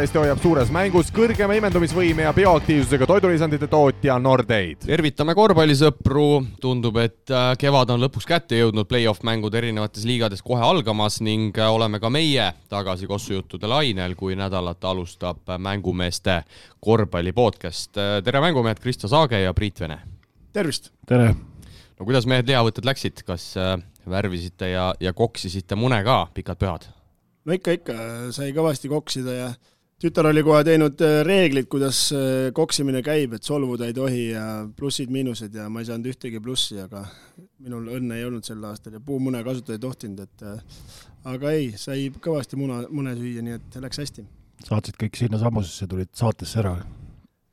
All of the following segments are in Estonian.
Eesti hoiab suures mängus kõrgema imendumisvõime ja bioaktiivsusega toidulisandite tootja Nordeid. Tervitame korvpallisõpru, tundub, et kevad on lõpuks kätte jõudnud, play-off mängud erinevates liigades kohe algamas ning oleme ka meie tagasi kossujuttude lainel, kui nädalat alustab mängumeeste korvpallipodcast. Tere mängumehed, Kristo Saage ja Priit Vene. Tervist! Tere! No kuidas mehed lihavõtted läksid? Kas värvisite ja koksisite mune ka pikad pühad? No ikka sai kõvasti koksida ja tütar oli kohe teinud reeglid, kuidas koksimine käib, et solvuda ei tohi ja plussid-miinused ja ma ei saanud ühtegi plussi, aga minul õnne ei olnud sel aastal ja puumune kasutada ei tohtinud, aga ei, sai kõvasti mune süüa, nii et läks hästi. Saatsid kõik sinna samusesse, tulid saatesse ära?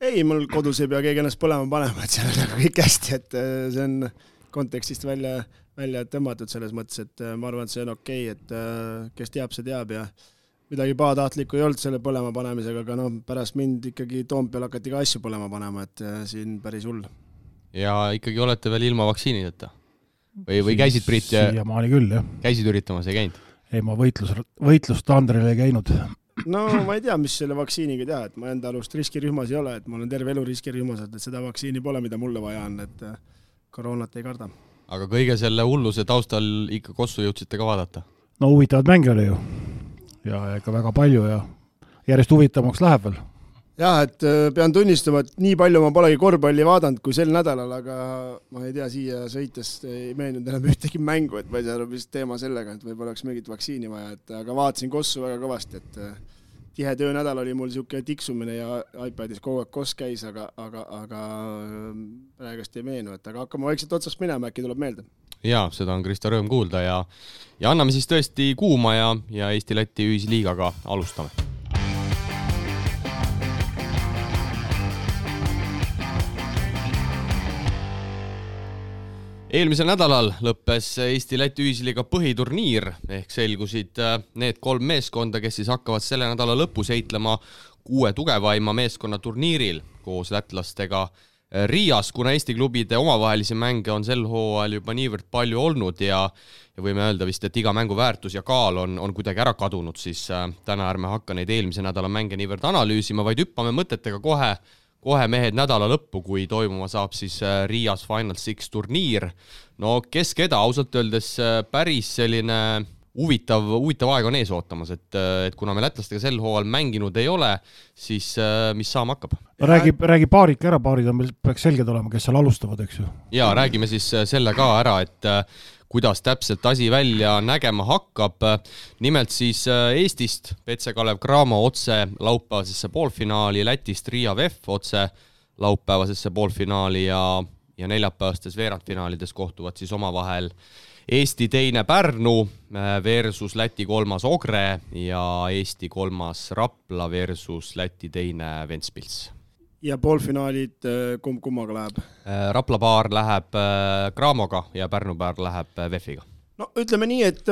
Ei, mul kodus ei pea keegi ennast põlema panema, et seal on kõik hästi, et see on kontekstist välja tõmmatud selles mõttes, et ma arvan, et see on okei, et kes teab, see teab ja midagi pahatahtlikku ei olnud selle põlema panemisega, aga pärast mind ikkagi Toompeal hakati ka asju põlema panema, et siin päris hull. Ja ikkagi olete veel ilma vaktsiinideta? Või käisid, Priit? Siiamaani küll, jah. Käisid üritamas, ei käinud? Ei, ma võitlust Andrele ei käinud. No ma ei tea, mis selle vaktsiiniga teha, et ma enda alust riskirühmas ei ole, et ma olen terve elu riskirühmas, et seda vaktsiini pole, mida mulle vaja on, et koroonat ei karda. Aga kõige selle hulluse taustal ikka kossu jõudsite ka vaadata? No huvitavad mänge oli ju. Ja ikka väga palju ja järjest huvitavamaks läheb veel. Jah, et pean tunnistama, et nii palju ma polegi korvpalli vaadanud kui sel nädalal, aga ma ei tea, siia sõites ei meelnud enam ühtegi mängu, et ma ei saa vist teema sellega, et võib-olla oleks mingit vaktsiini vaja, aga vaatasin kossu väga kõvasti, et tihe töönädal oli mul siuke tiksumine ja iPadis kogu aeg koss käis, aga praegust ei meenu, et aga hakkame vaikselt otsast minema, äkki tuleb meelde. Jaa, seda on Kristo rõõm kuulda ja anname siis tõesti kuuma ja Eesti-Läti ühisliigaga alustame. Eelmisel nädalal lõppes Eesti-Läti ühisliiga põhiturniir ehk selgusid need 3 meeskonda, kes siis hakkavad selle nädala lõpus heitlema 6 tugevaima meeskonna turniiril koos lätlastega Riias, kuna Eesti klubide omavahelisi mänge on sel hooajal juba niivõrd palju olnud ja võime öelda vist, et iga mängu väärtus ja kaal on kuidagi ära kadunud, siis täna ärme hakka neid eelmise nädala mänge niivõrd analüüsima, vaid hüppame mõtetega kohe mehed nädala lõppu, kui toimuma saab siis Riias Final Six turniir. No kes keda, ausalt öeldes päris selline huvitav aeg on ees ootamas, et kuna me lätlastega sel hooajal mänginud ei ole, siis mis saama hakkab? Räägi paarid ära, paarid on meil peaks selged olema, kes seal alustavad, eks ju? Jaa, räägime siis selle ka ära, et kuidas täpselt asi välja nägema hakkab. Nimelt siis Eestist PC Kalev Cramo otse laupäevasesse poolfinaali, Lätist Riia VEF otse laupäevasesse poolfinaali ja neljapäevastes veerandfinaalides kohtuvad siis omavahel Eesti teine Pärnu versus Läti 3. Ogre ja Eesti 3. Rapla versus Läti teine Ventspils. Ja poolfinaalid kummaga läheb? Rapla paar läheb Cramoga ja Pärnu paar läheb VEF-iga. No ütleme nii, et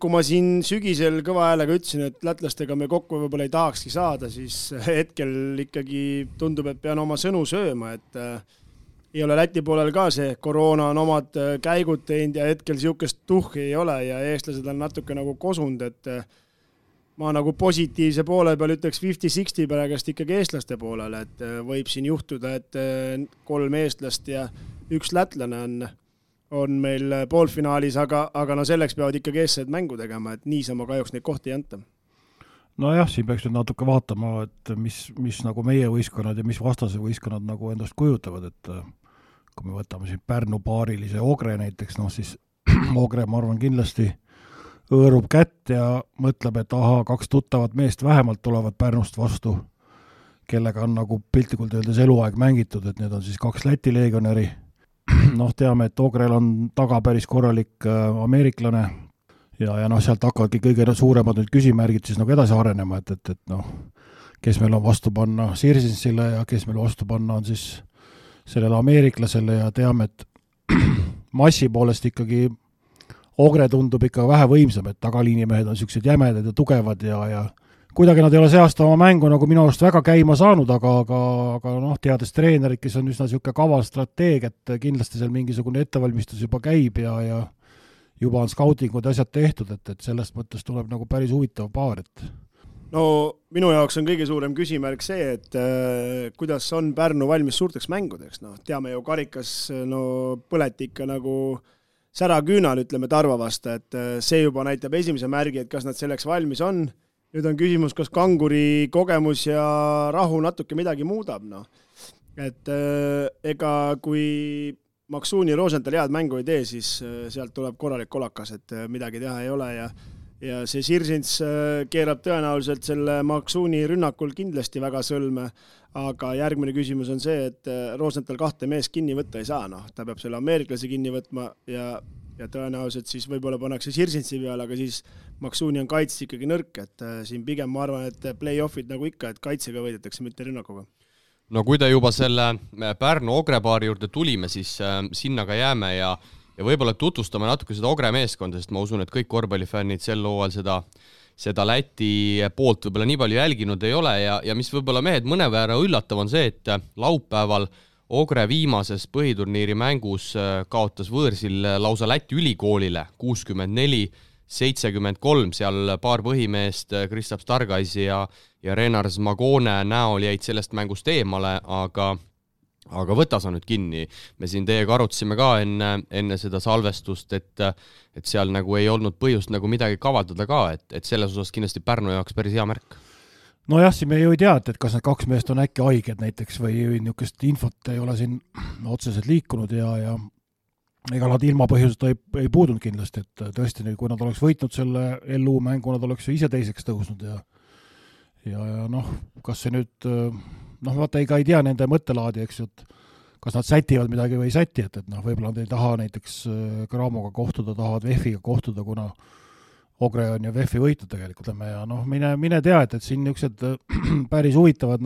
kui ma siin sügisel kõva häälega ütlesin, et lätlastega me kokku võib-olla ei tahakski saada, siis hetkel ikkagi tundub, et pean oma sõnu sööma, et ei ole Läti poolel ka see, koroona on omad käigud teinud ja hetkel siukest tuhhi ei ole ja eestlased on natuke nagu kosund, et ma nagu positiivse poole peal ütleks 50-60 praegust ikkagi eestlaste poolele, et võib siin juhtuda, et 3 eestlast ja 1 lätlane on meil poolfinaalis, aga no selleks peavad ikkagi eestlased mängu tegema, et niisama kahjuks neid kohti ei anta. No jah, siin peaks nüüd natuke vaatama, et mis nagu meie võistkonnad ja mis vastase võistkonnad nagu endast kujutavad, et kui me võtame siin Pärnu paarilise Ogre näiteks, siis Ogre, ma arvan, kindlasti õõrub kätt ja mõtleb, et 2 tuttavat meest vähemalt tulevad Pärnust vastu, kellega on nagu piltlikult öeldes eluaeg mängitud, et need on siis 2 Läti leegionäri. Teame, et Ogrel on taga päris korralik ameeriklane ja sealt hakkavadki kõige suuremad nüüd küsimärgid siis nagu edasi arenema, et kes meil on vastu panna Sirsinsile ja kes meil vastu panna on siis sellele ameeriklasele ja teame, et massi poolest ikkagi Ogre tundub ikka vähe võimsam, et tagaliinimehed on sellised jämedad ja tugevad ja kuidagi nad ei ole see aasta oma mängu nagu minu arust väga käima saanud, aga teades treenerid, kes on üsna selline kaval strateeg, et kindlasti seal mingisugune ettevalmistus juba käib ja juba on skautingud asjad tehtud, et sellest mõttes tuleb nagu päris huvitav paar, et no minu jaoks on kõige suurem küsimärk see, et kuidas on Pärnu valmis suurteks mängudeks, noh, teame ju karikas, no põleti ikka nagu säraküünal, ütleme Tarva vastu, et see juba näitab esimese märgi, et kas nad selleks valmis on. Nüüd on küsimus, kas Kanguri kogemus ja rahu natuke midagi muudab, noh. Et ega kui Maksuuni Rosenthal head mängu ei tee, siis sealt tuleb korralik kolakas, et midagi teha ei ole ja see Sirsins keerab tõenäoliselt selle Maksuuni rünnakul kindlasti väga sõlme, aga järgmine küsimus on see, et Rosenthal 2 mees kinni võtta ei saa, noh, ta peab selle ameeriklase kinni võtma ja tõenäoliselt siis võib-olla pannakse Sirsinsi peale, aga siis Maksuuni on kaitse ikkagi nõrk, et siin pigem ma arvan, et play-offid nagu ikka, et kaitsega võidetakse, mitte rünnakuga. No kui ta juba selle Pärnu Ogre-paari juurde tulime, siis sinna ka jääme ja võib-olla tutvustame natuke seda Ogre meeskonda, sest ma usun, et kõik korvpallifännid sel hooajal seda Läti poolt võib-olla nii palju jälginud ei ole ja mis võib-olla mehed mõnevõrra üllatav on see, et laupäeval Ogre viimases põhiturniiri mängus kaotas võõrsil lausa Läti ülikoolile 64-73, seal paar põhimeest Kristaps Stargais ja Renars Magone näol jäid sellest mängust eemale, aga võta sa nüüd kinni. Me siin teiega arutasime ka enne seda salvestust, et seal nagu ei olnud põhjust nagu midagi kavaldada ka, et selles osas kindlasti Pärnu jaoks päris hea märk. No jah, siin me ju ei tea, et kas need 2 meest on äkki haiged näiteks või niisugust infot ei ole siin otseselt liikunud ja ega nad ilma põhjuseta ei puudunud kindlasti, et tõesti, kui nad oleks võitnud selle LU mängu, nad oleks ju ise teiseks tõusnud ja noh, kas see nüüd vaata ei tea nende mõttelaadi, eks ju, et kas nad sätivad midagi või ei säti, et võib-olla nad ei taha näiteks Gramoga kohtuda, tahavad VEF-iga kohtuda, kuna Ogre on ju VEF-i võitud tegelikult, ja mine tea, et siin niisugused päris huvitavad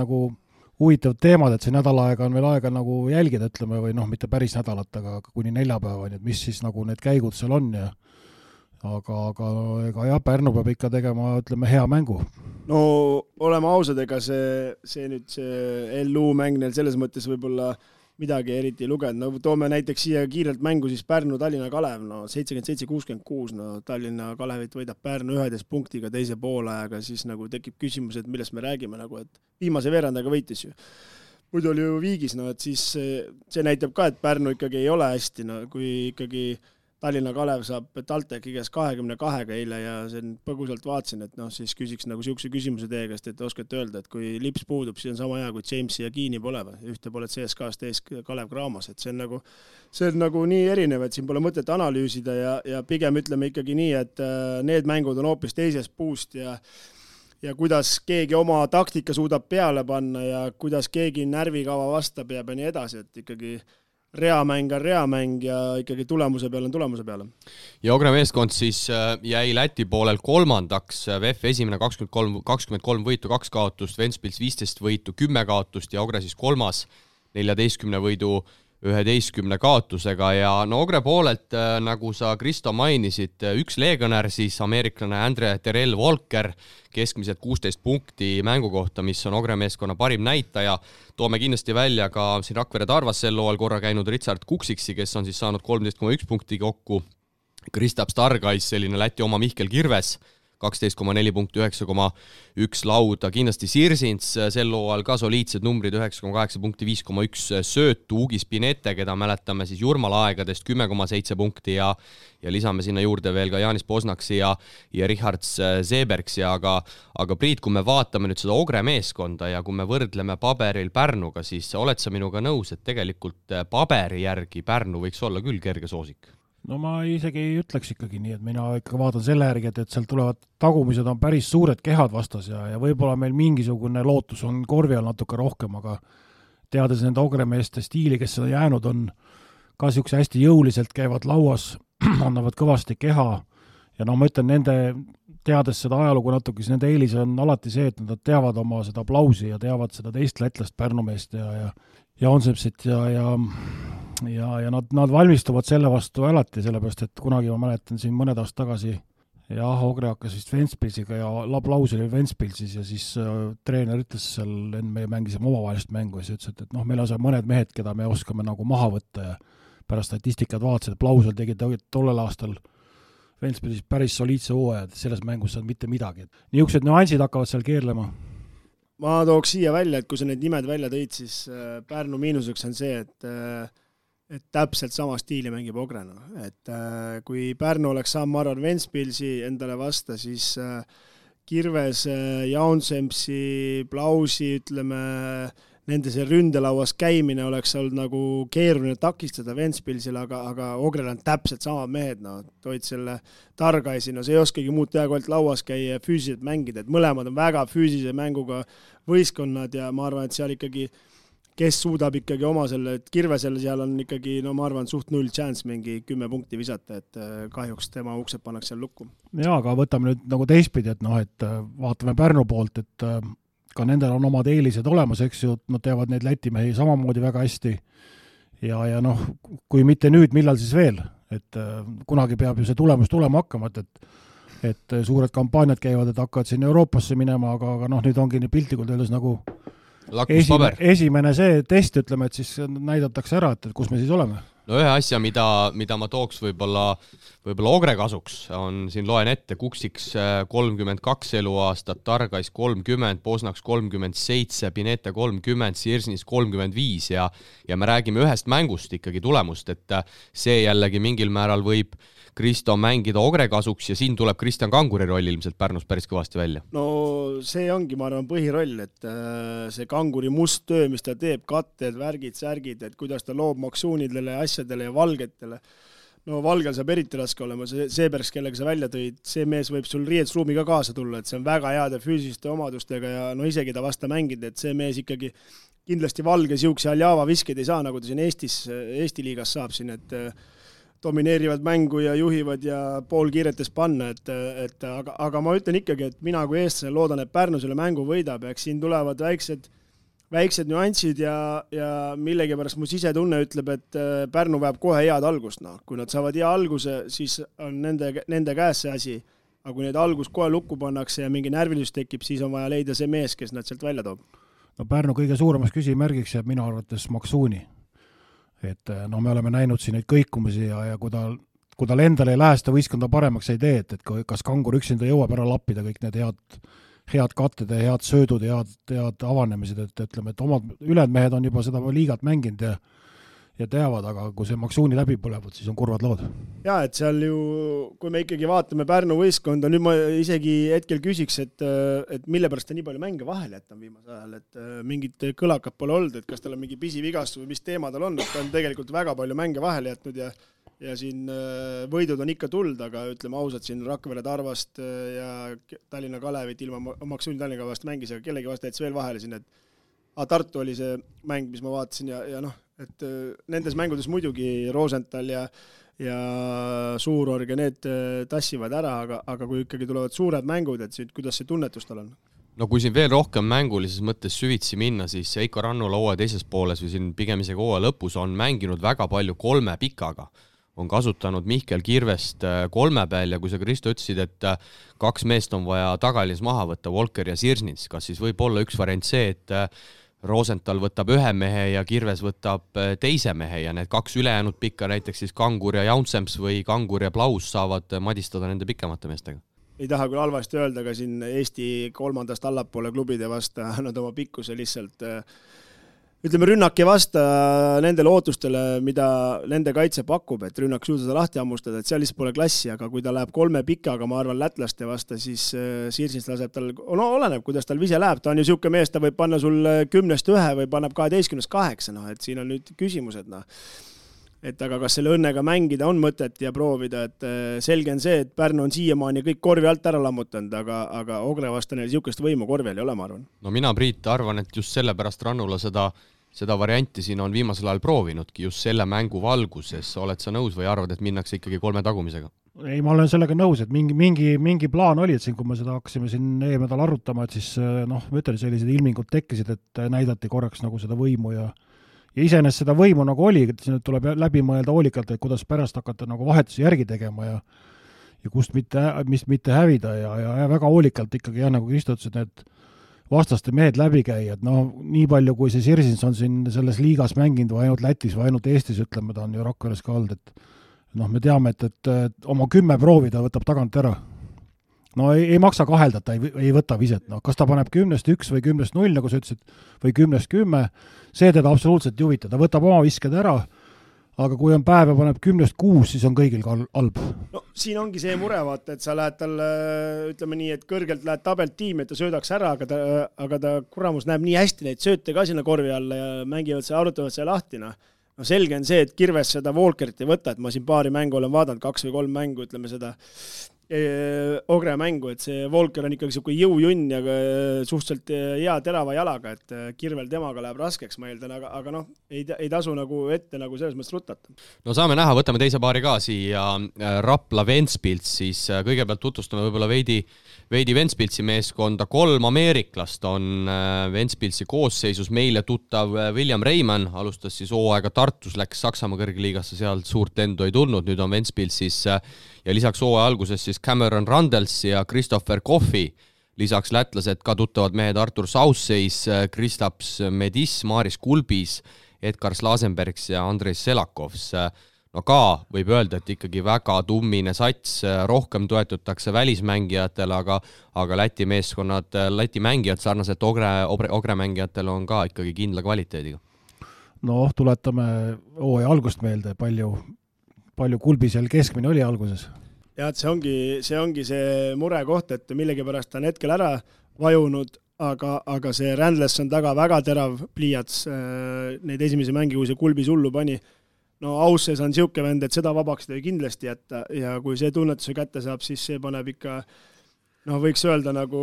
teemad, et see nädal aega on veel aega nagu jälgida, ütleme, või mitte päris nädalat, aga kuni neljapäevani, et mis siis nagu need käigud seal on ja aga ega jah, Pärnu peab ikka tegema, ütleme, hea mängu. No oleme ausad, ega see nüüd see LU mäng neil selles mõttes võib-olla midagi eriti lugenud. No toome näiteks siia kiirelt mängu siis Pärnu-Tallinna Kalev, 77-66, Tallinna Kalevit võidab Pärnu 11 punktiga teise poolajaga, siis nagu tekib küsimus, et millest me räägime, et viimase veerandaga võitis ju. Muidu oli ju viigis, et siis see näitab ka, et Pärnu ikkagi ei ole hästi, kui ikkagi Tallinna Kalev saab TalTechi käes 22 eile ja sen põgusalt vaatsin, et siis küsiks nagu siukse küsimuse teie käest, et oskate öelda, et kui Lips puudub, siis on sama hea, kui Jamesi ja Kiini pole või ühte pole CSKA-st ees Kalev Cramos, et see on nagu nii erinev, et siin pole mõtet analüüsida ja pigem ütleme ikkagi nii, et need mängud on hoopis teisest puust ja kuidas keegi oma taktika suudab peale panna ja kuidas keegi närvikava vastab ja nii edasi, et ikkagi reamäng on reamäng ja ikkagi tulemuse peale on tulemuse peale. Ja Ogre meeskond siis jäi Läti poolel kolmandaks, VEF esimene 23 võitu, 2 kaotust, Ventspils 15 võitu, 10 kaotust ja Ogre siis kolmas 14 võidu 11 kaotusega ja Ogre poolelt, nagu sa Kristo mainisid, üks leegionär siis ameeriklane Andre Terrell Walker, keskmiselt 16 punkti mängu kohta, mis on Ogre meeskonna parim näitaja. Toome kindlasti välja ka siin Rakvere Tarvas sel loal korra käinud Richard Kuksiksi, kes on siis saanud 13,1 punkti kokku. Kristaps Stargais, selline Läti oma Mihkel Kirves, 12,4 punkti, 9,1 lauda. Kindlasti Sirsins sel loal ka soliidsed numbrid, 9,8 punkti, 5,1 söötu. Ugis Pinete, keda mäletame siis Jurmala aegadest, 10,7 punkti ja lisame sinna juurde veel ka Jaanis Posnaksi ja Richard Sebergsi. Aga Priit, kui me vaatame nüüd seda Ogre meeskonda ja kui me võrdleme paberil Pärnuga, siis oled sa minuga nõus, et tegelikult paberi järgi Pärnu võiks olla küll kerge soosik? No ma isegi ei ütleks ikkagi nii, et mina ikka vaatan selle järgi, et seal tulevad tagumised on päris suured kehad vastas ja võib-olla meil mingisugune lootus on korvi all natuke rohkem, aga teades nende Ogre meeste stiili, kes on jäänud, on ka siukse hästi jõuliselt käivad lauas, annavad kõvasti keha ja ma ütlen nende, teades seda ajalugu natuke, siis nende eelis on alati see, et nad teavad oma seda aplausi ja teavad seda teist lätlast Pärnu meest ja Onsepsit ja nad valmistuvad selle vastu alati, sellepärast, et kunagi ma mäletan siin mõned aastad tagasi Ogre hakkas vist Ventspilsiga ja aplaus oli Ventspilsis ja siis treener ütles seal, me mängisime omavahelist mängu ja siis ütles, et meil on seal mõned mehed, keda me oskame nagu maha võtta ja pärast statistikat vaatasid, aplausel tegid tollel aastal Ventspilis päris soliidse hooaja, et selles mängus saad mitte midagi. Niisugused nüansid hakkavad seal keerlema. Ma tooks siia välja, et kui sa need nimed välja tõid, siis Pärnu miinuseks on see, et täpselt sama stiili mängib Ogrena. Et kui Pärnu oleks saama, ma arvan, Ventspilsi endale vasta, siis Kirves, Jaunsemsi, Plausi, ütleme, nende see ründelauas käimine oleks olnud nagu keeruline takistada Ventspilsile, aga Ogrel on täpselt samad mehed, toid selle Targaisi, see ei oskagi muud teha, kui ainult lauas käia ja füüsiliselt mängida, et mõlemad on väga füüsilise mänguga võistkonnad ja ma arvan, et seal ikkagi, kes suudab ikkagi oma selle, et Kirvesel seal on ikkagi, ma arvan, suht 0 chance mingi 10 punkti visata, et kahjuks tema uksed pannakse seal lukku. Jaa, aga võtame nüüd nagu teistpidi, et vaatame Pärnu poolt, et ka nendel on omad eelised olemas, eks ju, nad teavad neid Läti mehi samamoodi väga hästi ja kui mitte nüüd, millal siis veel, et kunagi peab ju see tulemus tulema hakkama, et suured kampaaniad käivad, et hakkavad siin Euroopasse minema, aga nüüd ongi nii piltlikult öeldes nagu esimene see test, ütleme, et siis näidatakse ära, et kus me siis oleme. No ühe asja, mida ma tooks võib-olla Ogre kasuks, on siin loen ette, Kuksiks 32 eluaastat, Targais 30, Bosnaks 37, Pinete 30, Sirsnis 35 ja me räägime ühest mängust ikkagi tulemust, et see jällegi mingil määral võib Kristo mängida Ogre kasuks ja siin tuleb Kristjan Kanguri roll ilmselt Pärnus päris kõvasti välja. No see ongi, ma arvan, põhiroll, et see Kanguri must töö, mis ta teeb, katted, värgid, särgid, et kuidas ta loob maksuunidele, asjadele ja valgetele. No valgel saab eriti raske olema, see pärast, kellega sa välja tõid, see mees võib sul riietusruumi ka kaasa tulla, et see on väga heade füüsiliste omadustega ja isegi ta vasta mängida, et see mees ikkagi kindlasti valge siukse Aljava viskeid ei saa, nagu ta siin Eesti liigas saab siin, et domineerivad mängu ja juhivad ja pool kiiretes panna, aga ma ütlen ikkagi, et mina kui eestlane loodan, et Pärnu selle mängu võidab, eks siin tulevad väiksed nüansid ja millegi pärast mu sisetunne ütleb, et Pärnu vajab kohe head algust. Kui nad saavad hea alguse, siis on nende käes see asi, aga kui need algus kohe lukku pannakse ja mingi närvilisus tekib, siis on vaja leida see mees, kes nad sealt välja toob. No Pärnu kõige suuremaks küsimärgiks jääb minu arvates Maksuuni. Et me oleme näinud siin neid kõikumisi ja kui tal endal ei lähe seda võistkonda paremaks ei tee, et kas Kangur üksinda jõuab ära lappida kõik need head katted ja head söödud ja head avanemised, et ütleme, et omad ülejäänud mehed on juba seda liigat mänginud ja teavad, aga kui see Maksuuni läbi põlevad, siis on kurvad lood. Jaa, et seal ju, kui me ikkagi vaatame Pärnu võistkonda, nüüd ma isegi hetkel küsiks, et mille pärast ta nii palju mänge vahel jätab viimasel ajal, et mingit kõlakat pole olnud, et kas tal on mingi pisivigastus või mis teema tal on, et ta on tegelikult väga palju mänge vahel jätnud ja siin võidud on ikka tuld, aga ütleme ausalt, siin Rakvere Tarvast ja Tallinna Kalevit ilma Maksuuni Tallinna vast mängis, aga kellegi vast jätsi veel vahele siin, et Tartu oli see mäng, mis ma vaatasin ja et nendes mängudes muidugi Rosenthal ja Suurorg ja need tassivad ära, aga kui ikkagi tulevad suured mängud, et kuidas see tunnetus tal on? No kui siin veel rohkem mängulises mõttes süvitsi minna, siis Eiko Rannula hooaja teises pooles või siin pigem isegi hooaja lõpus on mänginud väga palju 3 pikaga. On kasutanud Mihkel Kirvest 3 peal ja kui sa, Kristo, ütlesid, et 2 meest on vaja tagalins maha võtta, Volker ja Sirsnits, kas siis võib olla üks variant see, et Rosenthal võtab 1 mehe ja Kirves võtab 2 mehe ja need 2 ülejäänud pikka, näiteks siis Kangur ja Jaunsemps või Kangur ja Plaus saavad madistada nende pikemate meestega? Ei taha küll halvasti öelda, aga siin Eesti 3. allapoole klubide vasta nad oma pikkuse lihtsalt ütleme, rünnak ei vasta nendele ootustele, mida nende kaitse pakub, et rünnak suuda seda lahti ammustada, et seal lihtsalt pole klassi, aga kui ta läheb 3 pikaga, ma arvan, lätlaste vasta, siis Sirsnist laseb tal, oleneb, kuidas tal vise läheb, ta on ju siuke mees, ta võib panna sul 10-1 või paneb 12-8, et siin on nüüd küsimused, et aga kas selle õnnega mängida on mõtet ja proovida, et selge on see, et Pärnu on siiamaani kõik korvi alt ära lammutanud, aga Ogre vasta neil siukest võimu korvi ei ole, ma arvan. No mina, Priit, arvan, et just sellepärast Rannula seda varianti siin on viimasel ajal proovinudki just selle mängu valguses. Oled sa nõus või arvad, et minnakse ikkagi 3 tagumisega? Ei, ma olen sellega nõus, et mingi plaan oli, et siin, kui me seda hakkasime siin eelnädal arutama, et siis ma ütlen, sellised ilmingud tekkisid, et näidati korraks nagu seda võimu ja iseenesest seda võimu nagu oli, et siin tuleb läbi mõelda hoolikalt, et kuidas pärast hakata nagu vahetusi järgi tegema ja kust mitte hävida ja väga hoolikalt ikkagi, nagu Kristo ütles, et need vastaste mehed läbi käia, et nii palju, kui see Sirsins on siin selles liigas mänginud või ainult Lätis või ainult Eestis, ütleme, ta on ju Rakveres ka olnud, noh, me teame, et oma 10 proovi ta võtab tagant ära. No ei maksa kahelda, ta ei võta viset. No, kas ta paneb 10-1 või 10-0, nagu sa ütlesid, või 10-10, see teda absoluutselt ei huvita. Ta võtab oma visked ära, aga kui on päev ja paneb 10-6, siis on kõigil halb. No siin ongi see mure, vaata, et sa lähed talle, ütleme nii, et kõrgelt lähed tabelt tiimi, et ta söödaks ära, aga ta kuramus näeb nii hästi neid sööte ka sinna korvi alla ja mängivad see, arutavad see lahti. No selge on see, et Kirves seda Walkerit ei võta, et ma siin paari mängu olen vaadanud, 2 või 3 mängu, ütleme seda Ogre mängu, et see Walker on ikkagi selline jõujunn ja suhteliselt hea terava jalaga, et Kirvel temaga läheb raskeks, ma eeldan, aga noh, ei tasu nagu ette nagu selles mõttes rutata. No saame näha, võtame teise paari ka siia Rapla Ventspils, siis kõigepealt tutvustame võib-olla veidi Ventspilsi meeskonda. 3 ameeriklast on Ventspilsi koosseisus, meile tuttav William Reimann, alustas siis hooaega Tartus, läks Saksamaa kõrgliigasse, seal suurt lendu ei tulnud, nüüd on Ventspilsis ja lisaks hooaja alguses siis Cameron Randels ja Christopher Coffey, lisaks lätlased ka tuttavad mehed Artur Sausseis, Kristaps Medis, Maris Kulbis, Edgar Slasenbergs ja Andrei Selakovs. No ka võib öelda, et ikkagi väga tummine sats, rohkem toetutakse välismängijatele, aga Läti meeskonnad, Läti mängijad sarnaselt Ogre mängijatel on ka ikkagi kindla kvaliteediga. No tuletame hooaja algust meelde, palju Kulbisel keskmine oli alguses. Ja et see ongi see mure koht, et millegipärast ta on hetkel ära vajunud, aga see Randles on taga väga terav pliiats neid esimesi mängi, kui see Kulbis hullu pani. No Ausses on siuke vend, et seda vabaks ta kindlasti jätta ja kui see tunnetuse kätte saab, siis see paneb ikka, võiks öelda nagu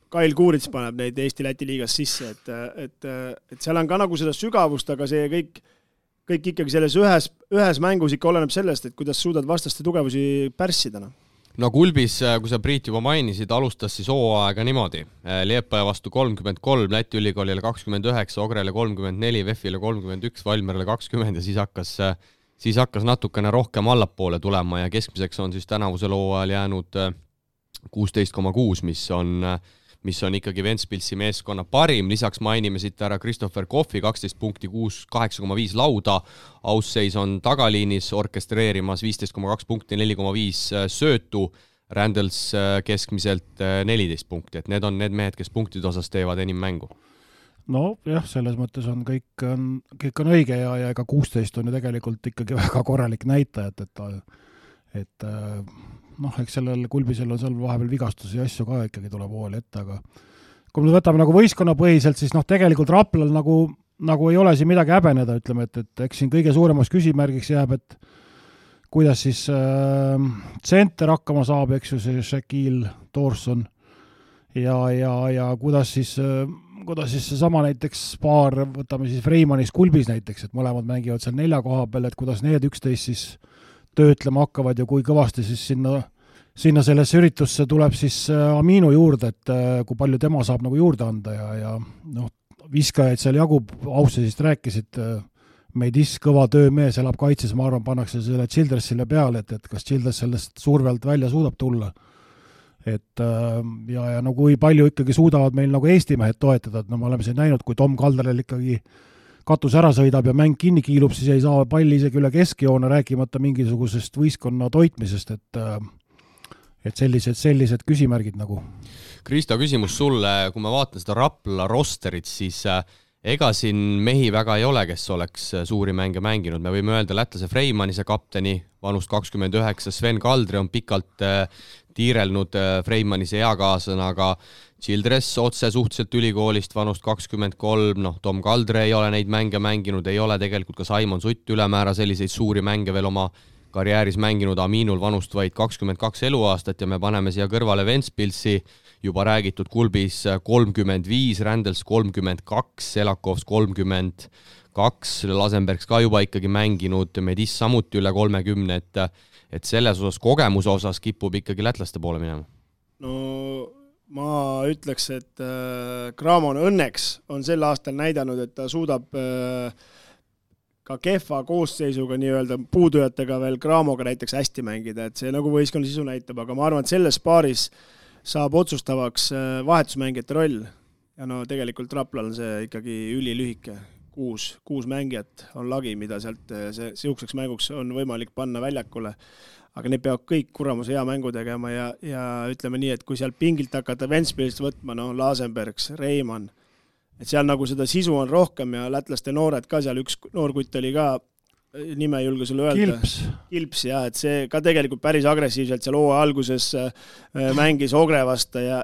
Kail Kuurits paneb neid Eesti-Läti liigas sisse, et seal on ka nagu seda sügavust, aga see kõik ikkagi selles ühes mängus ikka oleneb sellest, et kuidas suudad vastaste tugevusi pärssida. No Kulbis, kui sa Priit juba mainisid, alustas siis hooaega niimoodi. Liepaja vastu 33, Läti ülikoolile 29, Ogrele 34, VEF-ile 31, Valmerele 20 ja siis hakkas natukene rohkem allapoole tulema ja keskmiseks on siis tänavusel hooajal jäänud 16,6, mis on ikkagi Ventspilsi meeskonna parim. Lisaks mainime siit ära Christopher Coffey, 12 punkti, 8,5 lauda. Ausseis on tagaliinis orkestreerimas 15,2 punkti, 4,5 söötu. Randels keskmiselt 14 punkti, et need on need mehed, kes punktide osas teevad enim mängu. No jah, selles mõttes on kõik on õige ja ega 16 on ju tegelikult ikkagi väga korralik näitajat, et eks sellel Kulbisel on seal vahepeal vigastusi ja asju ka ikkagi tuleb hooli ette, aga kui me võtame nagu võistkonnapõhiselt, siis tegelikult Raplal nagu ei ole siin midagi häbeneda, ütleme, et eks siin kõige suuremaks küsimärgiks jääb, et kuidas siis tsenter hakkama saab, eks ju, see Shaquille Thorson ja kuidas siis seesama näiteks paar, võtame siis Freimanis Kulbis näiteks, et mõlemad mängivad seal 4 koha peal, et kuidas need 11 siis töötlema hakkavad ja kui kõvasti siis sinna sellesse üritusse tuleb siis Aminu juurde, et kui palju tema saab nagu juurde anda ja viskajaid seal jagub, Aussesist rääkisid, Medis kõva töömees, elab kaitses, ma arvan, pannakse selle Childressile peale, et kas Childress sellest survelt välja suudab tulla. Et ja kui palju ikkagi suudavad meil nagu Eesti mehed toetada, et me oleme siin näinud, kui Tom Kalderel ikkagi katus ära sõidab ja mäng kinni kiilub, siis ei saa palli isegi üle keskjoone, rääkimata mingisugusest võistkonna toitmisest, et sellised küsimärgid nagu. Kristo, küsimus sulle, kui ma vaatan seda Rapla rosterit, siis ega siin mehi väga ei ole, kes oleks suuri mänge mänginud. Me võime öelda lätlase Freimannise kapteni, vanust 29, Sven Kaldri on pikalt tiirelnud Freimannise eakaasena, aga Childress otse suhteliselt ülikoolist vanust 23, Tom Kaldre ei ole neid mänge mänginud, ei ole tegelikult ka Simon Sutt ülemäära selliseid suuri mänge veel oma karjääris mänginud, Aminul vanust vaid 22 eluaastat ja me paneme siia kõrvale Ventspilsi, juba räägitud Kulbis 35, Randels 32, Selakovs 32, Lasenbergs ka juba ikkagi mänginud, Medis samuti üle 30, et selles osas, kogemuse osas kipub ikkagi lätlaste poole minema. No ma ütleks, et Kramon õnneks on sel aastal näidanud, et ta suudab ka kehva koosseisuga nii-öelda puudujatega veel Kramoga näiteks hästi mängida, et see nagu võistkonna sisu näitab, aga ma arvan, et selles paaris saab otsustavaks vahetusmängijate roll ja tegelikult Raplal on see ikkagi ülilühike. kuus mängijat on lagi, mida sealt siukseks mänguks on võimalik panna väljakule. Aga need peavad kõik kuramuse hea mängu tegema ja ütleme nii, et kui seal pingilt hakata Ventspilist võtma, Lasenbergs, Reimann, et seal nagu seda sisu on rohkem ja lätlaste noored ka seal, üks noorkutt oli ka, nime ei julge sulle öelda. Kilps, jah, et see ka tegelikult päris agressiivselt seal hooaja alguses mängis Ogre vastu ja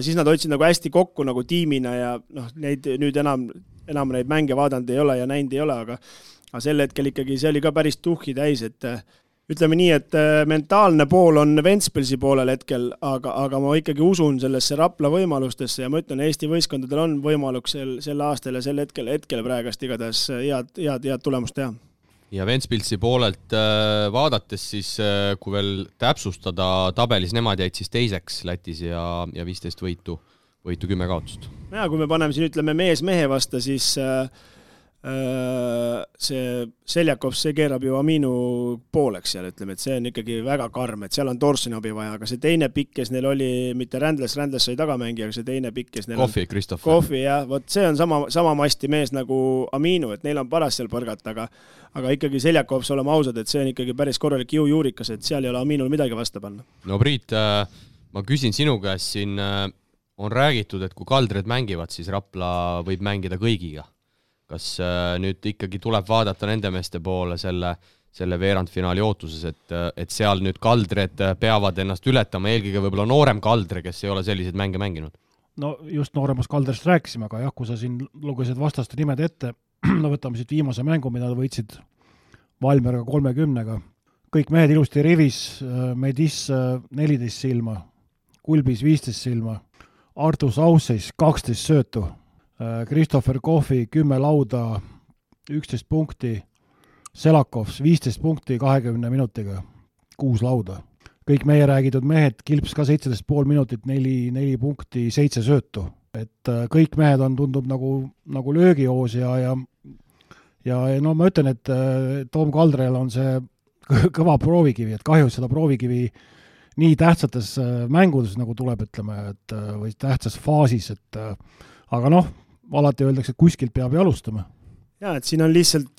siis nad hoidsid nagu hästi kokku nagu tiimina ja neid nüüd enam neid mänge vaadanud ei ole ja näinud ei ole, aga sel hetkel ikkagi see oli ka päris tuhhi täis, et ütleme nii, et mentaalne pool on Ventspilsi poolel hetkel, aga ma ikkagi usun sellesse Rapla võimalustesse ja ma ütlen, Eesti võistkondadel on võimalus sel aastal ja sel hetkel praegast igatahes head tulemust teha. Ja Ventspilsi poolelt vaadates siis, kui veel täpsustada tabelis, nemad jäid siis teiseks Lätis ja 15 võitu 10 kaotust. Ja kui me paneme siin, ütleme, mehe vastu, siis see Seljakov, see keerab ju Aminu pooleks seal, ütleme, et see on ikkagi väga karm, et seal on Torsoni abi vaja, aga see teine pikk, kes neil oli, mitte Rändles sai tagamängija, aga see teine pikk, kes neil Kohvi, Kristoff. Kohvi, jah, vot see on sama masti mees nagu Aminu, et neil on paras seal põrgata, aga ikkagi Seljakov, oleme ausad, et see on ikkagi päris korralik jõujuurikas, et seal ei ole Aminul midagi vastu panna. No Priit, ma küsin sinu käest siin, on räägitud, et kui Kaldred mängivad, siis Rapla võib mängida kõigiga. Kas nüüd ikkagi tuleb vaadata nende meeste poole selle veerandfinaali ootuses, et seal nüüd Kaldred peavad ennast ületama, eelkõige võib-olla noorem Kaldre, kes ei ole selliseid mänge mänginud? No just nooremast Kaldrest rääkisime, aga jah, kui sa siin lugesid vastaste nimed ette, no võtame siit viimase mängu, mida võitsid Valmeriga 30-ga. Kõik mehed ilusti rivis, Medis 14 silma, Kulbis 15 silma, Artus Ausseis 12 söötu, Christopher Kohvi 10 lauda, 11 punkti, Selakovs 15 punkti 20 minutiga, 6 lauda. Kõik meie räägitud mehed, Kilps ka 17,5 minutit, 4 punkti, 7 söötu. Et kõik mehed on tundub nagu löögihoos ja no ma ütlen, et Tom Kaldrel on see kõva proovikivi, et kahju seda proovikivi nii tähtsates mängudes nagu tuleb, ütleme, et või tähtsas faasis, et aga noh, alati öeldakse, et kuskilt peab alustama. Ja, et siin on lihtsalt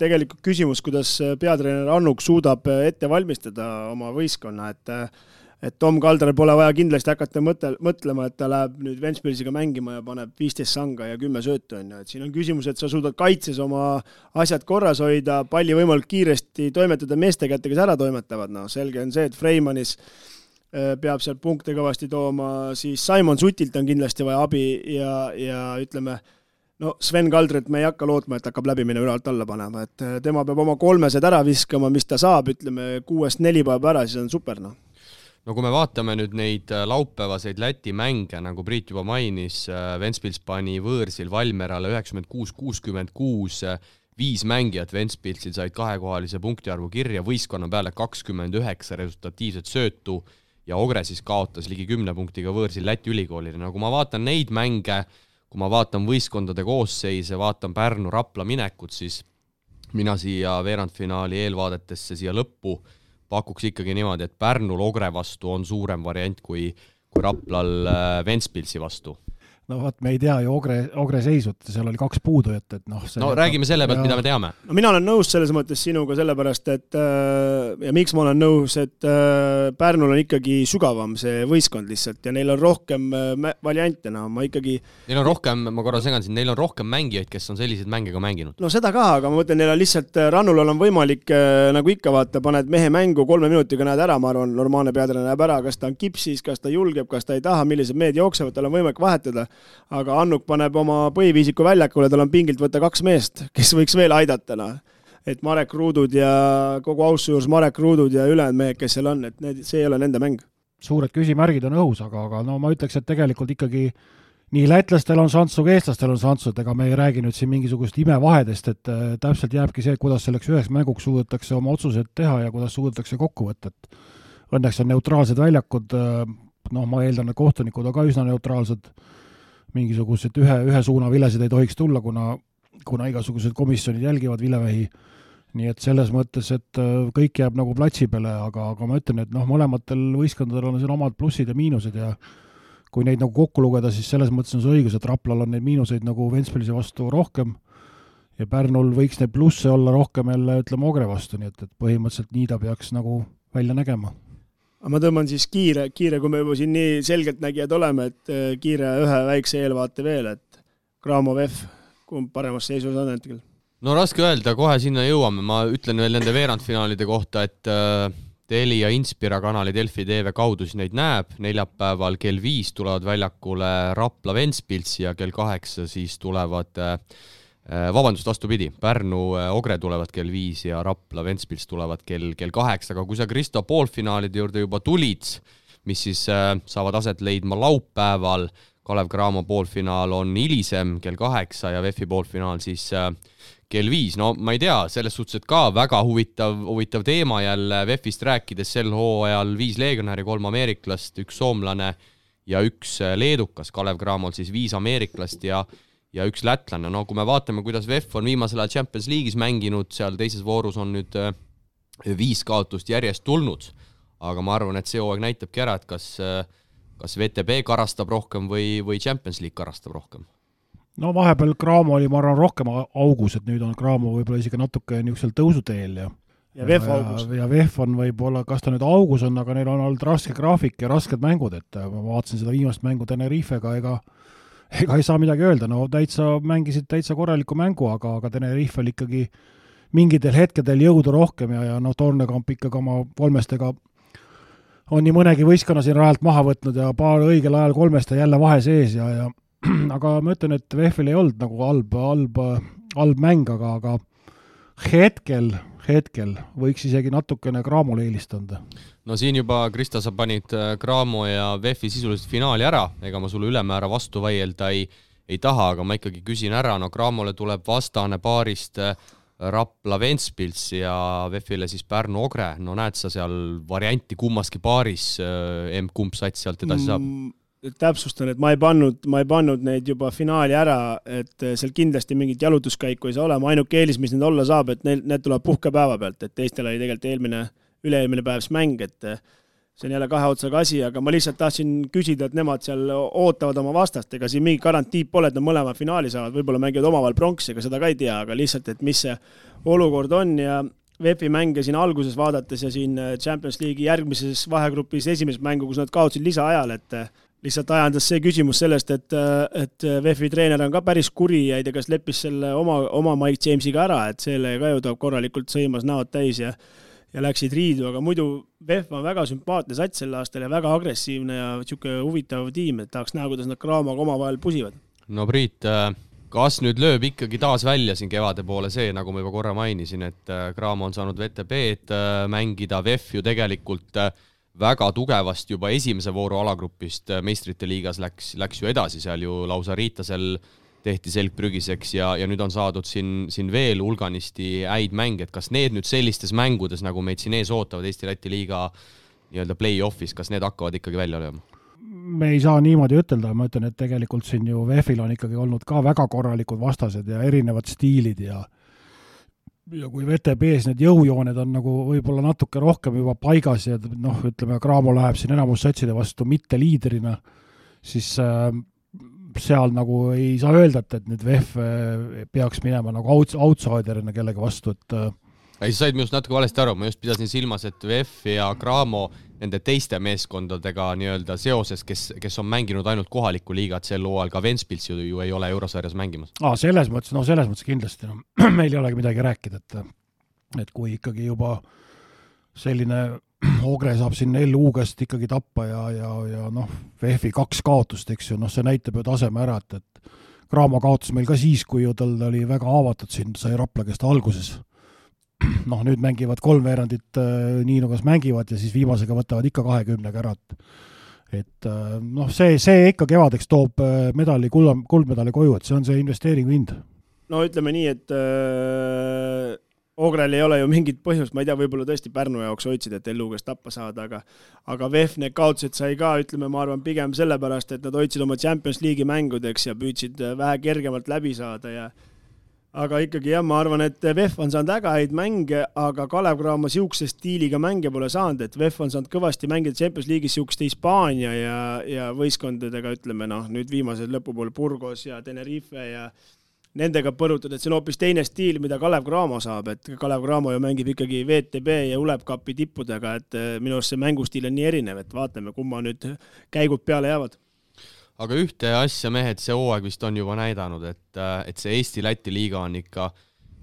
tegelikult küsimus, kuidas peatreener Annuk suudab ette valmistada oma võistkonna, et Tom Kaldrel pole vaja kindlasti hakata mõtlema, et ta läheb nüüd Ventspilsiga mängima ja paneb 15 sanga ja 10 söötu. Et siin on küsimus, et sa suudad kaitses oma asjad korras hoida, palli võimalik kiiresti toimetada meeste kätte, kes ära toimetavad. No, selge on see, et Freimanis peab seal punkte kõvasti tooma, siis Simon Sutilt on kindlasti vaja abi ja ütleme, no Sven Kaldret me ei hakka lootma, et hakkab läbi minna üle alt alla panema, et tema peab oma 3 ära viskama, mis ta saab, ütleme 6-4 päeva ära, siis on super. No kui me vaatame nüüd neid laupäevaseid Läti mänge, nagu Priit juba mainis, Ventspils pani võõrsil Valmerale 96-66, 5 mängijat Ventspilsil said 2-kohalise punktiarvu kirja, võistkonna peale 29 resultatiivset söötu ja Ogre siis kaotas ligi 10 punktiga võõrsil Läti ülikoolile. No kui ma vaatan neid mänge, kui ma vaatan võistkondade koosseise, vaatan Pärnu Rapla minekut, siis mina siia veerandfinaali eelvaadetesse siia lõppu pakuks ikkagi niimoodi, et Pärnul Ogre vastu on suurem variant kui Raplal Ventspilsi vastu. No vaat me ei tea ju Ogre seisut, seal oli 2 puudujat, et noh... No räägime selle pealt, mida me teame. No mina olen nõus selles mõttes sinuga sellepärast, et ja miks ma olen nõus, et Pärnul on ikkagi sügavam see võistkond lihtsalt ja neil on rohkem variante, no ma ikkagi... Neil on rohkem, ma korra segan siin, neil on rohkem mängijaid, kes on selliseid mänge ka mänginud. No seda ka, aga ma mõtlen, neil on lihtsalt Rannul on võimalik, nagu ikka vaata, paned mehe mängu 3 minutiga näed ära, ma arvan, normaalne peatreener näeb ära, kas ta on kipsis, kas ta julgeb, kas ta ei taha, millised mehed jooksevad, tal on võimalik vahetada. Aga Annuk paneb oma põhiviisiku väljakule, tal on pingilt võtta 2 meest, kes võiks veel aidata. No. Et Marek Ruudud ja kogu ausse juures Marek Ruudud ja ülejäänud mehed, kes seal on, et see ei ole nende mäng. Suured küsimärgid on õhus, aga no ma ütleks, et tegelikult ikkagi nii lätlastel on šanssu, kui eestlastel on šanssu, et ega me ei räägi nüüd siin mingisugust imevahedest, et täpselt jääbki see, kuidas selleks üheks mänguks suudetakse oma otsused teha ja kuidas suudetakse kokku võtta. Õnneks on neutraalsed väljakud, no ma eeldan, et kohtunikud on ka üsna neutraalsed, mingisugused ühe suuna vilesid ei tohiks tulla, kuna igasugused komisjonid jälgivad vilevähi. Nii et selles mõttes, et kõik jääb nagu platsi peale, aga ma ütlen, et noh, mõlematel võistkondadel on siin omad plussid ja miinused ja kui neid nagu kokku lugeda, siis selles mõttes on see õigus, et Raplal on neid miinuseid nagu Ventspilsi vastu rohkem ja Pärnul võiks neid plusse olla rohkem jälle, ütleme, Ogre vastu, nii et põhimõtteliselt nii ta peaks nagu välja nägema. Ma tõmban siis kiire, kui me juba siin nii selgelt nägijad oleme, et kiire ühe väikse eelvaate veel, et Graamo VEF, kumb paremas seisus on hetkel? No raske öelda, kohe sinna jõuame, ma ütlen veel nende veerandfinaalide kohta, et Telia Inspira kanali Delfi TV kaudu siis neid näeb, neljapäeval kell 5 tulevad väljakule Rapla Ventspils ja kell 8 siis tulevad, vastupidi, Pärnu Ogre tulevad kell 5 ja Rapla Ventspils tulevad kell 8, aga kui sa Kristo poolfinaalide juurde juba tulid, mis siis saavad aset leidma laupäeval, Kalev Cramo poolfinaal on hilisem kell 8 ja VEF-i poolfinaal siis kell 5, no ma ei tea, selles suhtes, et ka väga huvitav teema jälle VEF-ist rääkides sel hooajal 5 legionäri, 3 ameeriklast, 1 soomlane ja 1 leedukas, Kalev Cramol siis 5 ameeriklast ja 1 lätlane. No kui me vaatame, kuidas VEF on viimasel ajal Champions League'is mänginud, seal teises voorus on nüüd 5 kaotust järjest tulnud, aga ma arvan, et see hooaeg näitabki ära, et kas VTB karastab rohkem või Champions League karastab rohkem. No vahepeal Cramo oli, ma arvan, rohkem augus, et nüüd on Cramo võib-olla isegi natuke niisugusel tõusuteel ja VEF augus. Ja VEF on võib-olla, kas ta nüüd augus on, aga neil on olnud raske graafik ja rasked mängud, et ma vaatasin seda viimast mängu Tenerifega, ega ei saa midagi öelda, no mängisid täitsa korraliku mängu, aga Tenerifel ikkagi mingitel hetkedel jõudu rohkem ja Tornekamp ikkagi oma kolmestega on nii mõnegi võistkonna siin rajalt maha võtnud ja paar õigel ajal kolmeste jälle vahe sees ja aga ma ütlen, et VEF-il ei olnud nagu halb mäng, aga hetkel võiks isegi natukene Cramole eelistanda. No siin juba, Krista, sa panid Cramo ja VEF-i sisuliselt finaali ära, ega ma sulle ülemäära vastu vaielda ei taha, aga ma ikkagi küsin ära, no Cramole tuleb vastane paarist Rapla Ventspils ja VEF-ile siis Pärnu Ogre, no näed sa seal varianti kummaski paaris, kumb sats sealt edasi saab? Täpsustan, et ma ei pannud neid juba finaali ära, et seal kindlasti mingit jalutuskäiku ei saa olema, ainuke eelis, mis need olla saab, et need tuleb puhkepäeva pealt, et teistel oli tegelikult üle-eelmine päevs mäng, et see on jälle kahe otsaga asi, aga ma lihtsalt tahtsin küsida, et nemad seal ootavad oma vastast, ega siin mingi garantiib pole, et nad mõlema finaali saavad, võib-olla mängivad omavahel pronksi, ega seda ka ei tea, aga lihtsalt, et mis see olukord on ja VEF-i mänge siin alguses vaadates ja siin Champions League'i järgmises vahegrupis esimest mängu, kus nad kaotsid lisaajal, et lihtsalt ajandas see küsimus sellest, et VEF-i treener on ka päris kuri ja ei tea, kas leppis selle oma Mike Jamesiga ära, et selle ka ju ta korralikult sõimas näod täis ja läksid riidu, aga muidu VEF on väga sümpaatne sats sel aastal ja väga agressiivne ja niisugune huvitav tiim, et tahaks näha, kuidas nad Cramoga omavahel pusivad. No Priit, kas nüüd lööb ikkagi taas välja siin kevade poole see, nagu ma juba korra mainisin, et Cramo on saanud VTB-d mängida, VEF ju tegelikult väga tugevasti juba esimese vooru alagrupist meistrite liigas läks ju edasi, seal ju lausa Riitasel tehti selgprügiseks ja nüüd on saadud siin veel hulganisti häid mänge, et kas need nüüd sellistes mängudes, nagu meid siin ees ootavad Eesti-Läti liiga nii-öelda play-offis, kas need hakkavad ikkagi välja lööma? Me ei saa niimoodi ütelda, ma ütlen, et tegelikult siin ju VEF-il on ikkagi olnud ka väga korralikud vastased ja erinevad stiilid ja kui VTB-s need jõujooned on nagu võib-olla natuke rohkem juba paigas ja ütleme, Cramo läheb siin enamus satside vastu mitte liidrina, siis seal nagu ei saa öelda, et nüüd VEF peaks minema nagu outsiderina kellegi vastu, et ei, sa said minust natuke valesti aru, ma just pidasin silmas, et VEF ja Cramo nende teiste meeskondadega nii-öelda seoses, kes on mänginud ainult kohalikku liigat sel hooajal, ka Ventspils ju ei ole eurosarjas mängimas. Selles mõttes kindlasti, meil ei olegi midagi rääkida, et kui ikkagi juba selline Ogre saab siin LU käest ikkagi tappa ja VEF-i 2 kaotust, eks ju, see näitab ju taseme ära, et Cramo kaotas meil ka siis, kui ju tal oli väga haavatud siin, sai Rapla käest alguses. Nüüd mängivad 3 veerandit nii nagu mängivad ja siis viimasega võtavad ikka 20 ära. Et see ikka kevadeks toob kuldmedali koju, et see on see investeeringu hind. No ütleme nii, et Ogrel ei ole ju mingit põhjust, ma ei tea, võib-olla tõesti Pärnu jaoks hoidsid, et LU käest tappa saada, aga VEF need kaotused sai ka, ütleme, ma arvan pigem sellepärast, et nad hoidsid oma Champions League'i mängudeks ja püüdsid vähe kergemalt läbi saada ja aga ikkagi jah, ma arvan, et VEF on saanud väga häid mänge, aga Kalev Cramo siukse stiiliga mänge pole saanud, et VEF on saanud kõvasti mängida Champions League'is siukeste Hispaania ja võistkondadega, ütleme nüüd viimased lõpupool Burgos ja Tenerife ja nendega põrutud, et see on hoopis teine stiil, mida Kalev Cramo saab, et Kalev Cramo ju mängib ikkagi VTB ja Ulebkapi tippudega, et minu arust see mängustiil on nii erinev, et vaatame, kumma nüüd käigud peale jäävad. Aga ühte asja mehed see hooaeg vist on juba näidanud, et see Eesti-Läti liiga on ikka,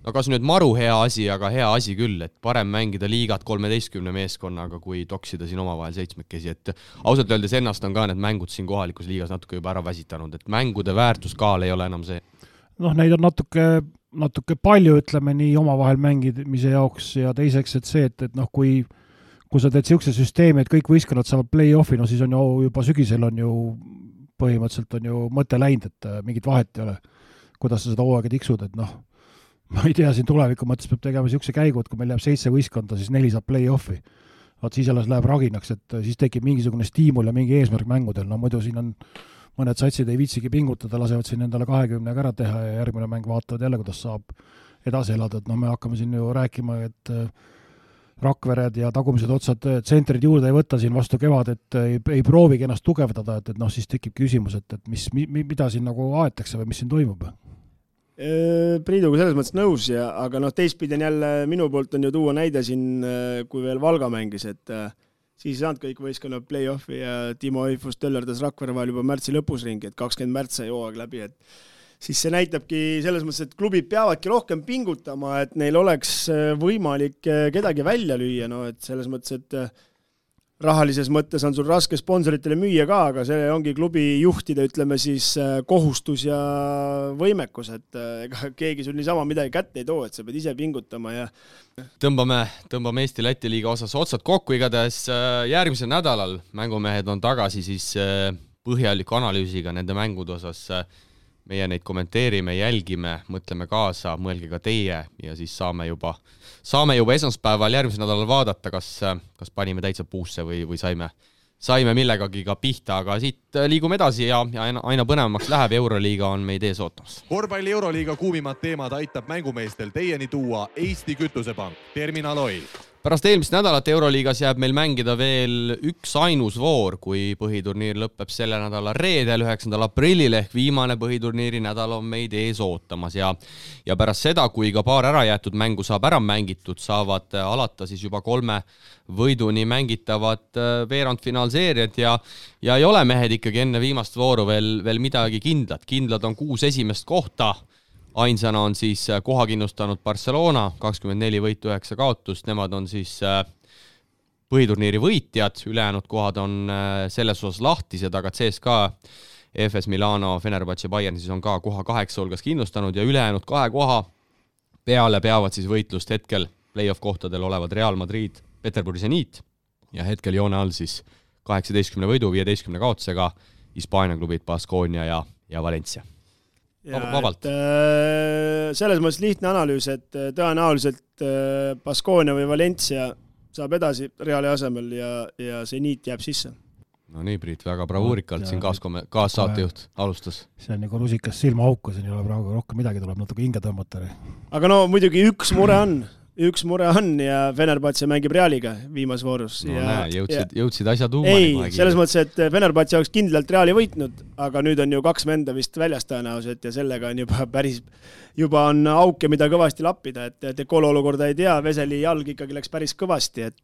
no kas nüüd maru hea asi, aga hea asi küll, et parem mängida liigat 13 meeskonnaga, kui toksida siin omavahel 7-kesi, et ausalt öeldes ennast on ka need mängud siin kohalikus liigas natuke juba ära väsitanud, et mängude väärtuskaal ei ole enam see. Neid on natuke palju, ütleme nii, omavahel mängimise jaoks ja teiseks, et see, et kui sa teed siukse süsteemi, et kõik võistkonnad saavad play-offi, no siis on ju juba sügisel on ju põhimõtteliselt on ju mõte läinud, et mingit vahet ei ole, kuidas sa seda hooaega tiksud, et ma ei tea, siin tuleviku mõttes peab tegema siukse käigu, et kui meil jääb 7 võistkonda, siis 4 saab play-offi. Vaat siis alles läheb raginaks, et siis tekib mingisugune stiimul ja mingi eesmärk mängudel, no muidu siin on mõned satsid ei viitsigi pingutada, lasevad siin endale 20 ära teha ja järgmine mäng vaatavad jälle, kuidas saab edasi elada, et me hakkame siin ju rääkima, et Rakvered ja tagumised otsad tsentrid juurde ei võtta siin vastu kevad, et ei proovigi ennast tugevdada, et siis tekib küsimus, et mida siin nagu aetakse või mis siin toimub? Priiduga selles mõttes nõus, aga teistpidi on jälle minu poolt on ju tuua näide siin, kui veel Valga mängis, et siis ei saanud kõik võistkonnad play-offi ja Timo Eifus töllerdas Rakvere vahel juba märtsi lõpus ringi, et 20 märts sai hooaeg läbi, et siis see näitabki selles mõttes, et klubid peavadki rohkem pingutama, et neil oleks võimalik kedagi välja lüüa, et selles mõttes, et rahalises mõttes on sul raske sponsoritele müüa ka, aga see ongi klubi juhtide, ütleme siis, kohustus ja võimekus, et ega keegi sul niisama midagi kätte ei too, et sa pead ise pingutama ja Tõmbame Eesti-Läti liiga osas otsad kokku, igatahes järgmisel nädalal mängumehed on tagasi siis põhjaliku analüüsiga nende mängude osas. Meie neid kommenteerime, jälgime, mõtleme kaasa, mõelge ka teie ja siis saame juba esmaspäeval järgmisel nädalal vaadata, kas panime täitsa puusse või saime millegagi ka pihta, aga siit liigume edasi ja aina põnevamaks läheb. Euroliiga on meid ees ootamas. Korvpalli Euroliiga kuumimad teemad aitab mängumeestel teieni tuua Eesti Kütusepank, Terminal Oil. Pärast eelmist nädalat Euroliigas jääb meil mängida veel üks ainus voor, kui põhiturniir lõpeb selle nädala reedel 9. aprillil ehk viimane põhiturniiri nädal on meid ees ootamas ja pärast seda, kui ka paar ära jäetud mängu saab ära mängitud, saavad alata siis juba 3 võiduni mängitavad veerandfinaalseeriad ja ei ole mehed ikkagi enne viimast vooru veel midagi kindlad. Kindlad on 6 esimest kohta. Ainsana on siis koha kindlustanud Barcelona, 24 võitu 9 kaotust, nemad on siis põhiturniiri võitjad, ülejäänud kohad on selles osas lahtised, aga CSKA, FS Milano, Fenerbahce, Bayern siis on ka koha 8 hulgas kindlustanud ja ülejäänud 2 koha peale peavad siis võitlust hetkel play-off kohtadel olevad Real Madrid, Peterburi Zenit ja hetkel joone all siis 18 võidu, 15 kaotusega Hispaania klubid Baskonia ja Valencia. Vabalt. Selles mõttes lihtne analüüs, et tõenäoliselt Baskonia või Valencia saab edasi Reali asemel ja Zenit jääb sisse. No nii, Priit, väga bravuurikalt siin kaassaatejuht alustas. See on nagu rusikas silmaauku, siin ei ole praegu rohkem midagi, tuleb natuke hinge tõmmata. Aga muidugi üks mure on ja Fenerbahce mängib Realiga viimas voorus. Jõudsid asja tuumani. Ei, selles mõttes, et Fenerbahce oleks kindlalt Reali võitnud, aga nüüd on ju 2 venda vist väljas tõenäoliselt ja sellega on juba on auke, mida kõvasti lappida, et Kolo olukorda ei tea, Veseli jalg ikkagi läks päris kõvasti, et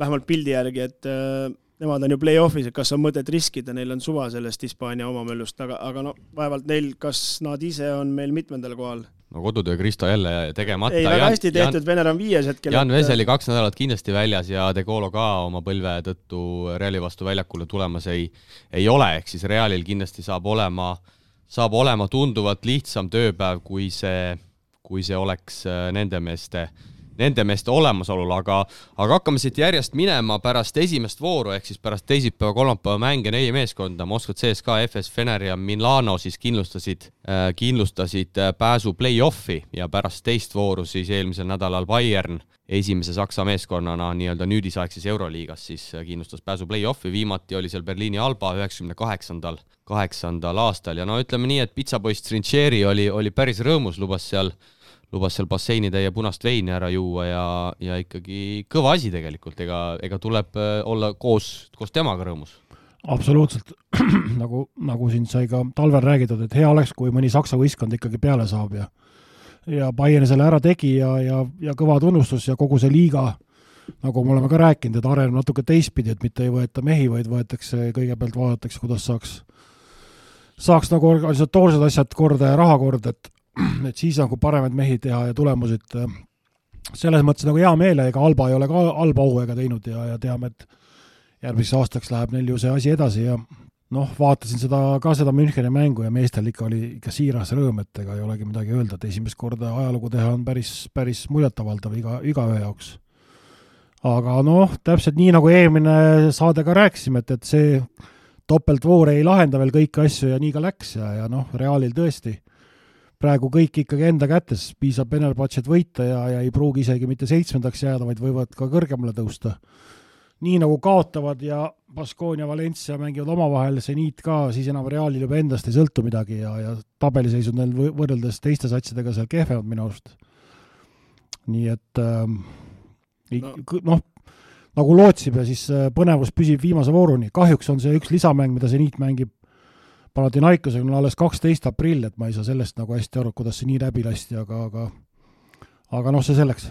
vähemalt pildi järgi, et nemad on ju play-offis, et kas on mõtet riskida, neil on suva sellest Hispaania omamöllust, aga vaevalt neil, kas nad ise on meil mitmendal kohal. No kodutöö Kristo jälle tegemata. Ei, väga hästi tehtud, Vener on 5 hetkel. Jan Veseli 2 nädalat kindlasti väljas ja De Colo ka oma põlve tõttu Reali vastu väljakule tulemas ei ole, ehk siis Realil kindlasti saab olema tunduvalt lihtsam tööpäev, kui see oleks nende meeste nende meeste olemasolul, aga hakkame siit järjest minema pärast esimest vooru, ehk siis pärast teisipäeva, kolmapäeva mänge 4 meeskonda, Moskva CSKA, FS Fener ja Milano siis kindlustasid pääsu play-offi ja pärast teist vooru siis eelmisel nädalal Bayern esimese Saksa meeskonnana nii-öelda nüüdisaegses Euroliigas siis kindlustas pääsu play-offi, viimati oli seal Berliini Alba 98. aastal ja no ütleme nii, et pitsapoiss Trincheri oli päris rõõmus, lubas seal basseinide ja punast veini ära juua ja ikkagi kõva asi tegelikult, ega tuleb olla koos temaga rõõmus. Absoluutselt, nagu siin sai ka talvel räägitud, et hea oleks, kui mõni Saksa võistkond ikkagi peale saab ja Bayern selle ära tegi ja kõva tunnustus ja kogu see liiga, nagu me oleme ka rääkinud, et areneb natuke teistpidi, et mitte ei võeta mehi, vaid võetakse, kõigepealt vaadatakse, kuidas saaks nagu organisatoorsed asjad korda ja raha korda, et siis nagu paremaid mehi teha ja tulemused selles mõttes nagu hea meele, ega Alba ei ole ka halba hooaega teinud ja teame, et järgmiseks aastaks läheb neil ju see asi edasi ja vaatasin seda Müncheni mängu ja meestel oli ikka siiras rõõm, et ega ei olegi midagi öelda, et esimest korda ajalugu teha on päris muljetavaldav igaühe jaoks. Aga täpselt nii nagu eelmine saade ka rääkisime, et see topeltvoor ei lahenda veel kõiki asju ja nii ka läks ja Realil tõesti praegu kõik ikkagi enda kätes, piisab Fenerbahčet võita ja ei pruugi isegi mitte 7. jääda, vaid võivad ka kõrgemale tõusta. Nii nagu kaotavad ja Baskonia, Valencia mängivad omavahel, Zenit ka, siis enam Realil juba endast ei sõltu midagi ja tabeliseisud neil võrreldes teiste satsidega seal kehvemad minu arust. Nii et nagu lootsime, siis põnevus püsib viimase vooruni. Kahjuks on see üks lisamäng, mida Zenit mängib Panathinaikosega on alles 12. aprill, et ma ei saa sellest nagu hästi aru, kuidas see nii läbi lasti, aga see selleks.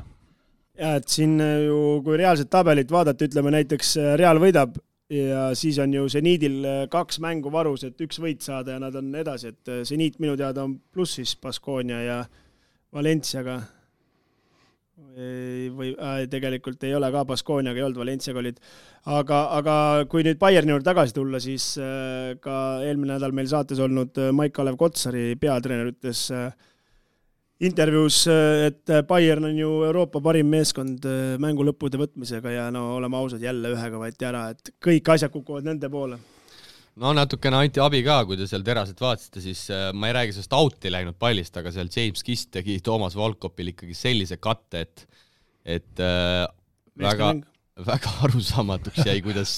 Ja, et siin ju, kui reaalset tabelit vaadata, ütleme näiteks Real võidab ja siis on ju Zenidil 2 mängu varus, et 1 võit saada ja nad on edasi, et Zenit minu teada on plussis Baskonia ja Valenciaga või tegelikult ei ole ka Baskoniaga ei olnud, Valenciaga olid, aga kui nüüd Bayerni juurde tagasi tulla, siis ka eelmine nädal meil saates olnud Maik-Kalev Kotsari peatreener ütles intervjuus, et Bayern on ju Euroopa parim meeskond mängu lõppude võtmisega ja oleme ausad, jälle ühega võeti ära, et kõik asjad kukuvad nende poole. Natukene anti abi ka, kui te seal teraselt vaatasite, siis ma ei räägi sellest out'i läinud pallist, aga seal James Kiss tegi Toomas Volkopil ikkagi sellise katte, et väga arusaamatuks jäi, kuidas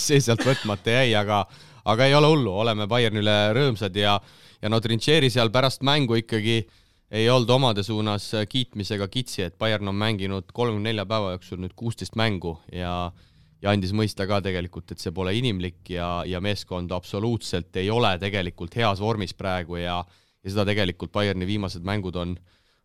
see sealt võtmata jäi, aga ei ole hullu, oleme Bayernile rõõmsad ja Trincheri seal pärast mängu ikkagi ei olnud omade suunas kiitmisega kitsi, et Bayern on mänginud 34 päeva jooksul nüüd 16 mängu ja andis mõista ka tegelikult, et see pole inimlik ja meeskond absoluutselt ei ole tegelikult heas vormis praegu ja seda tegelikult Bayerni viimased mängud on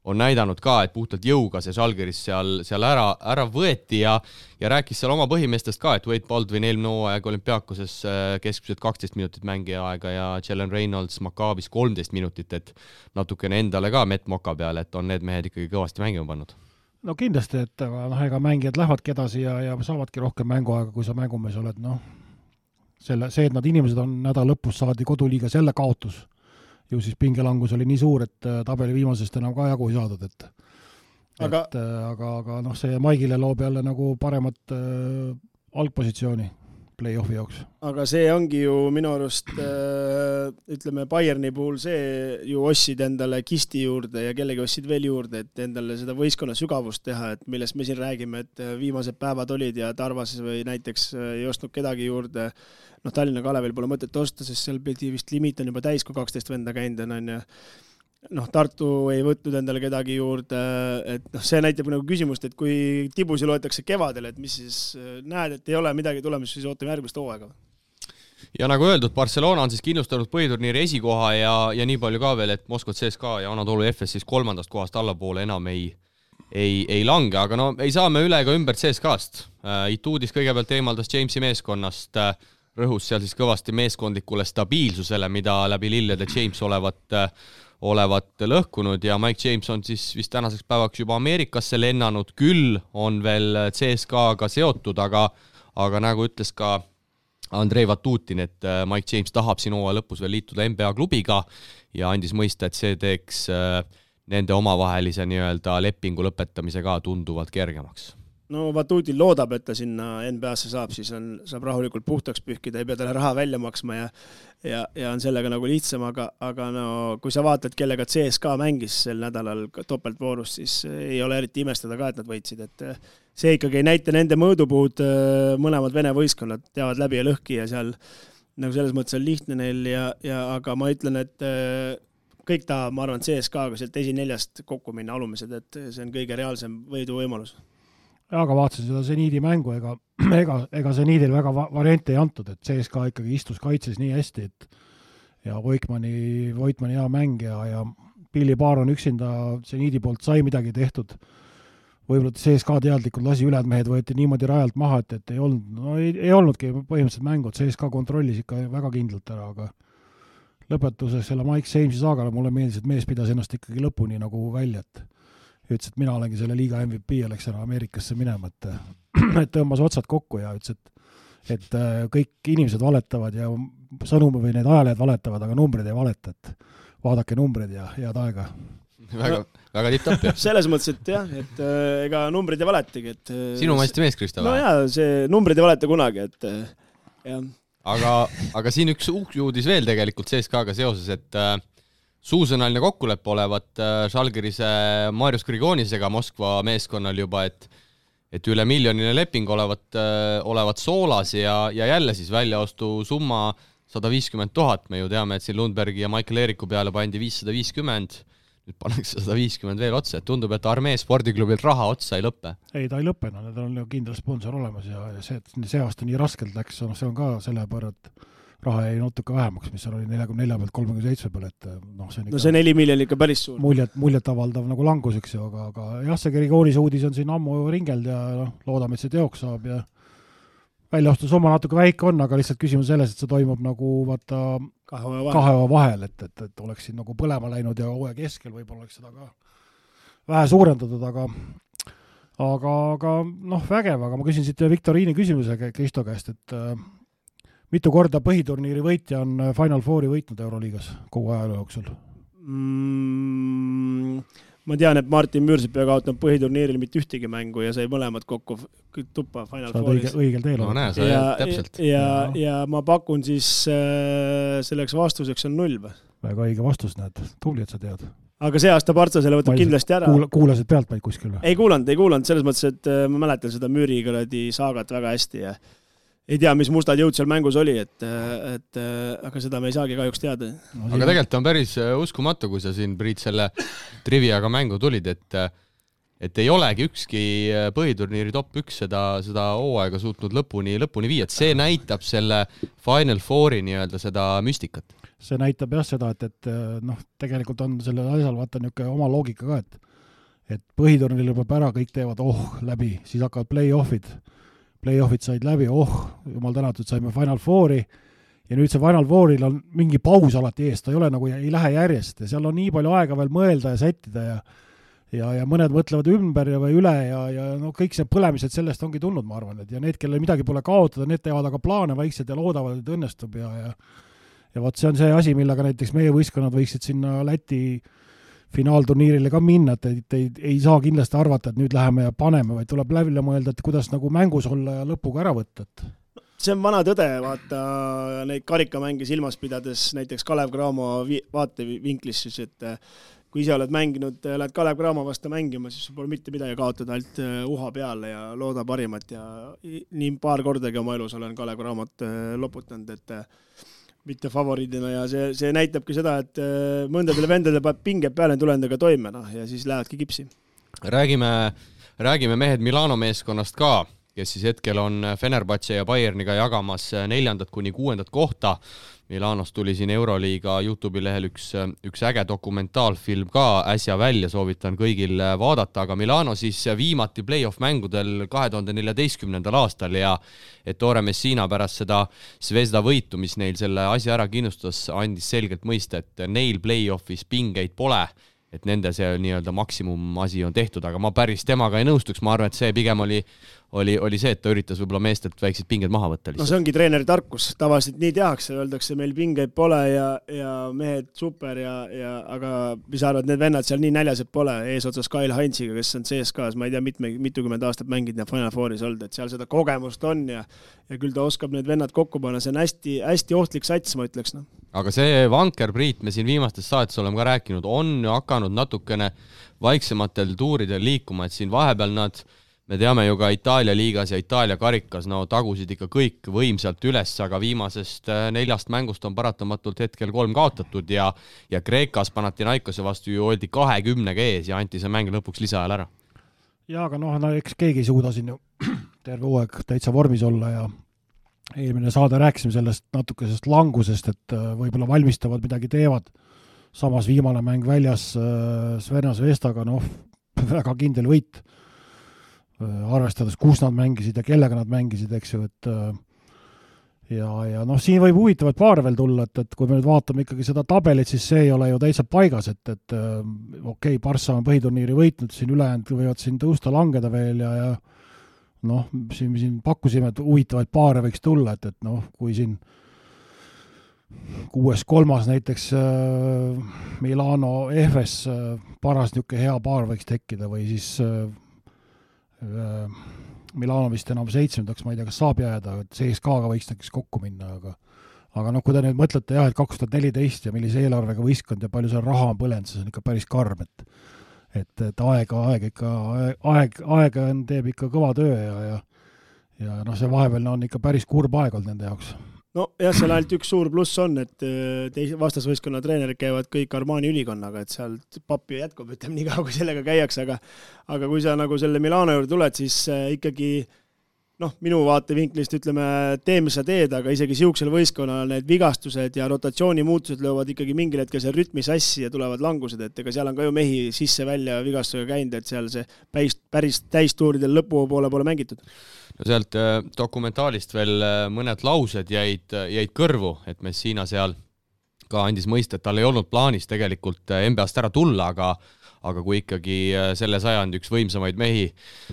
näidanud ka, et puhtalt jõuga see Žalgiris seal ära võeti ja rääkis seal oma põhimeestest ka, et Wade Baldwin eelmine hooaeg Olümpiakoses keskmiselt 12 minutit mängija aega ja Jalen Reynolds Maccaabis 13 minutit, et natukene endale ka Met Moka peale, et on need mehed ikkagi kõvasti mängima pannud. No kindlasti, et ega mängijad lähevadki edasi ja saavadki rohkem mänguaega, kui sa mängumees oled. See, et nad inimesed on nädal lõpus saadi koduliigas jälle kaotus, ju siis pingelangus oli nii suur, et tabeli viimasest enam ka jagu ei saadud, aga see Maigile loob jälle nagu paremat algpositsiooni play-offi jaoks. Aga see ongi ju minu arust, ütleme Bayerni puhul see ju ossid endale Kisti juurde ja kellegi ossid veel juurde, et endale seda võistkonna sügavust teha, et millest me siin räägime, et viimased päevad olid ja Tarvas või näiteks ei ostnud kedagi juurde. Tallinna Kalevil pole mõtet osta, sest seal pidi vist limiit on juba täis, kui 12 venda käinud on ja Tartu ei võtnud endale kedagi juurde, et see näitab nagu küsimust, et kui tibusi loetakse kevadel, et mis siis näed, et ei ole midagi tulemas, siis ootame järgmist hooaega. Ja nagu öeldud, Barcelona on siis kindlustanud põhiturniiri esikoha ja nii palju ka veel, et Moskva CSKA ja Anadolu FS siis 3. kohast allapoole enam ei lange, aga ei saa me üle ega ümber CSKA-st. Ituudis kõigepealt eemaldas Jamesi meeskonnast, rõhus seal siis kõvasti meeskondlikule stabiilsusele, mida läbi lillede James olevat lõhkunud ja Mike James on siis vist tänaseks päevaks juba Ameerikasse lennanud, küll on veel CSKA-ga seotud, aga nagu ütles ka Andrei Vatutin, et Mike James tahab siin hooaja lõpus veel liituda NBA klubiga ja andis mõista, et see teeks nende omavahelise nii-öelda lepingu lõpetamise ka tunduvalt kergemaks. No Vatutil loodab, et ta sinna NBA-sse saab, siis saab rahulikult puhtaks pühkida, ei pea talle raha välja maksma ja on sellega nagu lihtsam, aga no kui sa vaatad, kellega CSKA mängis sel nädalal topeltvoorus, siis ei ole eriti imestada ka, et nad võitsid, et see ikkagi ei näita nende mõõdupuud, mõlemad Vene võistkonnad teavad läbi ja lõhki ja seal nagu selles mõttes on lihtne neil aga ma ütlen, et kõik tahab, ma arvan, CSKA-ga sealt esineljast kokku minna alumised, et see on kõige reaalsem võidu võimalus. Aga vaatasin seda Zeniidi mängu, ega Zeniidil väga variante ei antud, et CSKA ikkagi istus kaitses nii hästi, et ja Voitmani hea mäng ja Billy Baron üksinda Zeniidi poolt sai midagi tehtud. Võib-olla CSKA teadlikult lasi ülejäänud mehed võeti niimoodi rajalt maha, et ei olnudki põhimõtteliselt mängud, CSKA kontrollis ikka väga kindlalt ära, aga lõpetuseks selle Mike Samesi saagale mulle meeldis, et mees pidas ennast ikkagi lõpuni nagu välja, et ütles, et mina olengi selle liiga MVP ja läks ära Ameerikasse minema, et tõmbas otsad kokku ja ütles, et kõik inimesed valetavad ja sõnumi või need ajalehed valetavad, aga numbrid ei valeta, et vaadake numbrid ja head aega. Väga tipp-tapp, jah. Selles mõttes, et jah, et ega numbrid ei valetagi, et sinu maisti mees, Krista? No jaa, see numbrid ei valeta kunagi, et jah. Aga siin üks uudis veel tegelikult CSKA-ga seoses, et suusõnaline kokkulepe olevat Žalgirise Marius Grigonisega Moskva meeskonnal juba, et üle miljoniline leping olevat soolas ja jälle siis väljaostu summa 150 000, me ju teame, et siin Lundbergi ja Michael Eeriku peale pandi 550, nüüd pannakse 150 veel otsa, et tundub, et Armee spordiklubilt raha otsa ei lõppe. Ei, ta ei lõppe, need on ju kindel sponsor olemas ja see aasta nii raskelt läks, see on ka selle pärast, et raha jäi natuke vähemaks, mis seal oli 44 pealt 37 peal, et see 4 miljonit ikka päris suur. Muljet avaldav nagu languseks ju, aga jah, see Grigonise uudis on siin ammu ringeld ja loodame, et see teoks saab ja väljaostusumma natuke väike on, aga lihtsalt küsimus selles, et see toimub nagu vaata kahe vahel, et oleks siin nagu põlema läinud ja hooaja keskel võib-olla oleks seda ka vähe suurendatud, aga vägev, aga ma küsin siit Viktoriini küsimuse Kristo käest, et mitu korda põhiturniiri võitja on Final Fouri võitnud Euroliigas kogu ajaloo jooksul? Ma tean, et Martin Müürsepp kaotanud põhiturniiril mitte ühtegi mängu ja sai mõlemad kokku tuppa Final Fouris. Õigel teel. No näe, täpselt. Ja ma pakun siis selleks vastuseks on 0. Väga õige vastus, näed. Tubli, et sa tead. Aga see aasta Partsa selle võtab kindlasti ära. Kuulasid pealt vaid kuskil või? Ei kuulanud. Selles mõttes, et ma mäletan seda Müüri saagat väga hästi ja ei tea, mis mustad jõud seal mängus oli, aga seda me ei saagi kahjuks teada. Aga tegelikult on päris uskumatu, kui sa siin, Priit, selle triviaga mängu tulid, et ei olegi ükski põhiturniiri top 1 seda hooaega suutnud lõpuni viia, et see näitab selle Final Fouri nii-öelda seda müstikat. See näitab jah seda, et tegelikult on selle asjal vaata niisugune oma loogika ka, et põhiturniir lõpeb ära, kõik teevad läbi, siis hakkavad Playoffid said läbi, jumal tänatud, saime Final Fouri ja nüüd see Final Fouril on mingi paus alati ees, ta ei ole nagu, ei lähe järjest ja seal on nii palju aega veel mõelda ja sättida ja mõned mõtlevad ümber või üle ja kõik see põlemised sellest ongi tulnud, ma arvan, et ja need, kellel midagi pole kaotada, need teevad aga plaane vaikselt ja loodavad, et õnnestub ja vaat see on see asi, millega näiteks meie võistkonnad võiksid sinna Läti finaalturniirile ka minna, et ei saa kindlasti arvata, et nüüd läheme ja paneme, vaid tuleb läbi mõelda, et kuidas nagu mängus olla ja lõpuga ära võtta. See on vana tõde, vaata neid karikamänge silmas pidades, näiteks Kalev Cramo vaatevinklis, siis, et kui ise oled mänginud, lähed Kalev Cramo vastu mängima, siis pole mitte midagi kaotada, ainult uha peale ja looda parimat ja nii paar kordagi oma elus olen Kalev Cramot loputanud, et mitte favoriidina ja see näitabki seda, et mõndadele vendadele peab pinge peale tulendega toime ja siis lähedki kipsi. Räägime mehed Milano meeskonnast ka, kes siis hetkel on Fenerbahce ja Bayerniga jagamas 4. kuni 6. kohta. Milanos tuli siin Euroliiga YouTube'i lehel üks äge dokumentaalfilm ka äsja välja, soovitan kõigil vaadata, aga Milano siis viimati play-off mängudel 2014. aastal ja Ettore Messina pärast seda Zvezda võitu, mis neil selle asja ära kindlustas, andis selgelt mõista, et neil play-offis pingeid pole, et nende see nii-öelda maksimum asi on tehtud, aga ma päris temaga ei nõustuks, ma arvan, et see pigem oli oli see, et ta üritas võib-olla meestelt väiksed pinged maha võtta lihtsalt. No see ongi treeneri tarkus, tavaliselt nii tehakse, öeldakse, meil pingeid pole ja mehed super aga mis arvad, need vennad seal nii näljased pole, eesotsas Kyle Heinziga, kes on CSKs, ma ei tea, mitukümmend aastat mängid ja Final Fouris olnud, et seal seda kogemust on ja küll ta oskab need vennad kokku panna, see on hästi, hästi ohtlik sats, ma ütleks. No. Aga see Vanker Priit, me siin viimastes saates oleme ka rääkinud, on ju hakanud natukene vaiksematel tuuridel liikuma, et siin vahepeal me teame ju ka Itaalia liigas ja Itaalia karikas, tagusid ikka kõik võimsalt üles, aga viimasest 4 mängust on paratamatult hetkel 3 kaotatud ja Kreekas Panathinaikose vastu ju oldi 20 ees ja anti see mäng lõpuks lisaajal ära. Ja, aga eks keegi ei suuda siin ju terve hooaeg täitsa vormis olla ja eelmine saade rääkisime sellest natukesest langusest, et võib-olla valmistavad midagi teevad. Samas viimane mäng väljas Sverna Zvestaga, väga kindel võit. Arvestades, kus nad mängisid ja kellega nad mängisid, eks ju, et ja siin võib huvitavad paare veel tulla, et kui me nüüd vaatame ikkagi seda tabelit, siis see ei ole ju täitsa paigas, et okei, Barssa on põhiturniiri võitnud, siin ülejäänud võivad siin tõusta langeda veel ja siin pakkusime, et huvitavaid paare võiks tulla, et kui siin 6-3 näiteks Milano Efes paras niisugune hea paar võiks tekkida või siis Milano vist enam 7, ma ei tea, kas saab jääda, et CSKA-ga võiks näiteks kokku minna, aga kui te nüüd mõtlete jah, et 2014 ja millise eelarvega võistkond ja palju seal raha on põlenud, see on ikka päris karm, et aeg teeb ikka kõva töö ja see vahepeal on ikka päris kurb aeg olnud nende jaoks. No jah, seal ainult üks suur pluss on, et vastasvõistkonna treenerid käivad kõik Armani ülikonnaga, et seal pappi jätkub, ütleme nii kaua, kui sellega käiakse, aga kui sa nagu selle Milano juurde tuled, siis ikkagi minu vaatevinklist ütleme, tee, mis sa teed, aga isegi siuksel võistkonnal need vigastused ja rotatsioonimuutused löövad ikkagi mingil hetkel see rütmi sassi ja tulevad langused, et ega seal on ka ju mehi sisse-välja vigastusega käinud, et seal see päris täistuuridel lõpu poole mängitud. No sealt dokumentaalist veel mõned laused jäid kõrvu, et Messina seal ka andis mõista, et tal ei olnud plaanis tegelikult NBA-st ära tulla, aga kui ikkagi selle sajandi üks võimsamaid mehi,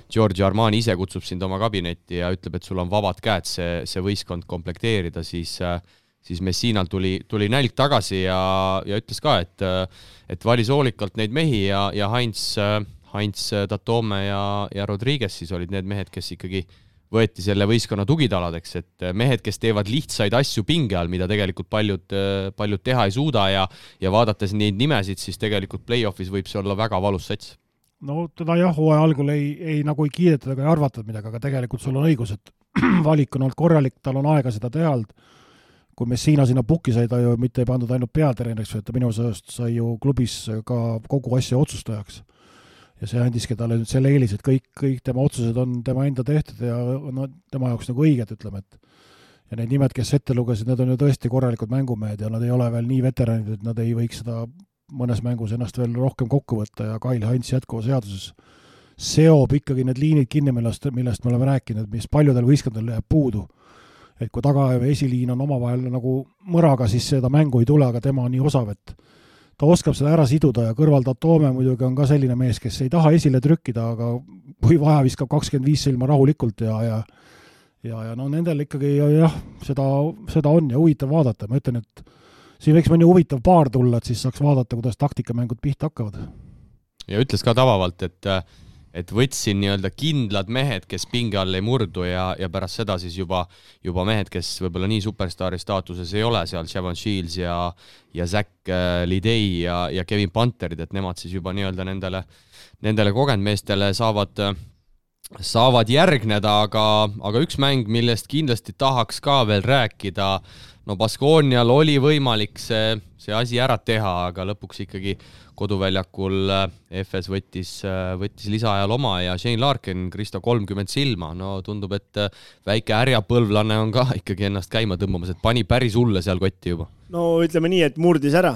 Giorgio Armani ise kutsub sind oma kabinetti ja ütleb, et sul on vabad käed see võistkond komplekteerida, siis Messinal tuli nälg tagasi ja ütles ka, et valis hoolikalt neid mehi ja Heinz Tatome ja Rodriguez siis olid need mehed, kes ikkagi võeti selle võistkonna tugitaladeks, et mehed, kes teevad lihtsaid asju pinge all, mida tegelikult paljud teha ei suuda ja vaadates neid nimesid, siis tegelikult play-offis võib see olla väga valus sats. No teda jah, hooaja algul ei kiidetud ega ei arvatud midagi, aga tegelikult sul on õigus, et valik on olnud korralik, tal on aega seda teha olnud. Kui Messina sinna pukki sai, ta ju mitte ei pandud ainult peatreeneriks, et ta minu sõjast sai ju klubis ka kogu asja otsustajaks. Ja see andiski talle nüüd selle eelis, et kõik tema otsused on tema enda tehtud ja tema jaoks nagu õiged, ütleme, et ja need nimed, kes ette lugesid, need on ju tõesti korralikud mängumehed ja nad ei ole veel nii veteranid, et nad ei võiks seda mõnes mängus ennast veel rohkem kokku võtta ja Kyle Heinz jätkuva seaduses seob ikkagi need liinid kinni, millest me oleme rääkinud, mis paljudel võistkondadel jääb puudu. Et kui taga esiliin on omavahel nagu mõraga, siis seda mängu ei tule, aga tema on nii osav, et ta oskab seda ära siduda ja kõrval Tatome muidugi on ka selline mees, kes ei taha esile trükkida, aga kui vaja viskab 25 silma rahulikult ja nendel ikkagi jah, seda on ja huvitav vaadata. Ma ütlen, et siin võiks mõni huvitav paar tulla, et siis saaks vaadata, kuidas taktikamängud pihta hakkavad. Ja ütles ka tavalalt, et võtsin nii-öelda kindlad mehed, kes pinge all ei murdu ja pärast seda siis juba mehed, kes võib-olla nii superstaari staatuses ei ole, seal Shavon Shields ja Zach Lidei ja Kevin Panterid, et nemad siis juba nii-öelda nendele kogenud meestele saavad järgneda, aga üks mäng, millest kindlasti tahaks ka veel rääkida, Baskonial oli võimalik see asi ära teha, aga lõpuks ikkagi koduväljakul FS võttis lisaajal oma ja Shane Larkin, Kristo 30 silma. Tundub, et väike ärjapõlvlane on ka ikkagi ennast käima tõmbamas, et pani päris hulle seal kotti juba. No ütleme nii, et murdis ära,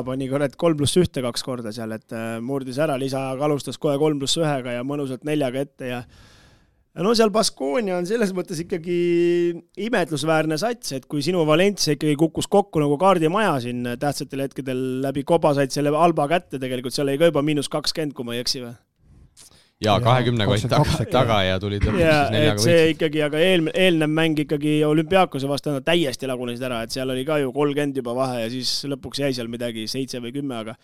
pani 3+1 2 korda seal, et murdis ära, lisaajaga alustas kohe 3+1 ja mõnusalt 4 ette ja seal Baskonia on selles mõttes ikkagi imetlusväärne sats, et kui sinu Valencia ikkagi kukkus kokku nagu kaardimaja siin tähtsatel hetkedel läbi koba said selle Alba kätte, tegelikult seal ei ka juba -20, kui ma ei eksi või? ja 20 kott taga ja tulid lõpuks siis 4 võitsid. See ikkagi, aga eelnev mäng ikkagi Olümpiakose vastane täiesti lagunesid ära, et seal oli ka ju 30 juba vahe ja siis lõpuks jäi seal midagi 7 või 10,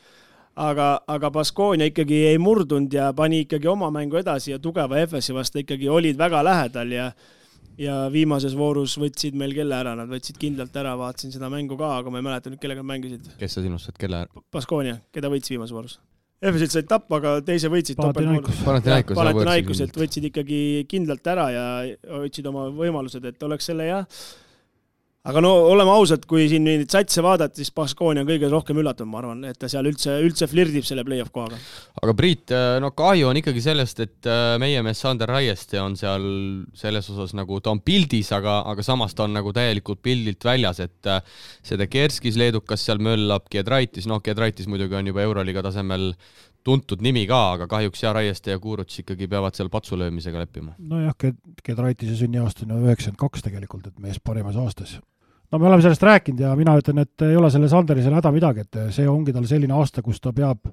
aga Baskonia ikkagi ei murdunud ja pani ikkagi oma mängu edasi ja tugeva FS-i vastu ikkagi olid väga lähedal ja viimases voorus võtsid meil kelle ära, nad võtsid kindlalt ära, vaatasin seda mängu ka, aga ma ei mäleta nüüd, kellega mängisid. Kes sa sinust saad, kelle ära? Baskonia, keda võttis viimases voorus. FS-ilt said tappa, aga teise võitsid Panathinaikos, et võtsid ikkagi kindlalt ära ja võtsid oma võimalused, et oleks selle aga no oleme ausad, kui siin neid satse vaadata, siis Baskonia on kõige rohkem üllatunud, ma arvan, et ta seal üldse flirdib selle play-off kohaga. Aga Priit, no kahju on ikkagi sellest, et meie mees Sander Raieste on seal selles osas nagu ta on pildis, aga samas ta on nagu täielikult pildilt väljas, et seda Kerskis leedukas seal möllab, Giedraitis muidugi on juba Euroliiga tasemel tuntud nimi ka, aga kahjuks Raieste ja Kuuruts ikkagi peavad seal patsulöömisega leppima. Nojah, Giedraitise sünniaasta on 92 tegelikult, et mees parimas aastas. No me oleme sellest rääkinud ja mina ütlen, et ei ole selle Sanderisel häda midagi, et see ongi tal selline aasta, kus ta peab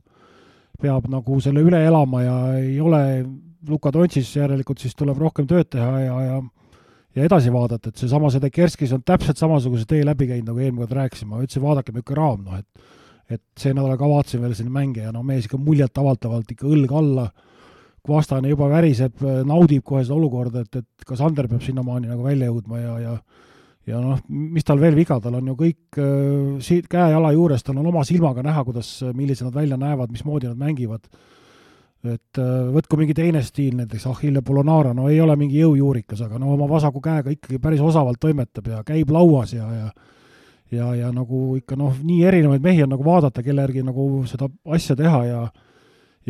nagu selle üle elama ja ei ole Luka Dontšis järelikult, siis tuleb rohkem tööd teha ja edasi vaadata, et see Kerskis on täpselt samasuguse tee läbi käinud, nagu eelmine kord rääkisime, ma ütlesin, vaadake mükka raam, et see nädal ka vaatasin veel selline mänge ja mees ikka muljalt avaldavalt ikka õlg alla, kui vastane juba väriseb, naudib kohe seda olukorda, et ka Sander peab sinnamaani nagu välja jõudma ja noh, mis tal veel viga, tal on ju kõik käe-jala juures, tal on oma silmaga näha, millised nad välja näevad, mismoodi nad mängivad. Et võtku mingi teine stiil, näiteks Achille Polonara, no ei ole mingi jõujuurikas, aga no oma vasaku käega ikkagi päris osavalt toimetab ja käib lauas ja nagu ikka nii erinevaid mehi on nagu vaadata, kelle järgi nagu seda asja teha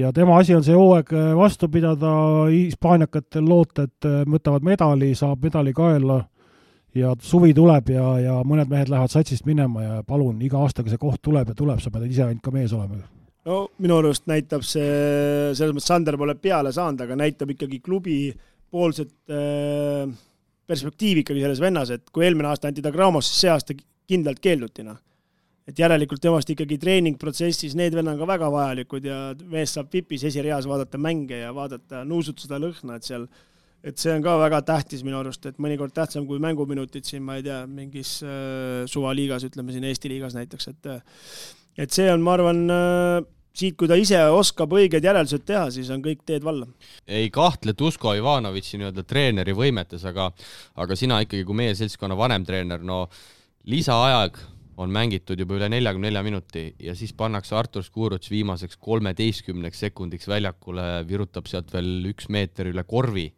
ja tema asi on see hooaeg vastu pidada, hispaaniakatel loota, et võtavad medali, saab medali kaela ja suvi tuleb ja mõned mehed lähevad satsist minema ja palun, iga aastaga see koht tuleb, sa pead ise ainult ka mees olema. No minu arust näitab see, selles mõttes Sander pole peale saanud, aga näitab ikkagi klubi poolset perspektiivi ikkagi selles vennas, et kui eelmine aasta anti ta Gramos, siis see aasta kindlalt keeldutina. Et järelikult temast ikkagi treeningprotsessis need venna on ka väga vajalikud ja mees saab vipis esireas vaadata mänge ja vaadata nuusutada lõhna, et see on ka väga tähtis minu arust, et mõnikord tähtsam kui mänguminutid siin, ma ei tea, mingis suvaliigas, ütleme siin Eesti liigas näiteks, et see on, ma arvan, siit, kui ta ise oskab õiged järeldused teha, siis on kõik teed valla. Ei kahtle Tusko Ivanovitši nii-öelda treeneri võimetes, aga sina ikkagi kui meie seltskonna vanem treener, no lisaaeg on mängitud juba üle 44 minuti ja siis pannakse Artur Skuruts viimaseks 13 sekundiks väljakule, virutab sealt veel 1 meeter üle korvi.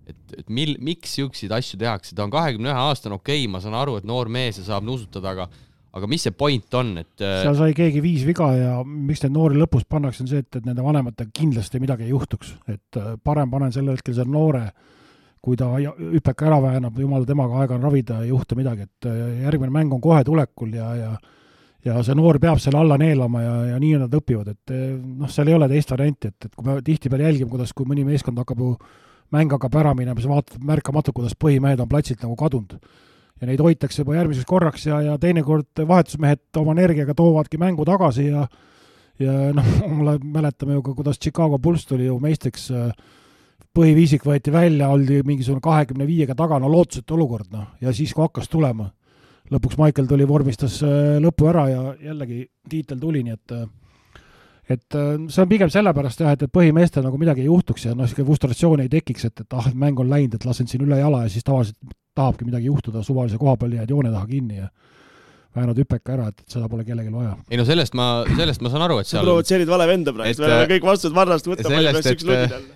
Et miks jõuksid asju tehakse? Ta on 21 aastane, okei, ma saan aru, et noor mees ja saab nuusutada, aga mis see point on? Seal sai keegi 5 viga ja miks need noori lõpus pannakse on see, et nende vanematega kindlasti midagi ei juhtuks. Et parem panen selle hetkel selle noore, kui ta hüppeka ära väänab, jumala temaga aega on ravida, ei juhtu midagi. Et järgmine mäng on kohe tulekul ja see noor peab selle alla neelama ja nii nad õpivad. Et seal ei ole teist varianti, et kui me tihti peal jälgime, kui mõni meeskond hakkab ju mäng hakkab ära minema, siis vaatad märkamatu, kuidas põhimehed on platsilt nagu kadunud. Ja neid hoitakse juba järgmiseks korraks ja teinekord vahetusmehed oma energiaga toovadki mängu tagasi ja mäletame ju ka, kuidas Chicago Bulls tuli ju meistriks, põhiviisik võeti välja, oldi mingisugune 25-ga taga, lootusetu olukord, ja siis kui hakkas tulema. Lõpuks Michael tuli, vormistas lõpu ära ja jällegi tiitel tuli, nii et see on pigem sellepärast jah, et põhimeestel nagu midagi ei juhtuks ja frustratsiooni ei tekiks, et mäng on läinud, et lasen siin üle jala ja siis tavaliselt tahabki midagi juhtuda, suvalise koha peal jääd joone taha kinni ja väänad hüppeka ära, et seda pole kellelgi vaja. Ei no sellest ma saan aru, et seal... Sa provotseerid vale venda praegu, me oleme kõik vastused varrast võtta. Sellest,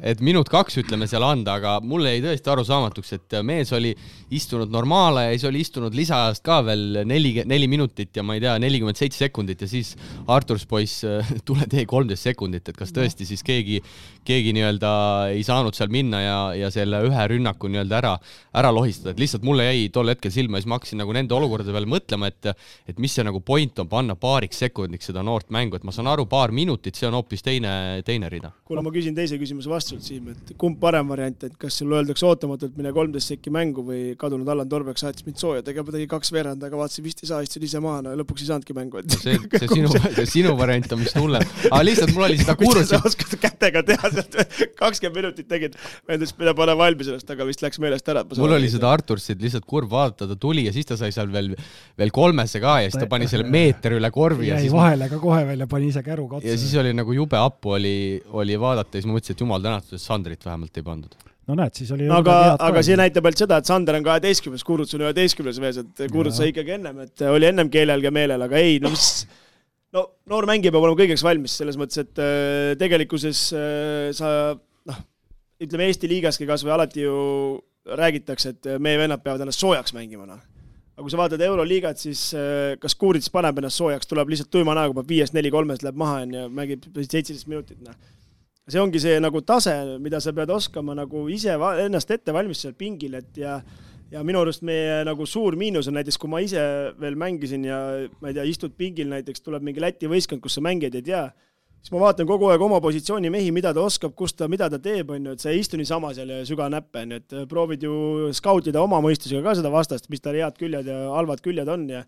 et minut 2 ütleme seal anda, aga mulle jäi tõesti aru saamatuks, et mees oli istunud normaale ja siis oli istunud lisaajast ka veel 4 minutit ja ma ei tea, 47 sekundit ja siis Arturs poiss tule tee 13 sekundit, et kas tõesti siis keegi nii-öelda ei saanud seal minna ja selle ühe rünnaku nii-öelda ära lohistada, et lihtsalt mulle jäi tol hetkel silma ja siis ma hakkasin nagu nende olukordade peale mõtlema, et et mis see nagu point on panna paariks sekundiks seda noort mängu, et ma saan aru, paar minutit, see on hoopis teine rida. Kuule, ma küsin teise küsimuse vastusult, Siim, et kumb parem variant, et kas sul öeldakse ootamatult mine 13 sekki mängu või kadunud Allan Torbeck saatis mind sooja, tegema tegi 2 veerand, aga vaatasin vist ei saa, istusin ise maha, no lõpuks ei saanudki mängu. See sinu variant on vist hullem. Aga lihtsalt mul oli seda kuulus. Sa oskad kätega teha sealt 20 minutit tegid, meeldis mida pane valmis ennast, aga vist läks meelest ära. Mul oli seda Artursit lihtsalt kurb vaadata, ta tuli ja siis ta sai seal veel 3 ka ja siis ta pani selle meeter üle korvi. Jäi vahele ka kohe veel ja pani ise käru katse. Ja siis oli nagu jube appu oli vaadata ja siis ma mõtlesin, et jumal tänatud, et Sandrit vähemalt ei pandud. No näed, siis oli... Aga see näitab ainult seda, et Sander on 12, Kuruts on 11 vees, et Kuruts sai ikkagi ennem, et oli ennem keelel ja meelel, aga ei, no noor mängija peab olema kõigeks valmis, selles mõttes, et tegelikkuses sa, ütleme Eesti liigaski kas või alati ju räägitakse, et meie vennad peavad ennast soojaks mängima. Aga kui sa vaatad Euroliigat, siis kas Kuurits paneb ennast soojaks, tuleb lihtsalt tuima näoga, peab 5-4-3 läheb maha ja mängib 17 minutit. See ongi see nagu tase, mida sa pead oskama nagu ise ennast ette valmis seal pingil, et ja minu arust meie nagu suur miinus on näiteks, kui ma ise veel mängisin ja ma ei tea, istud pingil näiteks, tuleb mingi Läti võistkond, kus sa mängid ei tea, siis ma vaatan kogu aeg oma positsiooni mehi, mida ta oskab, mida ta teeb, on ju, et sa ei istu nii sama seal ja süga näppe, et proovid ju skautida oma mõistusega ka seda vastast, mis tal head küljed ja halvad küljed on ja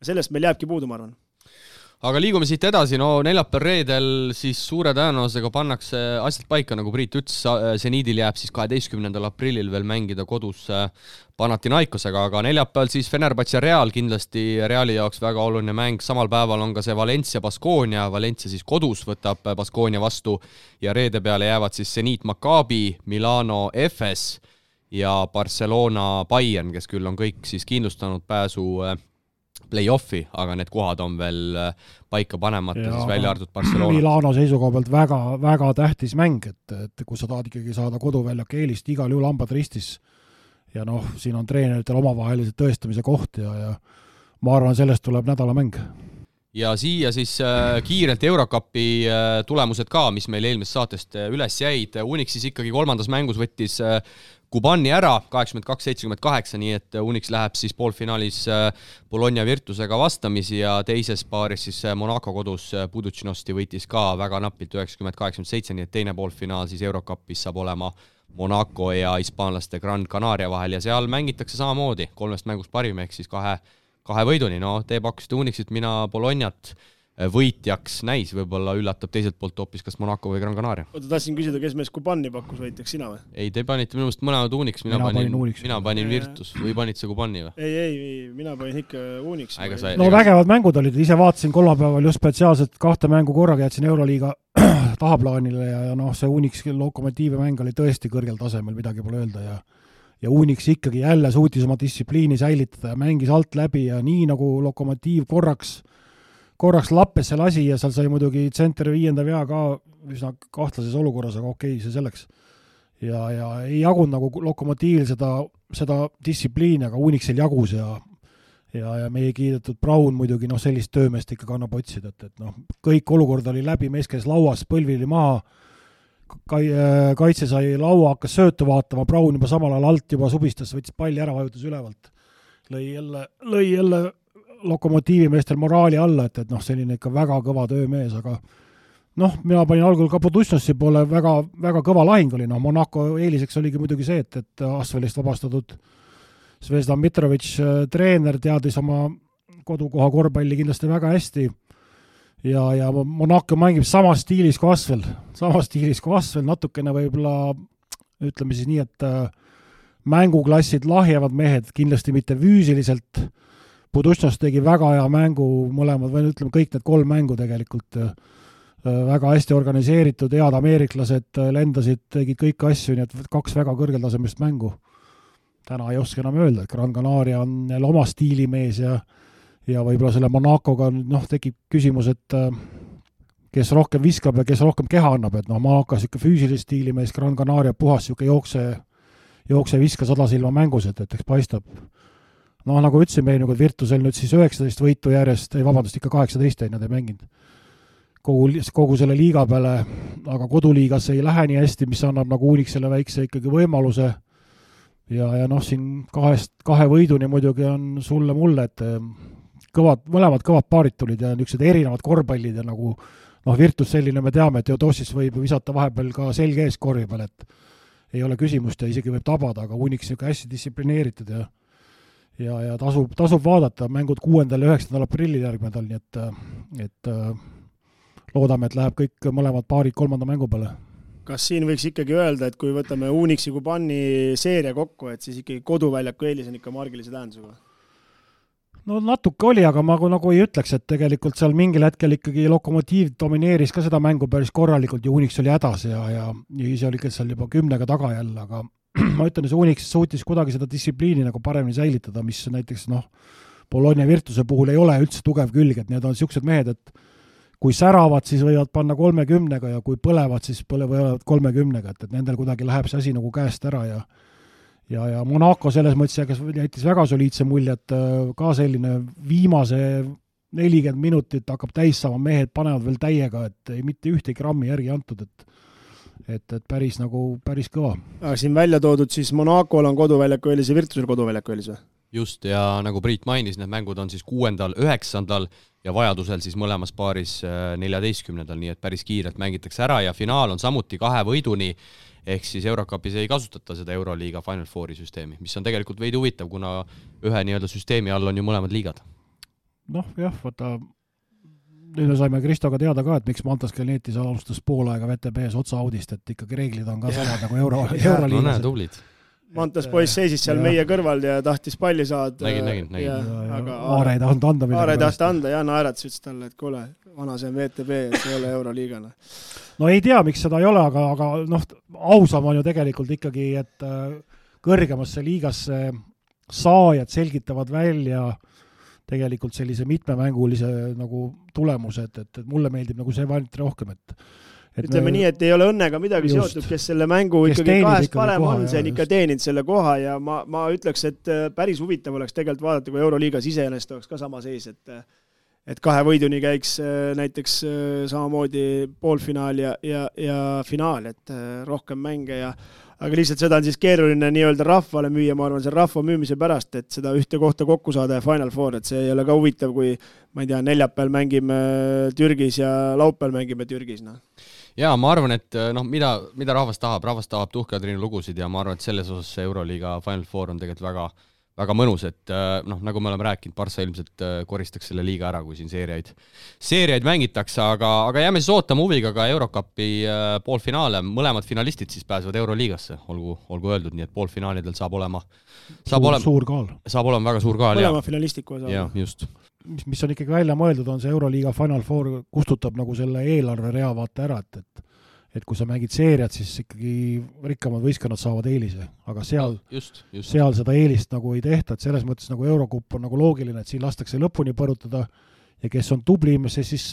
sellest meil jääbki puudu, ma arvan. Aga liigume siit edasi, neljapäeval reedel siis suure tõenäosusega pannakse asjad paika, nagu Priit ütles, Zeniidil jääb siis 12. aprillil veel mängida kodus Panathinaikosega, aga neljapäeval siis Fenerbahce Real, kindlasti Reali jaoks väga oluline mäng, samal päeval on ka see Valencia Baskonia, Valencia siis kodus võtab Baskonia vastu ja reede peale jäävad siis Zenit Maccabi, Milano Efes ja Barcelona Bayern, kes küll on kõik siis kindlustanud pääsu play-offi, aga need kohad on veel paika panemata, siis välja arvatud Barcelona. Milano seisukoha pealt väga, väga tähtis mäng, et kui sa tahad ikkagi saada koduväljak eelist, igal juhul hambad ristis ja siin on treeneritel omavahelised tõestamise koht ja ma arvan, sellest tuleb nädalamäng. Ja siia siis kiirelt Eurocupi tulemused ka, mis meil eelmist saatest üles jäid. Unix siis ikkagi 3. mängus võttis Kubani ära 82-78, nii et Unix läheb siis poolfinaalis Bologna Virtusega vastamisi ja teises paaris siis Monaco kodus Budućnosti võitis ka väga napilt 90-87, nii et teine poolfinaal siis Eurocupis saab olema Monaco ja hispaanlaste Gran Canaria vahel ja seal mängitakse samamoodi 3 mängust parim, ehk siis kahe võiduni. Te pakkusite Unixit, mina Bolognat võitjaks näis, võib-olla üllatab teiselt poolt hoopis kas Monaco või Gran Canaria. Oota, tahtsin küsida, kes mees Kubani pakkus võitjaks, sina või? Ei, te panite minu mõnest mõlemad Unix, mina panin Virtus või panite see Kubani või? Ei, mina panin ikka Unix. Vägevad mängud olid, ise vaatasin kolmapäeval just spetsiaalselt 2 mängu korraga, jätsin Euroliiga tahaplaanile ja see Unix Lokomotiivi mäng oli tõesti kõrgel tasemel, midagi pole öelda ja Unix ikkagi jälle suutis oma distsipliini säilitada ja mängis alt läbi ja nii nagu Lokomotiiv korraks lappes see lasi ja seal sai muidugi tsentri 5. vea ka üsna kahtlases olukorras, aga okei, see selleks. Ja ei jagunud nagu Lokomotiivil seda distsipliini, aga Unixil jagus ja meie kiidetud Braun muidugi sellist töömeest ikka kannab otsida, et kõik olukord oli läbi, mees käis lauas, põlvili maha, kaitse sai laua, hakkas söötu vaatama, Braun juba samal ajal alt juba subistas, võttis palli ära, vajutas ülevalt. Lõi jälle Lokomotiivi meestel moraali alla, et selline ikka väga kõva töömees, aga mina panin algul ka Budućnosti poole väga, väga kõva lahing oli, Monaco eeliseks oligi muidugi see, et Asvelist vabastatud Zvezdan Mitrovic treener teadis oma kodukoha korvpalli kindlasti väga hästi ja Monaco mängib samas stiilis kui Asvel, natukene võib-olla ütleme siis nii, et mänguklassid lahjevad mehed, kindlasti mitte füüsiliselt. Budućnost tegi väga hea mängu mõlemad, või ütleme kõik need 3 mängu tegelikult väga hästi organiseeritud, head ameeriklased lendasid, tegid kõik asju, nii et 2 väga kõrgeltasemest mängu. Täna ei oska enam öelda, et Gran Canaria on jälle oma stiilimees ja võib-olla selle Monacoga tekib küsimus, et kes rohkem viskab ja kes rohkem keha annab, et Monaco ikka füüsilist stiilimees, Gran Canaria puhas jookse viska 100 silma mängus, et eks paistab. Nagu ütlesin meil, Virtusel nüüd siis 19 võitu järjest, ikka 18 nad ei mänginud kogu selle liiga peale, aga koduliigas ei lähe nii hästi, mis annab Unixile väikse ikkagi võimaluse ja siin 2 võiduni muidugi on sulle mulle, et mõlemad kõvad paarid tulid ja niisugused erinevad korvpallid ja nagu Virtus selline, me teame, et Teodosis võib visata vahepeal ka selge ees korvi peal, et ei ole küsimust ja isegi võib tabada, aga Unix niisugune hästi distsiplineeritud ja tasub vaadata mängud 6. ja 9. aprillil järgmine nädal, nii et loodame, et läheb kõik mõlemad paarid 3. mängu peale. Kas siin võiks ikkagi öelda, et kui võtame Unixi Kubani seeria kokku, et siis ikkagi koduväljaku eelis on ikka margilise tähendusega? No natuke oli, aga ma nagu ei ütleks, et tegelikult seal mingil hetkel ikkagi Lokomotiiv domineeris ka seda mängu päris korralikult ja Unix oli hädas ja ise oli seal juba 10 taga jälle, aga ma ütlen, et Unix suutis kuidagi seda distsipliini nagu paremini säilitada, mis näiteks Bologna Virtuse puhul ei ole üldse tugev külg, et need on niisugused mehed, et kui säravad, siis võivad panna 30 ja kui põlevad, siis võivad 30, et nendel kuidagi läheb see asi nagu käest ära ja Monaco selles mõttes jättis väga soliidse mulje, et ka selline viimase 40 minutit hakkab täis saama, mehed panevad veel täiega, et ei mitte ühtegi grammi järgi antud, et päris kõva. Aga siin välja toodud siis Monacol on koduväljaku eelis ja Virtusel koduväljaku eelis või? Just, ja nagu Priit mainis, need mängud on siis 6., 9. ja vajadusel siis mõlemas paaris 14. nii et päris kiirelt mängitakse ära ja finaal on samuti 2 võiduni, ehk siis Eurocupis ei kasutata seda Euroliiga Final Fouri süsteemi, mis on tegelikult veidi huvitav, kuna ühe nii-öelda süsteemi all on ju mõlemad liigad. Vaata, nüüd me saime Kristoga teada ka, et miks Mantas Kelnetis alustas pool aega VTB-s otsa-audist, et ikkagi reeglid on ka samad nagu Euroliigas. No näe, tublid. Mantas poiss seisis seal meie kõrval ja tahtis palli saada. Nägin. Aare ei tahtnud anda. Aare ei tahtnud anda ja naeratas ütles talle, et kuule, vana see on VTB, see ei ole Euroliigana. No ei tea, miks seda ei ole, aga ausam on ju tegelikult ikkagi, et kõrgemasse liigasse saajad selgitavad välja tegelikult sellise mitmemängulise nagu tulemused, et mulle meeldib nagu see variant rohkem, et ütleme nii, et ei ole õnnega midagi seotud, kes selle mängu ikkagi kahest parem on, see on ikka teeninud selle koha ja ma ütleks, et päris huvitav oleks tegelikult vaadata, kui Euroliigas iseenesest oleks ka sama seis, et 2 võiduni käiks näiteks samamoodi poolfinaal ja finaal, et rohkem mänge aga lihtsalt seda on siis keeruline nii-öelda rahvale müüa, ma arvan, see rahva müümise pärast, et seda ühte kohta kokku saada ja Final Four, et see ei ole ka huvitav, kui ma ei tea, neljapäeval mängime Türgis ja laupäeval mängime Türgis. Ja ma arvan, et mida rahvas tahab tuhkadriinu lugusid ja ma arvan, et selles osas Euroliiga Final Four on tegelikult väga mõnus, et nagu me oleme rääkinud, Barca ilmselt koristaks selle liiga ära, kui siin seeriaid mängitakse, aga jääme siis ootama huviga ka Eurocupi poolfinaale. Mõlemad finalistid siis pääsevad Euroliigasse, olgu öeldud, nii et poolfinaalidel saab olema suur kaal. Saab olema väga suur kaal. Mõlema finalistiku osa. Ja, just. Mis on ikkagi välja mõeldud, on see Euroliiga Final Four kustutab nagu selle eelarve rea vaata ära, et kui sa mängid seeriat, siis ikkagi rikkamad võistkonnad saavad eelise, aga seal seda eelist nagu ei tehta, et selles mõttes nagu Eurocup on nagu loogiline, et siin lastakse lõpuni põrutada ja kes on tublim, see siis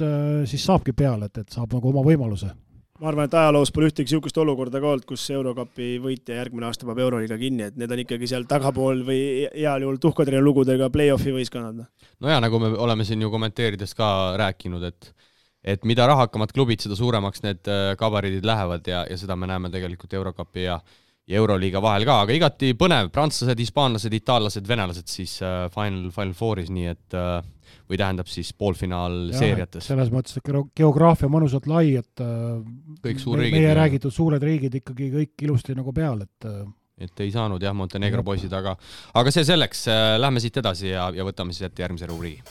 saabki peale, et saab nagu oma võimaluse. Ma arvan, et ajaloos pole ühtegi niisugust olukorda ka olnud, kus Eurocupi võitja järgmine aasta peab Euroliiga kinni, et need on ikkagi seal tagapool või heal juhul tuhkadrina lugudega play-offi võistkonnad. No ja nagu me oleme siin ju kommenteerides ka rääkinud, et mida rahakamad klubid, seda suuremaks need kabariidid lähevad ja seda me näeme tegelikult Eurocupi ja Euroliiga vahel ka, aga igati põnev, prantslased, hispaanlased, itaallased, venelased siis Final Fouris, nii et või tähendab siis poolfinaal seeriates. Selles mõttes, et geograafia mõnusalt lai, et kõik suurriigid, meie räägitud suured riigid ikkagi kõik ilusti nagu peal, et ei saanud Montenegro poisid, aga see selleks, lähme siit edasi ja võtame siis ette järgmise rubriigi.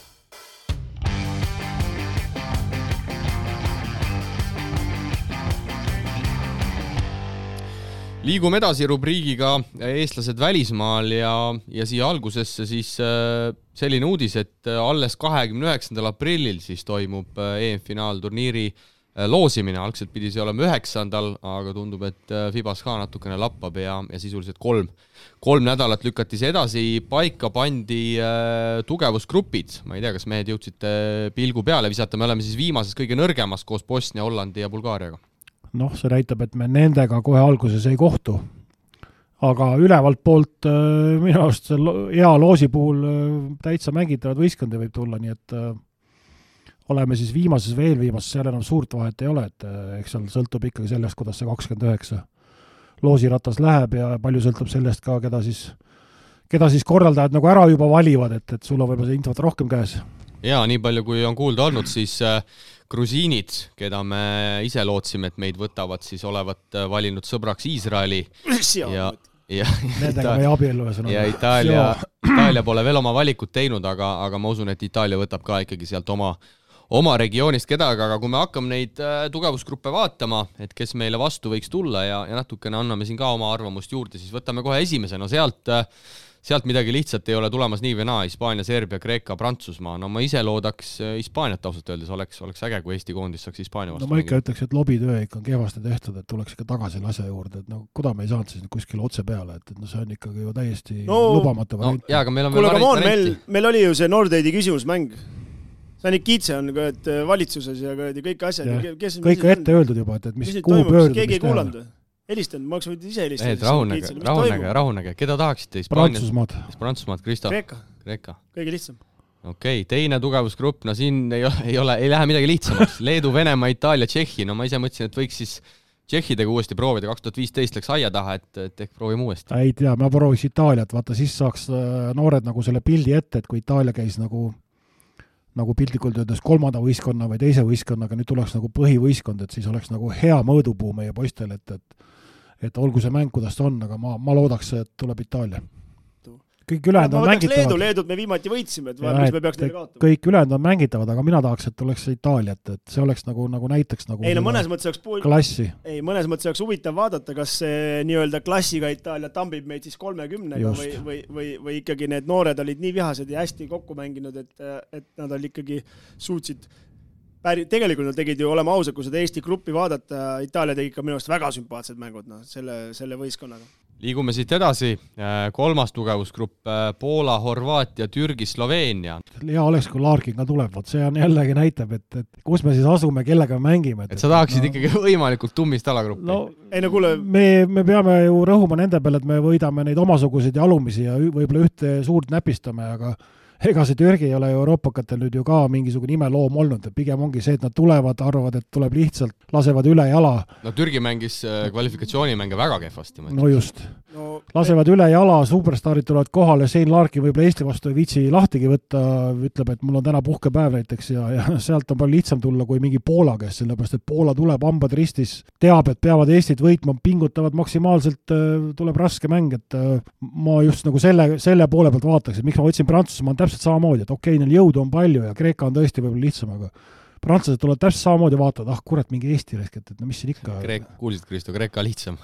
Liigume edasi rubriigiga eestlased välismaal ja siia algusesse siis selline uudis, et alles 29. aprillil siis toimub EM-finaalturniiri loosimine. Algselt pidi see olema 9. aga tundub, et Fibas ka natukene lappab ja sisuliselt 3 nädalat lükati see edasi. Paika pandi tugevusgrupid. Ma ei tea, kas mehed jõudsite pilgu peale visata. Me oleme siis viimases kõige nõrgemas koos Bosnia, Hollandi ja Bulgaariaga. See näitab, et me nendega kohe alguses ei kohtu. Aga ülevalt poolt minu arust hea loosi puhul täitsa mängitavad võistkondi võib tulla, nii et oleme siis viimases, seal enam suurt vahet ei ole, et eks seal sõltub ikkagi sellest, kuidas see 29 loosiratas läheb ja palju sõltub sellest ka, keda siis korraldajad nagu ära juba valivad, et sul on võib-olla see infot rohkem käes. Ja nii palju, kui on kuulda olnud, siis grusiinid, keda me ise lootsime, et meid võtavad, siis olevat valinud sõbraks Iisraeli ja Nendega me abiellu ja Itaalia pole veel oma valikut teinud, aga ma usun, et Itaalia võtab ka ikkagi sealt oma regioonist kedagi, aga kui me hakkame neid tugevusgruppe vaatama, et kes meile vastu võiks tulla ja natukene anname siin ka oma arvamust juurde, siis võtame kohe esimese, no sealt midagi lihtsalt ei ole tulemas nii või naa, Hispaania, Serbia, Kreeka, Prantsusmaa. No ma ise loodaks Hispaaniat ausalt öeldes, oleks äge, kui Eesti koondis saaks Hispaania vastu. No ma ikka ütleks, et lobitöö ikka on kehvasti tehtud, et tuleks ikka tagasi asja juurde, et no kuda me ei saanud siis kuskil otse peale, et no see on ikkagi ju täiesti lubamatu variant. Jaa, aga meil on veel varianti. Meil oli ju see Nordeidi küsimusmäng. See Nikitse on valitsuses ja kõik asjad. Kõik ette öeldud juba, et mis kuhu pöörduda. Keegi ei kuulanud. Helistanud, ma oleks võid ise helistada. Rahunege. Keda tahaksite? Prantsusmaad, Kristo. Kreeka. Kõige lihtsam. Okei, teine tugevusgrupp, no siin ei lähe midagi lihtsamaks. Leedu, Venemaa, Itaalia, Tšehhi. No ma ise mõtlesin, et võiks siis Tšehhidega uuesti proovida. 2015 läks aia taha, et ehk proovime uuesti. Ei tea, ma prooviks Itaaliat. Vaata, siis saaks noored nagu selle pildi ette, et kui Itaalia käis nagu piltlikult öeldes kolmanda võistkonna või teise võistkonnaga, nüüd tuleks nagu põhivõistkond, et siis oleks nagu hea mõõdupuu meie poistel, et olgu see mäng, kuidas ta on, aga ma loodaks, et tuleb Itaalia. Kõik ülejäänud on mängitavad. Leedut me viimati võitsime, et mis me peaks neile kaotama. Kõik ülejäänud on mängitavad, aga mina tahaks, et oleks Itaaliat, et see oleks nagu näiteks nagu mõnes mõttes klassi. Mõnes mõttes oleks huvitav vaadata, kas see nii-öelda klassiga Itaalia tambib meid siis 30-ga või ikkagi need noored olid nii vihased ja hästi kokku mänginud, et nad olid ikkagi suutsid tegelikult nad tegid ju, olema ausad, kui seda Eesti gruppi vaadata, Itaalia tegi ikka minu arust väga sümpaatsed mängud selle võistkonnaga. Liigume siit edasi. Kolmas tugevusgrupp, Poola, Horvaatia, Türgi, Sloveenia. Hea oleks, kui Larkin ka tuleb, see on jällegi näitab, et kus me siis asume, kellega me mängime. Et sa tahaksid ikkagi võimalikult tummist alagruppi. Me peame ju rõhuma nende peale, et me võidame neid omasuguseid ja alumisi ja võib-olla ühte suurt näpistame, aga ega see Türgi ei ole Euroopakatel nüüd ju ka mingisugune imeloom olnud, et pigem ongi see, et nad tulevad, arvavad, et tuleb lihtsalt, lasevad üle jala. No Türgi mängis kvalifikatsioonimänge väga kehvasti. No just. Lasevad üle jala, superstaarid tulevad kohale, Shane Larkin võib-olla Eesti vastu ei viitsi lahtigi võtta, ütleb, et mul on täna puhkepäev näiteks ja sealt on palju lihtsam tulla kui mingi Poola käest, sellepärast et Poola tuleb hambad ristis, teab, et peavad Eestit võitma, pingutavad maksimaalselt, tuleb raske mäng, et ma just nagu selle poole pealt vaataks, et miks ma võtsin Prantsusmaa on täpselt samamoodi, et okei, neil jõudu on palju ja Kreeka on tõesti võib-olla lihtsam, aga prantslased tulevad täpselt samamoodi vaatavad, kurat, mingi Eesti resket, et no mis siin ikka... Kuulsid, Kristo, Kreeka lihtsam.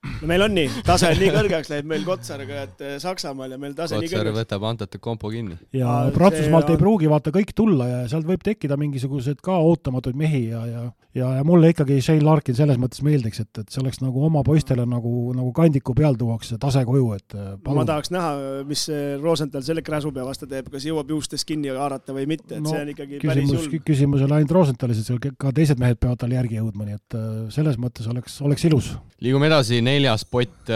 No meil on nii, tase on nii kõrgeks lähed meil Kotsarga, et Saksamaal ja meil tase nii kõrgeks. Kotsar võtab Antete kompo kinni. Ja Prantsusmaalt ei pruugi vaata kõik tulla ja sealt võib tekkida mingisugused ka ootamatuid mehi ja mulle ikkagi Shane Larkin selles mõttes meeldiks, et see oleks nagu oma poistele nagu kandiku peal tuuakse tase koju, et palun. Ma tahaks näha, mis Rosenthal selle Kräsupea vastu teeb, kas jõuab juustest kinni haarata või mitte, et see on ikkagi päris julm. Küsimus on ainult Rosenthalis, et ka teised mehed peavad tal järgi jõudma, nii et selles mõttes oleks ilus. Liigume edasi, 4. pott,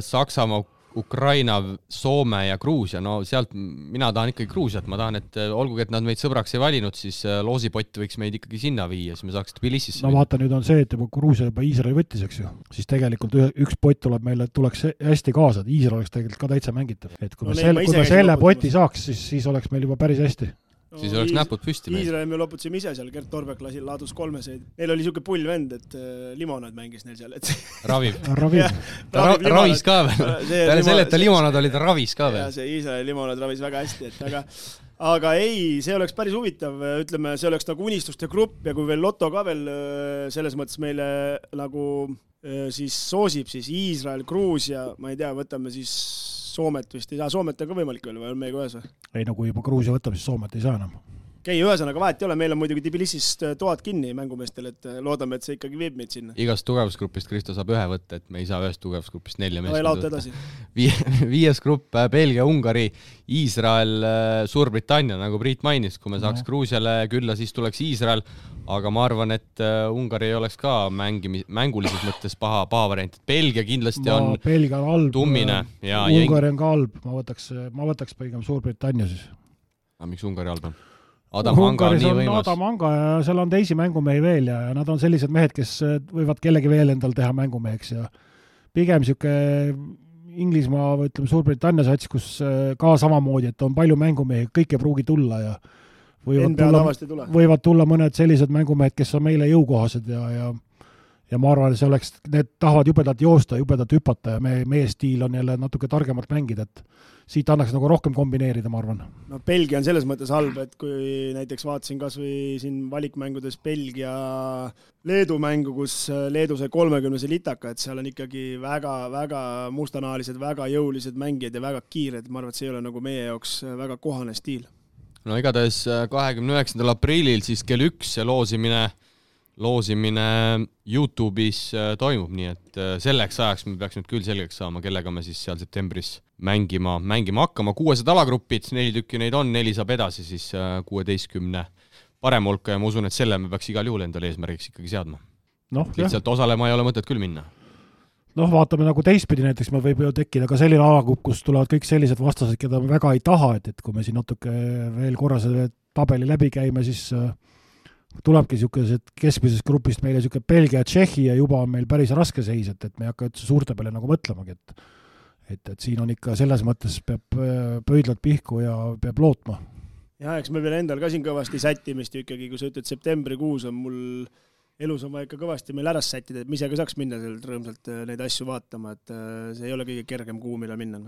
Saksamaa, Ukraina, Soome ja Gruusia. No sealt mina tahan ikkagi Gruusiat, ma tahan, et olgugi, et nad meid sõbraks ei valinud, siis loosipott võiks meid ikkagi sinna viia, siis me saaks Tbilisisse. No vaata, nüüd on see, et juba Gruusia juba Iisraeli võttis, eks ju. Siis tegelikult üks pott tuleb meile, tuleks hästi kaasa, et Iisrael oleks tegelikult ka täitsa mängitav. Et kui me selle poti saaks, siis oleks meil juba päris hästi. Siis oleks näpud püsti. Iisraeli me loputasime ise seal, Gert Torbeck laadus 3-seid. Neil oli siuke pull vend, et limonad mängis neil seal. Raviv. Ravis ka veel. Peale selle, et ta limonad oli, ta ravis ka veel. Ja see Iisraeli limonad ravis väga hästi. Aga ei, see oleks päris huvitav. Ütleme, see oleks nagu unistuste grupp ja kui veel Lotto ka veel selles mõttes meile nagu siis soosib, siis Iisrael, Gruusia, ma ei tea, võtame siis Soomet vist ei saa. Soomet on ka võimalik veel või on meiega ühes või? Ei, no kui juba Gruusia võtab, siis Soomet ei saa enam. Okei, ühesõnaga vahet ei ole, meil on muidugi Tbilisist toad kinni mängumeestel, et loodame, et see ikkagi viib meid sinna. Igast tugevusgrupist Kristo saab ühe võtta, et me ei saa ühest tugevusgrupist 4 meest võtta. 5. grupp, Belgia, Ungari, Iisrael, Suurbritannia, nagu Priit mainis, kui me saaks Gruusiale külla, siis tuleks Iisrael, aga ma arvan, et Ungari ei oleks ka mängulises mõttes paha variant. Belgia kindlasti on tummine. Ungari on ka halb, ma võtaks pigem Suurbritannia siis. Aga miks Ungari halb on? Adam Anga on nii võimas. Adam Anga ja seal on teisi mängumehi veel ja nad on sellised mehed, kes võivad kellegi veel endal teha mängumeheks ja pigem siuke Inglismaa või ütleme Suurbritannia sats, kus ka samamoodi, et on palju mängumehi, kõik ei pruugi tulla ja võivad tulla mõned sellised mängumehed, kes on meile jõukohased ja ma arvan, et need tahavad jubedalt joosta, jubedalt hüpata ja meie stiil on jälle natuke targemalt mängida, et siit annaks nagu rohkem kombineerida, ma arvan. No Belgia on selles mõttes halb, et kui näiteks vaatasin kas või siin valikmängudes Belgia Leedu mängu, kus Leedu sai 30 litaka, et seal on ikkagi väga mustanahalised, väga jõulised mängijad ja väga kiired, ma arvan, et see ei ole nagu meie jaoks väga kohane stiil. No igatahes 29. aprillil siis kell 1 see loosimine YouTube'is toimub, nii et selleks ajaks me peaks nüüd küll selgeks saama, kellega me siis seal septembris mängima hakkama. 600 alagrupid, 4 tükki neid on, 4 saab edasi siis 16 parem hulka ja ma usun, et selle me peaks igal juhul endale eesmärgiks ikkagi seadma. Lihtsalt osalema ei ole mõtet küll minna. Vaatame nagu teistpidi, näiteks me võib ju tekkida ka selline alagrupp, kus tulevad kõik sellised vastased, keda me väga ei taha, et kui me siin natuke veel korra selle tabeli läbi käime, siis tulebki niisugused keskmisest grupist meile niisugune Belgia ja Tšehhi ja juba on meil päris raske seis, et me ei hakka üldse suurte peale nagu mõtlemagi, et siin on ikka selles mõttes peab pöidlad pihku ja peab lootma. Ja, eks me veel endal ka siin kõvasti sättimist ikkagi, kui sa ütled septembrikuus on mul elus on vaja ikka kõvasti meil ära sättida, et me ise ka saaks minna sealt rõõmsalt neid asju vaatama, et see ei ole kõige kergem kuu, mille minna.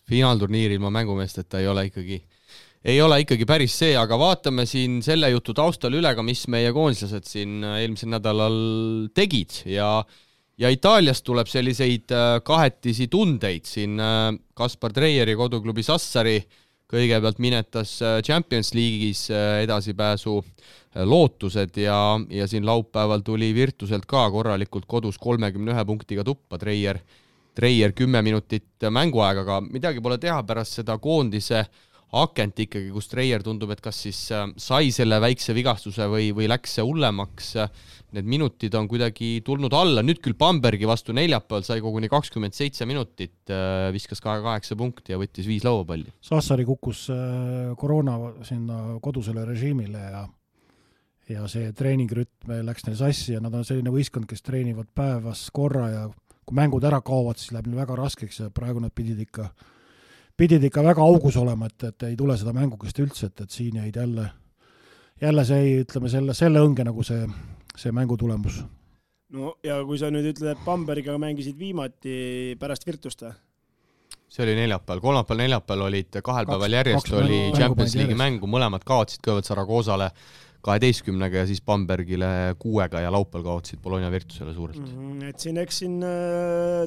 Finaalturniiril ma mängumeesteta ei ole ikkagi päris see, aga vaatame siin selle jutu taustal üle ka, mis meie koondislased siin eelmisel nädalal tegid ja Itaaliast tuleb selliseid kahetisi tundeid. Siin Kaspar Treieri koduklubi Sassari kõigepealt minetas Champions League'is edasipääsu lootused ja siin laupäeval tuli Virtuselt ka korralikult kodus 31 punktiga tuppa Treier 10 minutit mänguaega, aga midagi pole teha pärast seda koondise akent ikkagi, kus Treier tundub, et kas siis sai selle väikse vigastuse või läks see hullemaks. Need minutid on kuidagi tulnud alla. Nüüd küll Bambergi vastu neljapäeval sai koguni 27 minutit, viskas 8 punkti ja võttis 5 lauapalli. Sassari kukkus koroona sinna kodusele režiimile ja see treeningrütm läks neil sassi ja nad on selline võistkond, kes treenivad päevas korra ja kui mängud ära kaovad, siis läheb neil väga raskeks ja praegu nad pidid ikka väga augus olema, et ei tule seda mängukest üldse, et siin jäid jälle see, ütleme, selle õnge nagu see mängutulemus. No ja kui sa nüüd ütled, et Bambergiga mängisid viimati pärast Virtust? See oli neljapäeval, kolmapäeval olid 2 päeval järjest oli Champions League'i mängu, mõlemad kaotsid kõigepealt Saragoosale 12-ga ja siis Bambergile 6-ga ja laupäeval kaotsid Bologna Virtusele suurelt. Et eks siin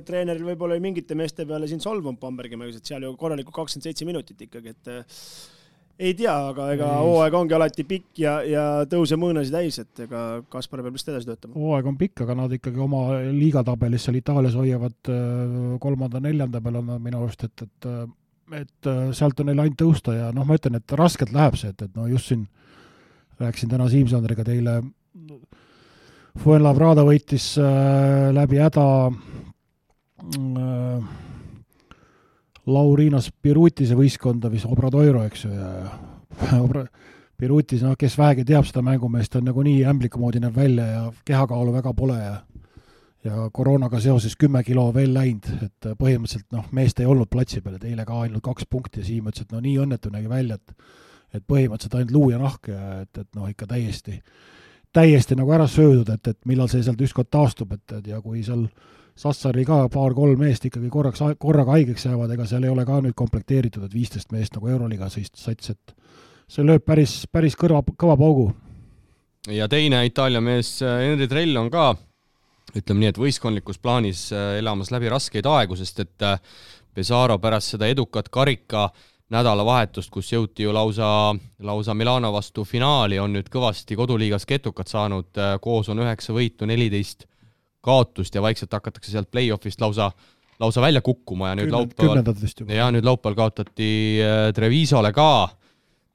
treeneril võib-olla mingite meeste peale siin solvunud Bambergi mängus, et seal ju korralikult 27 minutit ikkagi, et ei tea, aga ega hooaeg ongi alati pikk ja tõuse mõõnasid täis, et ega Kaspar peab vist edasi töötama. Hooaeg on pikk, aga nad ikkagi oma liigatabelis seal Itaalias hoiavad 3.-4. peal on minu arust, et sealt on neil ainult tõusta ja ma ütlen, et raskelt läheb see, et just siin rääksin täna Siim-Sandriga teile. Fuenlabrada võitis läbi häda Laurinas Pirutise võistkonda, mis Obradoiro, eks ju, ja Pirutis, kes vähegi teab seda mängumeest, on nagu nii ämbliku moodi näeb välja ja kehakaalu väga pole ja koroonaga seoses 10 kilo veel läinud, et põhimõtteliselt meest ei olnud platsi peal, et eile ka ainult 2 punkti ja Siim ütles, et nii õnnetu nägi välja, et põhimõtteliselt ainult luu ja nahk ja et ikka täiesti nagu ära söödud, et millal see sealt ükskord taastub, ja kui seal Sassari ka 2-3 meest ikkagi korraga haigeks jäävad, ega seal ei ole ka nüüd komplekteeritud, et 15 meest nagu Euroliiga sats, et see lööb päris kõva paugu. Ja teine Itaalia mees Henri Trell on ka, ütleme nii, et võistkondlikus plaanis elamas läbi raskeid aegu, sest et Pesaro pärast seda edukat karika nädalavahetust, kus jõuti ju lausa Milano vastu finaali, on nüüd kõvasti koduliigas ketukat saanud, koos on 9 võitu, 14 kaotust ja vaikselt hakatakse sealt play-offist lausa välja kukkuma ja nüüd laupäeval kaotati Trevisole ka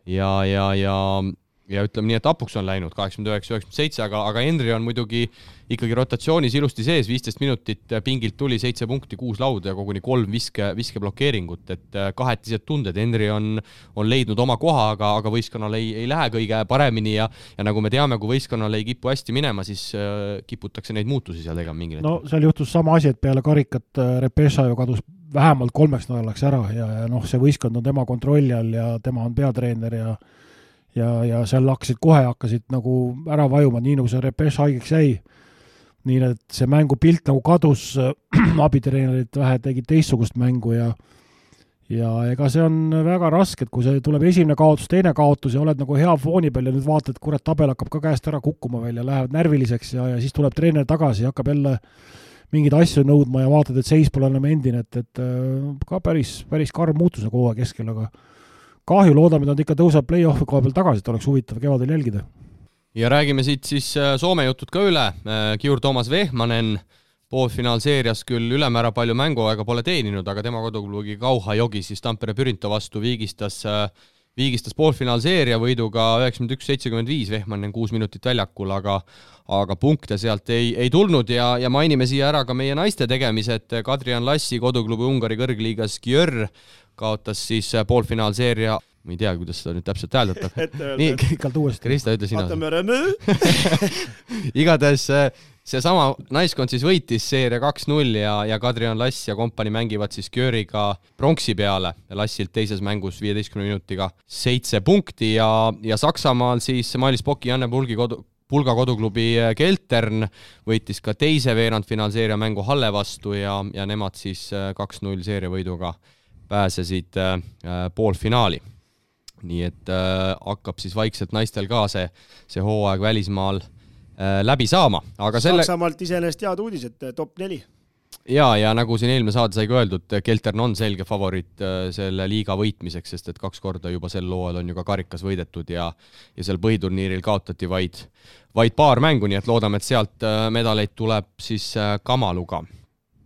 ja ütleme nii, et apuks on läinud 89-97, aga Henri on muidugi ikkagi rotatsioonis ilusti sees, 15 minutit pingilt tuli 7 punkti, 6 lauda ja koguni 3 viskeblokeeringut, et kahetised tunded. Henri on leidnud oma koha, aga võistkonnal ei lähe kõige paremini ja nagu me teame, kui võistkonnal ei kipu hästi minema, siis kiputakse neid muutusi seal tegema mingil hetkel. No seal juhtus sama asi, et peale karikat Repesa ju kadus vähemalt 3 nädalaks ära ja see võistkond on tema kontrolli all ja tema on peatreener ja seal hakkasid nagu ära vajuma, nii nagu see Repes haigeks jäi. Nii et see mängupilt nagu kadus, abitreenerid vähe tegid teistsugust mängu ja ega see on väga raske, et kui see tuleb esimene kaotus, teine kaotus ja oled nagu hea fooni peal ja nüüd vaatad, et kurat, tabel hakkab ka käest ära kukkuma veel ja lähevad närviliseks ja siis tuleb treener tagasi ja hakkab jälle mingeid asju nõudma ja vaatad, et seis pole enam endine, et ka päris karm muutus nagu hooaja keskel, aga kahju, loodame, et nad ikka tõuseb play-offi koha peal tagasi, et oleks huvitav kevadel jälgida. Ja räägime siit siis Soome jutud ka üle. Kiur Toomas Vehmanen poolfinaalseerias küll ülemäära palju mänguaega pole teeninud, aga tema koduklubi Kauha Jogi siis Tampere Pyrinto vastu viigistas poolfinaalseeria võiduga 91-75, Vehmanen 6 minutit väljakul, aga punkte sealt ei tulnud ja mainime siia ära ka meie naiste tegemised. Kadrian Lassi koduklubi Ungari kõrgliigas Győr kaotas siis poolfinaalseeria, ma ei tea, kuidas seda nüüd täpselt hääldatab. Nii, Krista, ütle sina. Igatahes see sama naiskond siis võitis seeria 2-0 ja Kadrian Lass ja kompani mängivad siis Győriga pronksi peale. Lassilt teises mängus 15 minutiga 7 punkti ja Saksamaal siis Mailis Poki Janne Pulga koduklubi Keltern võitis ka teise veerandfinaalseeria mängu Halle vastu ja nemad siis 2-0 seeria võiduga pääsesid poolfinaali. Nii et hakkab siis vaikselt naistel ka see hooaeg välismaal läbi saama. Aga Saksamaalt iseenesest head uudised, top 4. Ja nagu siin eelmine saade sai ka öeldud, Keltern on selge favoriit selle liiga võitmiseks, sest et 2 korda juba sel looel on ju ka karikas võidetud ja seal põhiturniiril kaotati vaid paar mängu, nii et loodame, et sealt medaleid tuleb siis Kamaluga.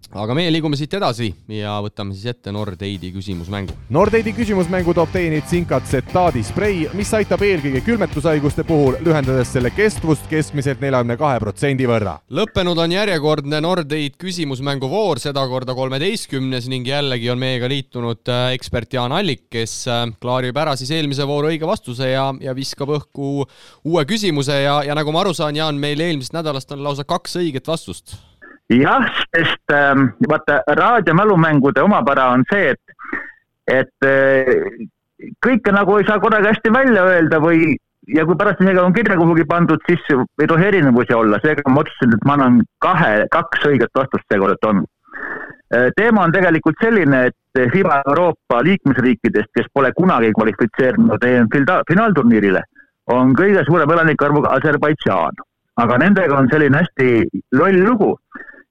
Aga meie liigume siit edasi ja võtame siis ette Nordeidi küsimusmängu. Nordeidi küsimusmängu toob teieni Zinkat Zetaadi sprei, mis aitab eelkõige külmetushaiguste puhul, lühendades selle kestvust keskmiselt 42% võrra. Lõppenud on järjekordne Nordeid küsimusmängu voor, seda korda 13. ning jällegi on meiega liitunud ekspert Jaan Allik, kes klaarib ära siis eelmise vooru õige vastuse ja viskab õhku uue küsimuse ja nagu ma aru saan, Jaan, meil eelmisest nädalast on lausa 2 õiget vastust. Jah, sest vaata, raadiomälumängude omapära on see, et kõike nagu ei saa korraga hästi välja öelda ja kui pärast isegi on kirja kuhugi pandud, siis ei tohi erinevusi olla. Seega ma otsustasin, et ma annan 2 õiget vastust seekord on. Teema on tegelikult selline, et FIBA Euroopa liikmesriikidest, kes pole kunagi kvalifitseerinud finaalturniirile, on kõige suurem elanikarvuga Aserbaidžaan. Aga nendega on selline hästi loll lugu,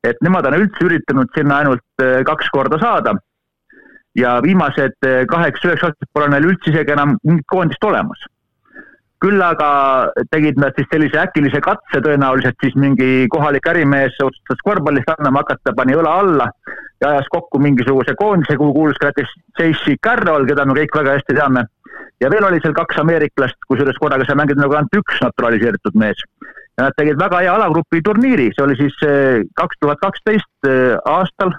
et nemad on üldse üritanud sinna ainult 2 korda saada ja viimased 8-9 aastat pole neil üldse isegi enam mingit koondist olemas. Küll aga tegid nad siis sellise äkilise katse tõenäoliselt siis mingi kohalik ärimees otsustas korvpallist annama hakata, pani õla alla ja ajas kokku mingisuguse koondise, kuhu kuulus ka näiteks J.C. Carroll, keda me kõik väga hästi teame. Ja veel oli seal 2 ameeriklast, kusjuures korraga sa mängid nagu ainult 1 naturaliseeritud mees. Ja nad tegid väga hea alagrupi turniiri, see oli siis 2012 aastal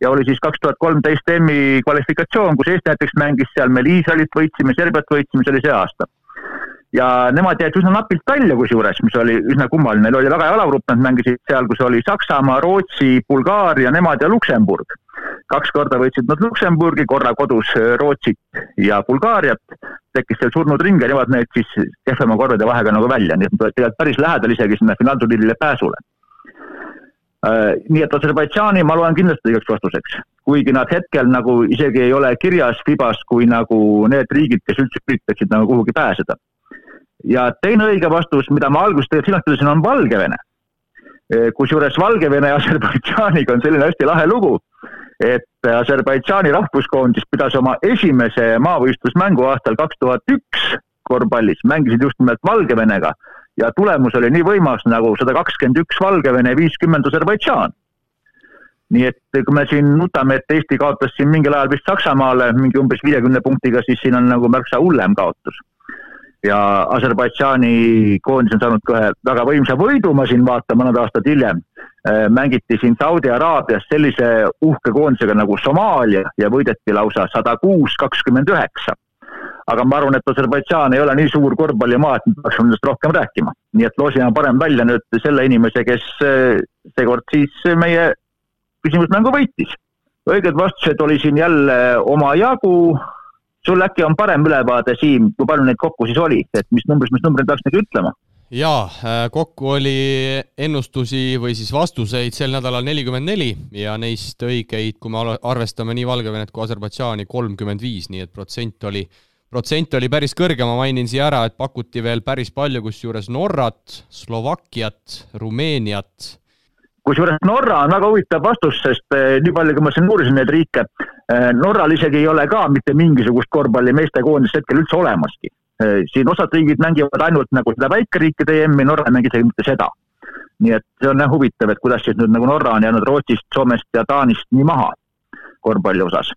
ja oli siis 2013 EM-i kvalifikatsioon, kus Eesti näiteks mängis seal, meil Iisraelit võitsime, Serbiat võitsime, see oli see aasta. Ja nemad jäid üsna napilt välja kusjuures, mis oli üsna kummaline, neil oli väga hea alagrupp, nad mängisid seal, kus oli Saksamaa, Rootsi, Bulgaaria, nemad ja Luksemburg. 2 korda võitsid nad Luksemburgi, korra kodus Rootsit ja Bulgaariat, tekkis seal surnud ring ja nemad need siis kehvema korvade vahega nagu välja, nii et tegelikult päris lähedal isegi sinna finaalturniirile pääsule. Nii et Aserbaidžaani ma loen kindlasti õigeks vastuseks, kuigi nad hetkel nagu isegi ei ole kirjas FIBAs kui nagu need riigid, kes üldse üritaksid nagu kuhugi pääseda. Ja teine õige vastus, mida ma alguses tegelikult silmastasin, on Valgevene. Kusjuures Valgevene ja Aserbaidžaaniga on selline hästi lahe lugu, et Aserbaidžaani rahvuskoondis pidas oma esimese maavõistlusmängu aastal 2001 korvpallis, mängisid just nimelt Valgevenega ja tulemus oli nii võimas nagu 121 Valgevene ja 50 Aserbaidžaan. Nii et kui me siin nutame, et Eesti kaotas siin mingil ajal vist Saksamaale mingi umbes 50 punktiga, siis siin on nagu märksa hullem kaotus. Ja Aserbaidžaani koondis on saanud kohe väga võimsa võidu, ma siin vaatan mõned aastad hiljem. Mängiti siin Saudi Araabias sellise uhke koondisega nagu Somaalia ja võideti lausa 106-29. Aga ma arvan, et Aserbaidžaan ei ole nii suur korvpallimaa, et me peaks nendest rohkem rääkima. Nii et loosime parem välja nüüd selle inimese, kes seekord siis meie küsimusmängu võitis. õiged vastused oli siin jälle oma jagu. Sul äkki on parem ülevaade, Siim, kui palju neid kokku siis oli, et mis numbrid peaks nagu ütlema? Jaa, kokku oli ennustusi või siis vastuseid sel nädalal 44 ja neist õigeid, kui me arvestame nii Valgevenet kui Aserbaidžaani, 35, nii et protsent oli päris kõrge. Ma mainin siia ära, et pakuti veel päris palju, kus juures Norrat, Slovakkiat, Rumeeniat. Kusjuures Norra on väga huvitav vastus, sest nii palju, kui ma siin uurisin neid riike, Norral isegi ei ole ka mitte mingisugust korvpalli meeste koondist hetkel üldse olemaski. Siin osad riigid mängivad ainult nagu seda väikeriikide EM-i, Norra ei mängi isegi mitte seda. Nii et see on huvitav, et kuidas siis nüüd nagu Norra on jäänud Rootsist, Soomest ja Taanist nii maha korvpalli osas.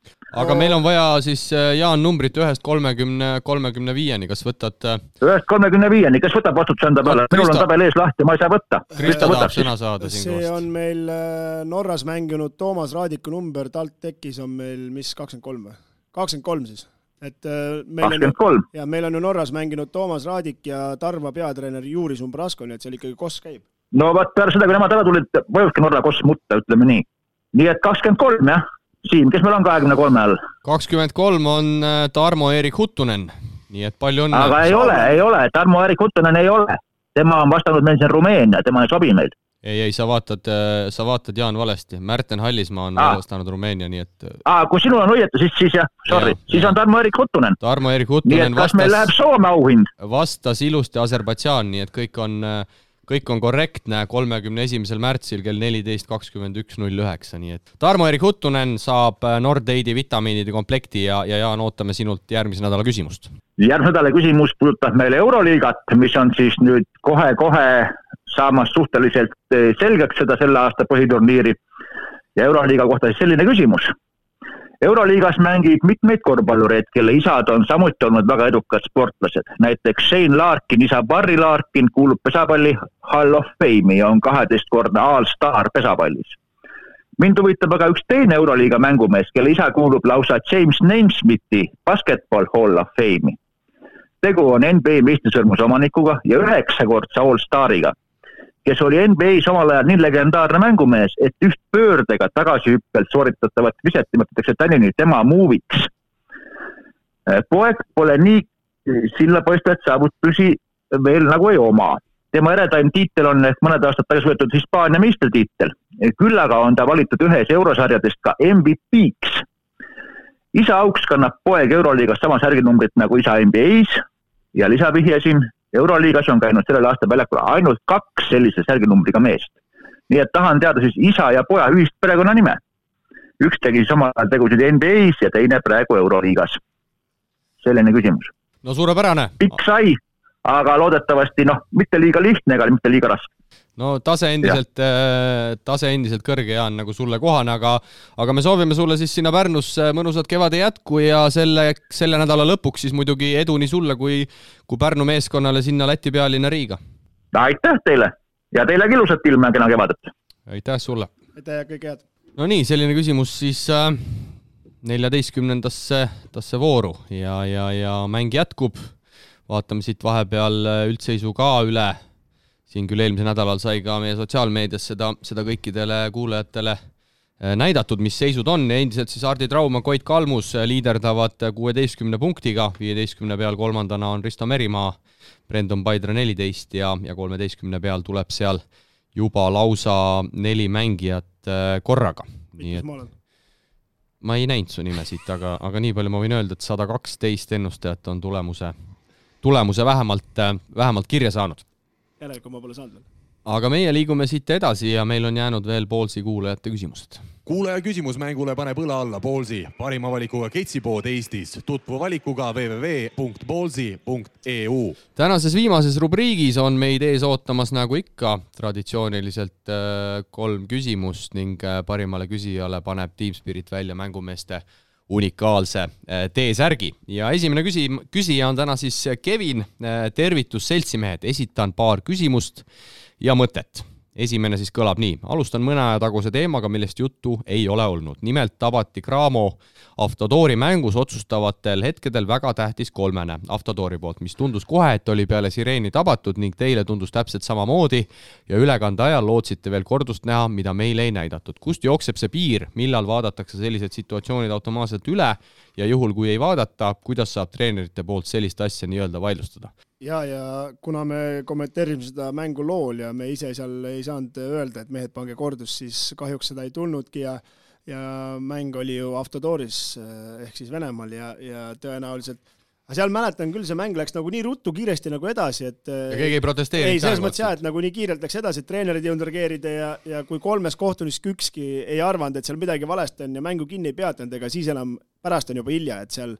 Aga meil on vaja siis, Jaan, numbrit 1-35-ni, kas võtad? 1-35-ni, kes võtab vastutuse enda peale? Minul on tabel ees lahti, ma ei saa võtta. Krista tahab sõna saada siin see koos. on meil Norras mänginud Toomas Raadiku number, talt tekkis on meil, mis 23 või? 23 siis. Et meil 23. Ja meil on ju Norras mänginud Toomas Raadik ja Tarva peatreener Juris Umbrasko, nii et seal ikkagi koss käib. No vaat peale seda, kui nemad ära tulid, võivadki Norra koss mutta, ütleme nii. Nii et 23, jah. Siim, kes meil on 23 all? 23 on Tarmo-Erik Huttunen, nii et palju õnne. Aga ei ole, Tarmo-Erik Huttunen ei ole. Tema on vastanud meil siin Rumeenia, tema ei sobi meil. Ei, sa vaatad Jaan valesti. Märten Hallismaa on vastanud Rumeenia, nii et... Kui sinul on õieti, siis jah, sorry. Siis on Tarmo-Erik Huttunen. Tarmo-Erik Huttunen nii et kas meil läheb Soome auhind? Vastas ilusti Aserbaidžaan, nii et kõik on korrektne 31. märtsil kell 14.21.09, nii et Tarmo-Erik Huttunen saab Nordeidi vitamiinide komplekti ja Jaan, ootame sinult järgmise nädala küsimust. Järgmise nädala küsimus puudutab meile Euroliigat, mis on siis nüüd kohe saamas suhteliselt selgeks seda selle aasta põhiturniiri ja Euroliiga kohta siis selline küsimus. Euroliigas mängib mitmeid korvpallureid, kelle isad on samuti olnud väga edukad sportlased. Näiteks Shane Larkin, isa Barry Larkin kuulub pesapalli Hall of Fame'i ja on 12-kordne All-Star pesapallis. Mind huvitab aga üks teine Euroliiga mängumees, kelle isa kuulub lausa James Naismiti Basketball Hall of Fame'i. Tegu on NBA meistrisõrmuse omanikuga ja 9-kordse All-Stariga, kes oli NBA's omal ajal nii legendaarne mängumees, et üht pöördega tagasihüppelt sooritatavat viset nimetatakse tänini tema muuviks. Poeg pole nii sillapoistajat saavutusi veel nagu ei oma. Tema eredaim tiitel on mõned aastad tagasi võetud Hispaania meistritiitel. Küll aga on ta valitud ühes eurosarjadest ka MVP-ks. Isa auks kannab poeg Euroliigas sama särginumbrit nagu isa NBA's ja lisavihjesin, Euroliigas on käinud sellel aastal väljakul ainult 2 sellise särginumbriga meest. Nii et tahan teada siis isa ja poja ühist perekonna nime. Üks tegi samal tegusid NBA's ja teine praegu Euroliigas. Selline küsimus. No suurepärane. Pikk sai, aga loodetavasti mitte liiga lihtne ega mitte liiga raske. No tase endiselt kõrge, Jaan, nagu sulle kohane, aga me soovime sulle siis sinna Pärnusse mõnusat kevade jätku ja selle nädala lõpuks siis muidugi edu nii sulle kui Pärnu meeskonnale sinna Läti pealinna Riiga. Aitäh teile ja teile ilusat ilma ja kena kevadet. Aitäh sulle. Aitäh ja kõik head. No nii, selline küsimus siis 14. vooru ja mäng jätkub. Vaatame siit vahepeal üldseisu ka üle. Siin küll eelmise nädalal sai ka meie sotsiaalmeedias seda kõikidele kuulajatele näidatud, mis seisud on. Endiselt siis Hardi Trauma, Koit Kalmus liiderdavad 16 punktiga, 15 peal kolmandana on Risto Merimaa, Brendon Paidra 14 ja 13 peal tuleb seal juba lausa 4 mängijat korraga. Ma ei näinud su nime siit, aga nii palju ma võin öelda, et 112 ennustajat on tulemuse vähemalt kirja saanud. Järelikult ma pole saanud veel. Aga meie liigume siit edasi ja meil on jäänud veel Ballsi kuulajate küsimused. Kuulaja küsimusmängule paneb õla alla Ballsi, parima valikuga ketsipood Eestis. Tutvu valikuga www.ballsi.eu. Tänases viimases rubriigis on meid ees ootamas nagu ikka traditsiooniliselt 3 küsimust ning parimale küsijale paneb Team Spirit välja mängumeeste unikaalse T-särgi. Ja esimene küsija on täna siis Kevin. Tervitus seltsimehed, esitan paar küsimust ja mõtet. Esimene siis kõlab nii. Alustan mõne aja taguse teemaga, millest juttu ei ole olnud. Nimelt tabati Cramo Avtodori mängus otsustavatel hetkedel väga tähtis kolmene Avtodori poolt, mis tundus kohe, et oli peale sireeni tabatud ning teile tundus täpselt samamoodi ja ülekande ajal lootsite veel kordust näha, mida meile ei näidatud. Kust jookseb see piir, millal vaadatakse sellised situatsioonid automaatselt üle ja juhul, kui ei vaadata, kuidas saab treenerite poolt sellist asja nii-öelda vaidlustada? Ja kuna me kommenteerisime seda mängu lool ja me ise seal ei saanud öelda, et mehed pange kordus, siis kahjuks seda ei tulnudki ja mäng oli ju Avtodoris ehk siis Venemaal ja tõenäoliselt seal mäletan küll, see mäng läks nagu nii ruttu kiiresti nagu edasi, et ja keegi ei protesteerinud. Ei, selles mõttes et nagu nii kiirelt läks edasi, et treenerid ei jõudnud reageerida ja kui 3 kohtunis ükski ei arvanud, et seal midagi valesti on ja mängu kinni ei peatanud, ega siis enam pärast on juba hilja, et seal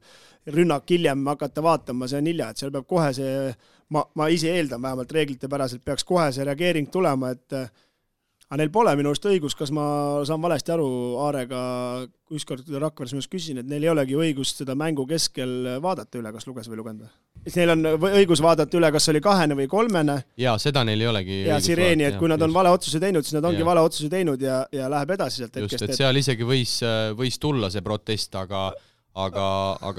rünnak hiljem hakata vaatama, see on hilja, et seal peab kohe see, ma ise eeldan vähemalt reeglite päraselt, peaks kohe see reageering tulema, et aga neil pole minu arust õigus, kas ma saan valesti aru Aarega, ükskord Rakveres minust küsisin, et neil ei olegi õigust seda mängu keskel vaadata üle, kas luges või lugenda. Neil on õigus vaadata üle, kas oli 2 või 3. Ja seda neil ei olegi ja sireeni, et kui nad on vale otsuse teinud, siis nad ongi vale otsuse teinud ja läheb edasi sealt hetkest. Just, et seal isegi võis tulla see protest, aga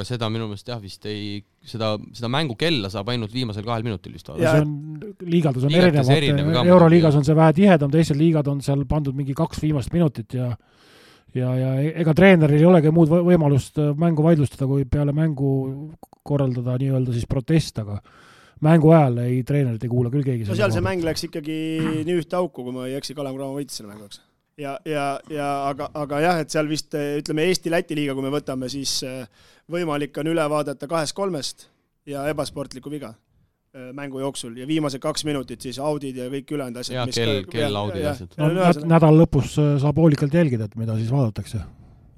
seda minu meelest vist ei, seda mängu kella saab ainult viimasel 2 minutil vist vaadata. Liigaldus on erinev, Euroliigas on see vähe tihedam, teisel liigad on seal pandud mingi 2 viimast minutit ja ega treeneril ei olegi muud võimalust mängu vaidlustada, kui peale mängu korraldada nii-öelda siis protest, aga mängu ajal treenerid ei kuula küll keegi. No seal see mäng läks ikkagi nii ühte auku, kui ma ei eksi, Kalev Cramo võitis selle mänguks. Aga jah, et seal vist, ütleme Eesti-Läti liiga, kui me võtame, siis võimalik on üle vaadata 2-3 ja ebasportliku viga mängu jooksul ja viimased 2 minutit siis audid ja kõik ülejäänud asjad. Ja kell audid asjad. Nädal lõpus saab hoolikalt jälgida, et mida siis vaadatakse.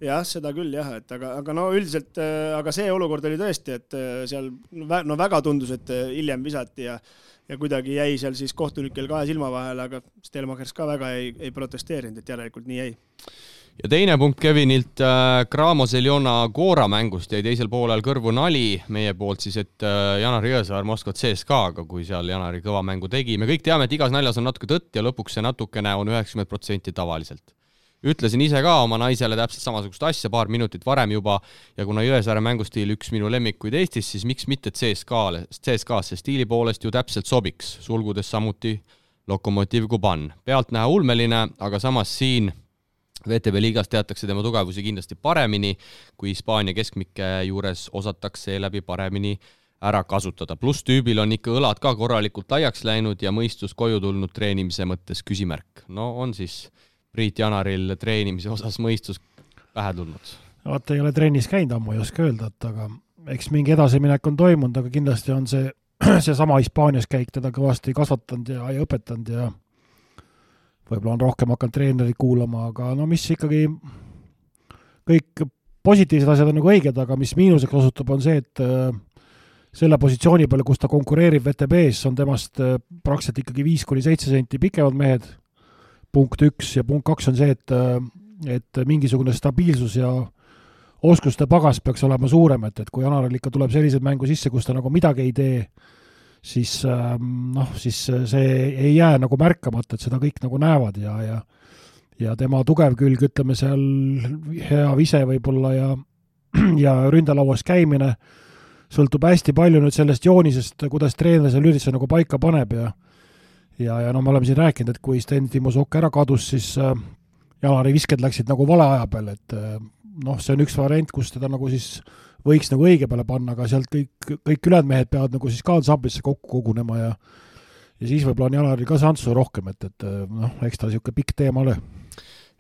Jah, seda küll jah, et aga no üldiselt, aga see olukord oli tõesti, et seal väga tundus, et hiljem visati ja kuidagi jäi seal siis kohtunikel 2 silma vahele, aga Stelmachers ka väga ei protesteerinud, et järelikult nii jäi. Ja teine punkt Kevinilt Cramo Zeljona Gora mängust jäi teisel poolel kõrvu nali meie poolt siis, et Janar Jõesaar Moskva CSKA-ga, kui seal Janari kõva mängu tegi. Me kõik teame, et igas naljas on natuke tõtt ja lõpuks see natukene on 90% tavaliselt. Ütlesin ise ka oma naisele täpselt samasugust asja 2 minutit varem juba ja kuna Jõesaare mängustiil üks minu lemmikuid Eestis, siis miks mitte CSKA-sse stiili poolest ju täpselt sobiks, sulgudes samuti Lokomotiv Kuban. Pealt näha ulmeline, aga samas siin VTB liigas teatakse tema tugevusi kindlasti paremini, kui Hispaania keskmike juures osatakse läbi paremini ära kasutada. Plus tüübil on ikka õlad ka korralikult laiaks läinud ja mõistus koju tulnud treenimise mõttes küsimärk. No on siis Priit Janaril treenimise osas mõistus pähe tulnud. Vaata, ei ole trennis käinud, ammu ei oska öelda, aga eks mingi edasiminek on toimunud, aga kindlasti on see sama Hispaanias käik teda kõvasti kasvatanud ja õpetanud ja võib-olla on rohkem hakanud treenerid kuulama, aga no mis ikkagi kõik positiivsed asjad on nagu õiged, aga mis miinuseks osutub on see, et selle positsiooni peale, kus ta konkureerib VTB-s, on temast praktiliselt ikkagi 5-7 senti pikemad mehed, punkt 1 ja punkt 2 on see, et mingisugune stabiilsus ja oskuste pagas peaks olema suurem, et kui Janaril ikka tuleb sellised mängu sisse, kus ta nagu midagi ei tee, siis see ei jää nagu märkamata, et seda kõik nagu näevad ja tema tugev külg, ütleme seal hea vise võib-olla ja ründalauas käimine sõltub hästi palju nüüd sellest joonisest, kuidas treener seal ürituse nagu paika paneb ja no me oleme siin rääkinud, et kui Sten Timosok ära kadus, siis Janari visked läksid nagu vale aja peale, et see on üks variant, kus teda nagu siis võiks nagu õige peale panna, aga sealt kõik ülejäänud mehed peavad nagu siis kaadsablisse kokku kogunema ja siis võib-olla on Janaril ka sansu rohkem, et eks ta niisugune pikk teema ole.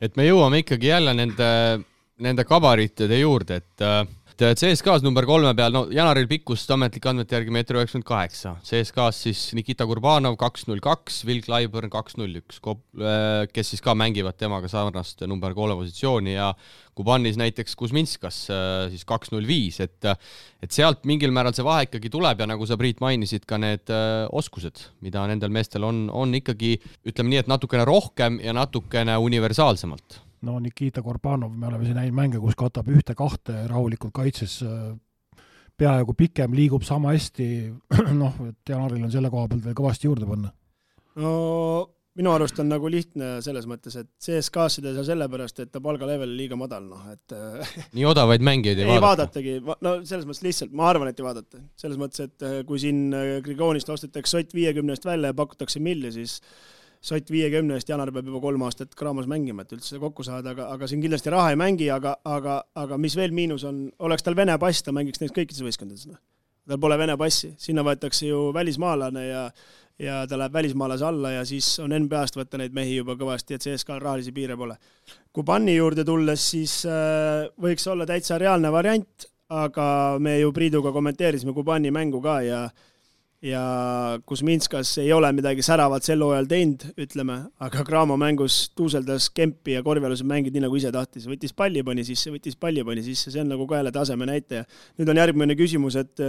Et me jõuame ikkagi jälle nende kabaritide juurde, et CSKA-s number 3 peal, Janaril pikkust ametlik andmete järgi 1,98 m. CSKA-s siis Nikita Kurbanov 2,02, Will Clyburn 2,01, kes siis ka mängivad temaga sarnast number 3 positsiooni ja Kubanis näiteks Kuzminskas siis 2,05, et sealt mingil määral see vahe ikkagi tuleb ja nagu sa, Priit, mainisid ka need oskused, mida nendel meestel on ikkagi, ütleme nii, et natukene rohkem ja natukene universaalsemalt. No Nikita Kurbanov, me oleme siin näinud mänge, kus katab 1-2 rahulikult kaitses peaaegu pikem, liigub sama hästi, et Janaril on selle koha pealt veel kõvasti juurde panna. No minu arust on nagu lihtne selles mõttes, et CSKA-sid ei saa sellepärast, et ta palgalevel liiga madal, et nii odavaid mängijaid ei vaadatagi. No selles mõttes lihtsalt, ma arvan, et ei vaadata. Selles mõttes, et kui siin Grigoonist ostetakse Sott 50 välja ja pakutakse milli, siis Sott 50 Janar peab juba 3 aastat Cramos mängima, et üldse kokku saada, aga siin kindlasti raha ei mängi, aga mis veel miinus on, oleks tal Vene pass, ta mängiks neist kõikides võistkondades. Tal pole Vene passi, sinna võetakse ju välismaalane ja ta läheb välismaalase alla ja siis on NBA-st võtta neid mehi juba kõvasti, et CSKA rahalisi piire pole. Kubanni juurde tulles, siis võiks olla täitsa reaalne variant, aga me ju Priiduga kommenteerisime Kubanni mängu ka ja Kuzminskas ei ole midagi säravat sel hooajal teinud, ütleme, aga Cramo mängus tuuseldas kempi ja korvialused mängid nii nagu ise tahtis. Võttis palli pani sisse, see on nagu ka jälle taseme näitaja. Nüüd on järgmine küsimus, et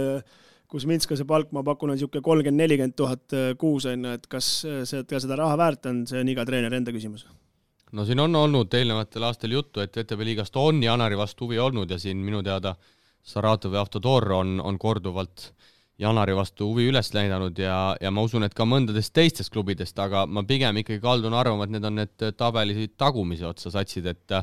Kuzminskase palk, ma pakun, on niisugune 30-40 000 kuus, et kas seda raha väärt on, see on iga treener enda küsimus. No siin on olnud eelnevatel aastal juttu, et VTB liigast on Janari vastu huvi olnud ja siin minu teada Saratov ja Автодор on korduvalt Janari vastu huvi üles näidanud ja ma usun, et ka mõndadest teistest klubidest, aga ma pigem ikkagi kaldun arvama, et need on need tabeli tagumise otsa satsid, et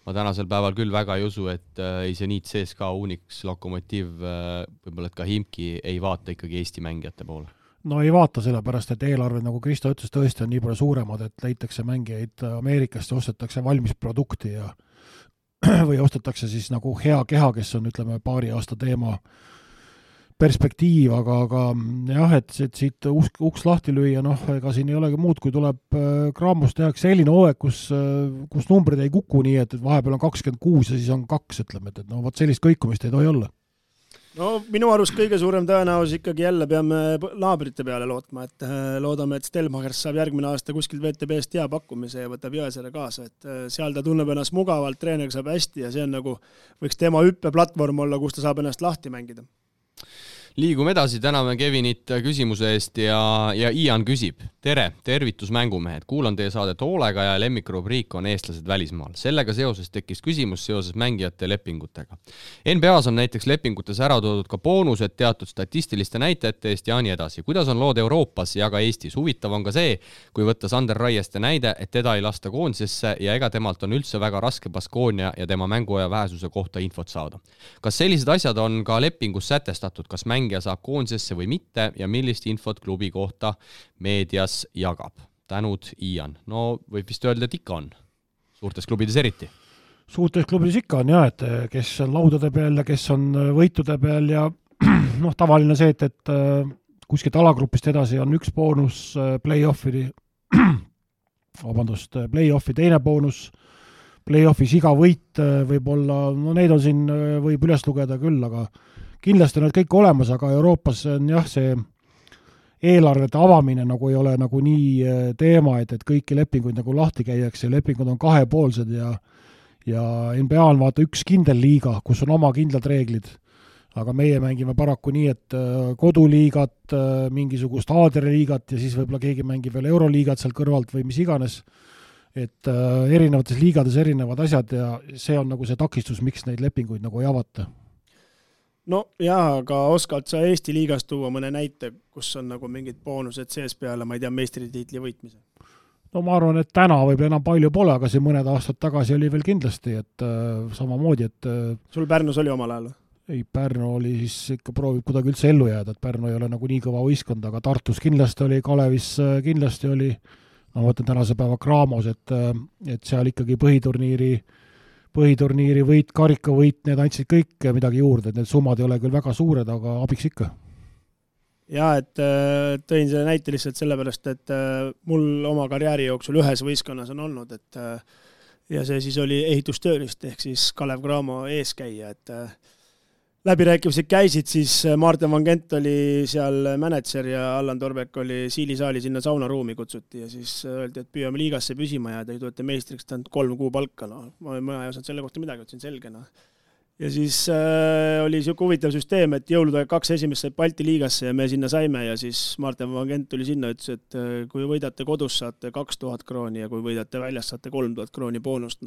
ma tänasel päeval küll väga ei usu, et ei Zenit, CSKA, Unix, Lokomotiv, võib-olla et ka Himki ei vaata ikkagi Eesti mängijate poole. No ei vaata sellepärast, et eelarved, nagu Kristo ütles, tõesti on nii palju suuremad, et leitakse mängijaid Ameerikast ja ostetakse valmis produkti ja või ostetakse siis nagu hea keha, kes on, ütleme, paari aasta teema perspektiiv, aga jah, et siit uks lahti lüüa, ega siin ei olegi muud, kui tuleb Cramos tehakse selline hooaeg, kus numbrid ei kuku nii, et vahepeal on 26 ja siis on 2, ütleme, et võt sellist kõikumist ei tohi olla. No minu arust kõige suurem tõenäosus ikkagi jälle peame naabrite peale lootma, et loodame, et Stelmachers saab järgmine aasta kuskilt VTB-st hea pakkumise ja võtab Jõesaare kaasa, et seal ta tunneb ennast mugavalt, treener saab hästi ja see on nagu, võiks tema hüppeplatvorm olla, kus ta saab ennast lahti mängida. Liigume edasi, täname Kevinit küsimuse eest ja Ian küsib. Tere, tervitus mängumehed. Kuulan teie saadet hoolega ja lemmikrubriik on eestlased välismaal. Sellega seoses tekkis küsimus seoses mängijate lepingutega. NBA-s on näiteks lepingutes ära toodud ka boonused teatud statistiliste näitajate eest ja nii edasi. Kuidas on lood Euroopas ja ka Eestis? Huvitav on ka see, kui võtta Sander Raieste näide, et teda ei lasta koondisesse ja ega temalt on üldse väga raske Baskonia ja tema mänguaja vähesuse kohta infot saada. Kas sellised asjad on ka lepingus sätestatud, kas mängija saab koondisesse või mitte ja millist infot klubi kohta meedias jagab? Tänud, Ian. No võib vist öelda, et ikka on. Suurtes klubides eriti. Suurtes klubides ikka on jah, et kes on laudade peal ja kes on võitude peal ja tavaline see, et kuskilt alagrupist edasi on üks boonus play-offi teine boonus, play-offis iga võit võib olla, neid on siin võib üles lugeda küll, aga kindlasti on need kõik olemas, aga Euroopas on jah, see eelarvete avamine nagu ei ole nagu nii teema, et kõiki lepinguid nagu lahti käiakse, lepingud on kahepoolsed ja NBA on vaata üks kindel liiga, kus on oma kindlad reeglid, aga meie mängime paraku nii, et koduliigat, mingisugust aadreliigat ja siis võib-olla keegi mängib veel euroliigat seal kõrvalt või mis iganes, et erinevates liigades erinevad asjad ja see on nagu see takistus, miks neid lepinguid nagu ei avata. No jaa, aga oskad sa Eesti liigast tuua mõne näite, kus on nagu mingid boonused sees peale, ma ei tea, meistritiitli võitmise? No ma arvan, et täna võib enam palju pole, aga see mõned aastad tagasi oli veel kindlasti, et samamoodi, et sul Pärnus oli omal ajal? Ei, Pärnu oli siis ikka proovib kuidagi üldse ellu jääda, et Pärnu ei ole nagu nii kõva võistkond, aga Tartus kindlasti oli, Kalevis kindlasti oli, ma võtan tänase päeva Cramos, et seal ikkagi põhiturniiri võit, karikavõit, need andsid kõik midagi juurde, et need summad ei ole küll väga suured, aga abiks ikka. Jaa, et tõin selle näite lihtsalt sellepärast, et mul oma karjääri jooksul ühes võistkonnas on olnud, et ja see siis oli ehitustöölist, ehk siis Kalev Cramo eeskäija, et läbirääkimised käisid, siis Martin Van Gent oli seal mänedžer ja Allan Torbek oli Siilisaali sinna saunaruumi kutsuti ja siis öeldi, et püüame liigasse püsima ja te tulete meistriks, ta on 3 kuu palka, ma ei osanud selle kohta midagi, ütlesin selge. Ja siis oli siuke huvitav süsteem, et jõulude 2 esimest said Balti liigasse ja me sinna saime ja siis Martin Van Gent tuli sinna, ütles, et kui võidate kodus, saate 2000 krooni ja kui võidate väljas, saate 3000 krooni boonust.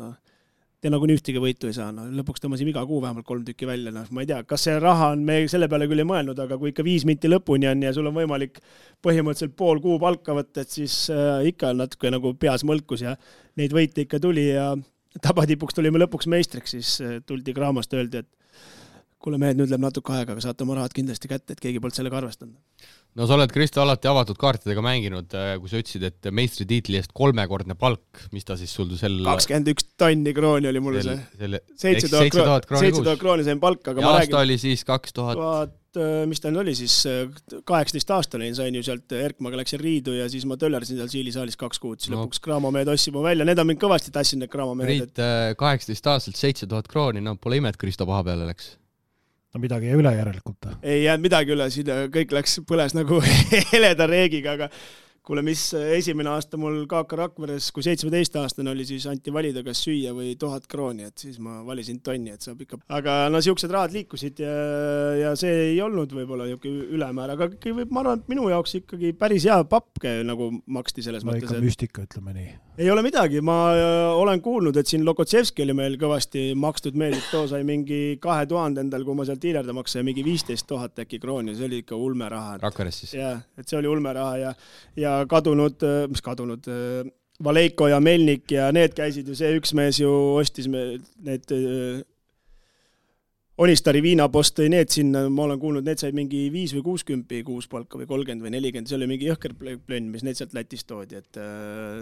te nagunii ühtegi võitu ei saa, lõpuks tõmbasime iga kuu vähemalt 3 tükki välja, ma ei tea, kas see raha on, me selle peale küll ei mõelnud, aga kui ikka 5 minti lõpuni on ja sul on võimalik põhimõtteliselt pool kuu palka võtta, et siis ikka natuke nagu peas mõlkus ja neid võite ikka tuli ja tabatipuks tulime lõpuks meistriks, siis tuldi Gramost öeldi, et kuule mehed, nüüd läheb natuke aega, aga saate oma rahad kindlasti kätte, et keegi polnud sellega arvestanud. No sa oled, Kristo, alati avatud kaartidega mänginud, kui sa ütlesid, et meistritiitli eest 3-kordne palk, mis ta siis sul 21 tonni krooni oli mulle see. 7000 krooni sain palka, aga ja aasta oli siis 2000... mis ta oli siis, 18 aastane sain ju sealt Erkmaga läksin Riidu ja siis ma töllersin seal Siili saalis 2 kuud, siis lõpuks Graamo mehed ossid mu välja, need on mind kõvasti tassinud, need Graamo mehed. Priit, 18 aastalt 7000 krooni, no pole ime, et Kristo paha peale läks. No midagi jäi üle järelikult. Ei jäänud midagi üle, siin kõik põles nagu heleda reegiga, aga kuule, mis esimene aasta mul Kaaka Rakveres, kui 17-aastane oli, siis anti valida, kas süüa või 1000 krooni, et siis ma valisin tonni, et saab ikka. Aga no siuksed rahad liikusid ja see ei olnud võib-olla ülemäär, aga ma arvan, et minu jaoks ikkagi päris hea papke nagu maksti selles mõttes. Ikka müstika, ütleme nii. Ei ole midagi, ma olen kuulnud, et siin Lokotsevski oli meil kõvasti makstud meeldib, too sai mingi 2000 endal, kui ma sealt hiilerda maksa, mingi 15 000 äkki krooni, see oli ikka ulme raha. Rakveres siis. Jah, et see oli ulme raha ja kadunud, Valeiko ja Melnik ja need käisid ju, see üks mees ju ostis need Onistari viinapost tõi need sinna, ma olen kuulnud, need said mingi 5 või 60 kuus palka või 30 või 40, see oli mingi jõhker plönn, mis need sealt Lätist toodi, et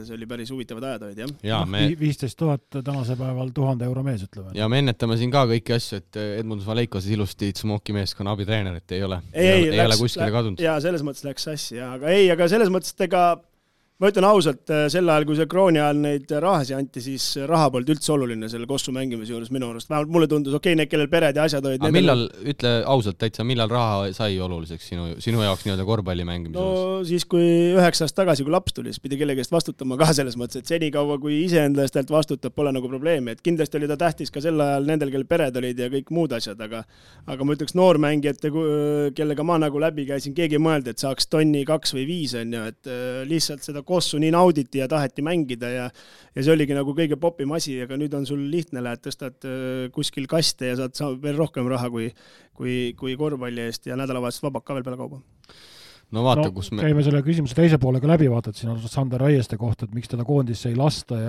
see oli päris huvitavad ajad olid, jah? Ja, 15 000 tänase päeval 1000 euro mees, ütleme. Ja me ennetame siin ka kõiki asju, et Edmundus Valeiko siis ilusti Tsmoki meeskonna abitreener, et ei ole kuskile kadunud. Ja selles mõttes läks sassi, aga selles mõttes, et ega ma ütlen ausalt, sel ajal, kui see krooni ajal neid rahasi anti, siis raha polnud üldse oluline selle kossu mängimise juures minu arust. Vähemalt mulle tundus, need, kellel pered ja asjad olid. Aga millal, ütle ausalt täitsa, millal raha sai oluliseks sinu jaoks nii-öelda korvpalli mängimise juures? No siis, kui 9 aastat tagasi, kui laps tuli, siis pidi kellegi eest vastutama ka selles mõttes, et senikaua, kui iseenda eest vastutab, pole nagu probleemi. Et kindlasti oli ta tähtis ka sel ajal nendel, kellel pered olid ja kõik muud asjad, aga ma ütleks noormängijate, kellega ma nagu läbi käisin, keegi mõeldi, et saaks tonni 2 või 5, et lihtsalt seda kossu nii nauditi ja taheti mängida ja see oligi nagu kõige popim asi, aga nüüd on sul lihtne, lähed, tõstad kuskil kaste ja saad veel rohkem raha kui korvpalli eest ja nädalavahetust vabak ka veel peale kauba. No vaata, kus me... Käime selle küsimuse teise poolega läbi, vaatad siin on Sander Raieste kohta, et miks teda koondisse ei lasta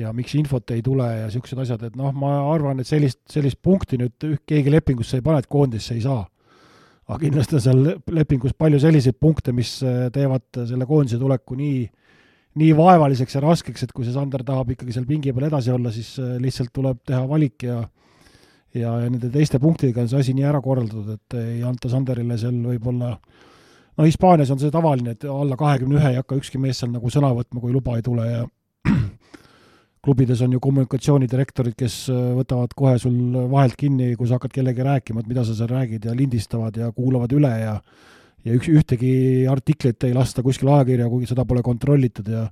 ja miks infot ei tule ja siuksed asjad, et ma arvan, et sellist punkti nüüd keegi lepingusse ei pane, et koondisse ei saa. Aga kindlasti on seal lepingus palju selliseid punkte, mis teevad selle koondise tuleku nii vaevaliseks ja raskeks, et kui see Sander tahab ikkagi seal pingi peal edasi olla, siis lihtsalt tuleb teha valik ja nende teiste punktidega on see asi nii ära korraldatud, et ei anta Sanderile seal võib-olla, Hispaanias on see tavaline, et alla 21 ei hakka ükski mees seal nagu sõna võtma, kui luba ei tule ja klubides on ju kommunikatsioonidirektorid, kes võtavad kohe sul vahelt kinni, kui sa hakkad kellegi rääkima, et mida sa seal räägid ja lindistavad ja kuulavad üle ja ühtegi artiklit ei lasta kuskil ajakirja, kuigi seda pole kontrollitud ja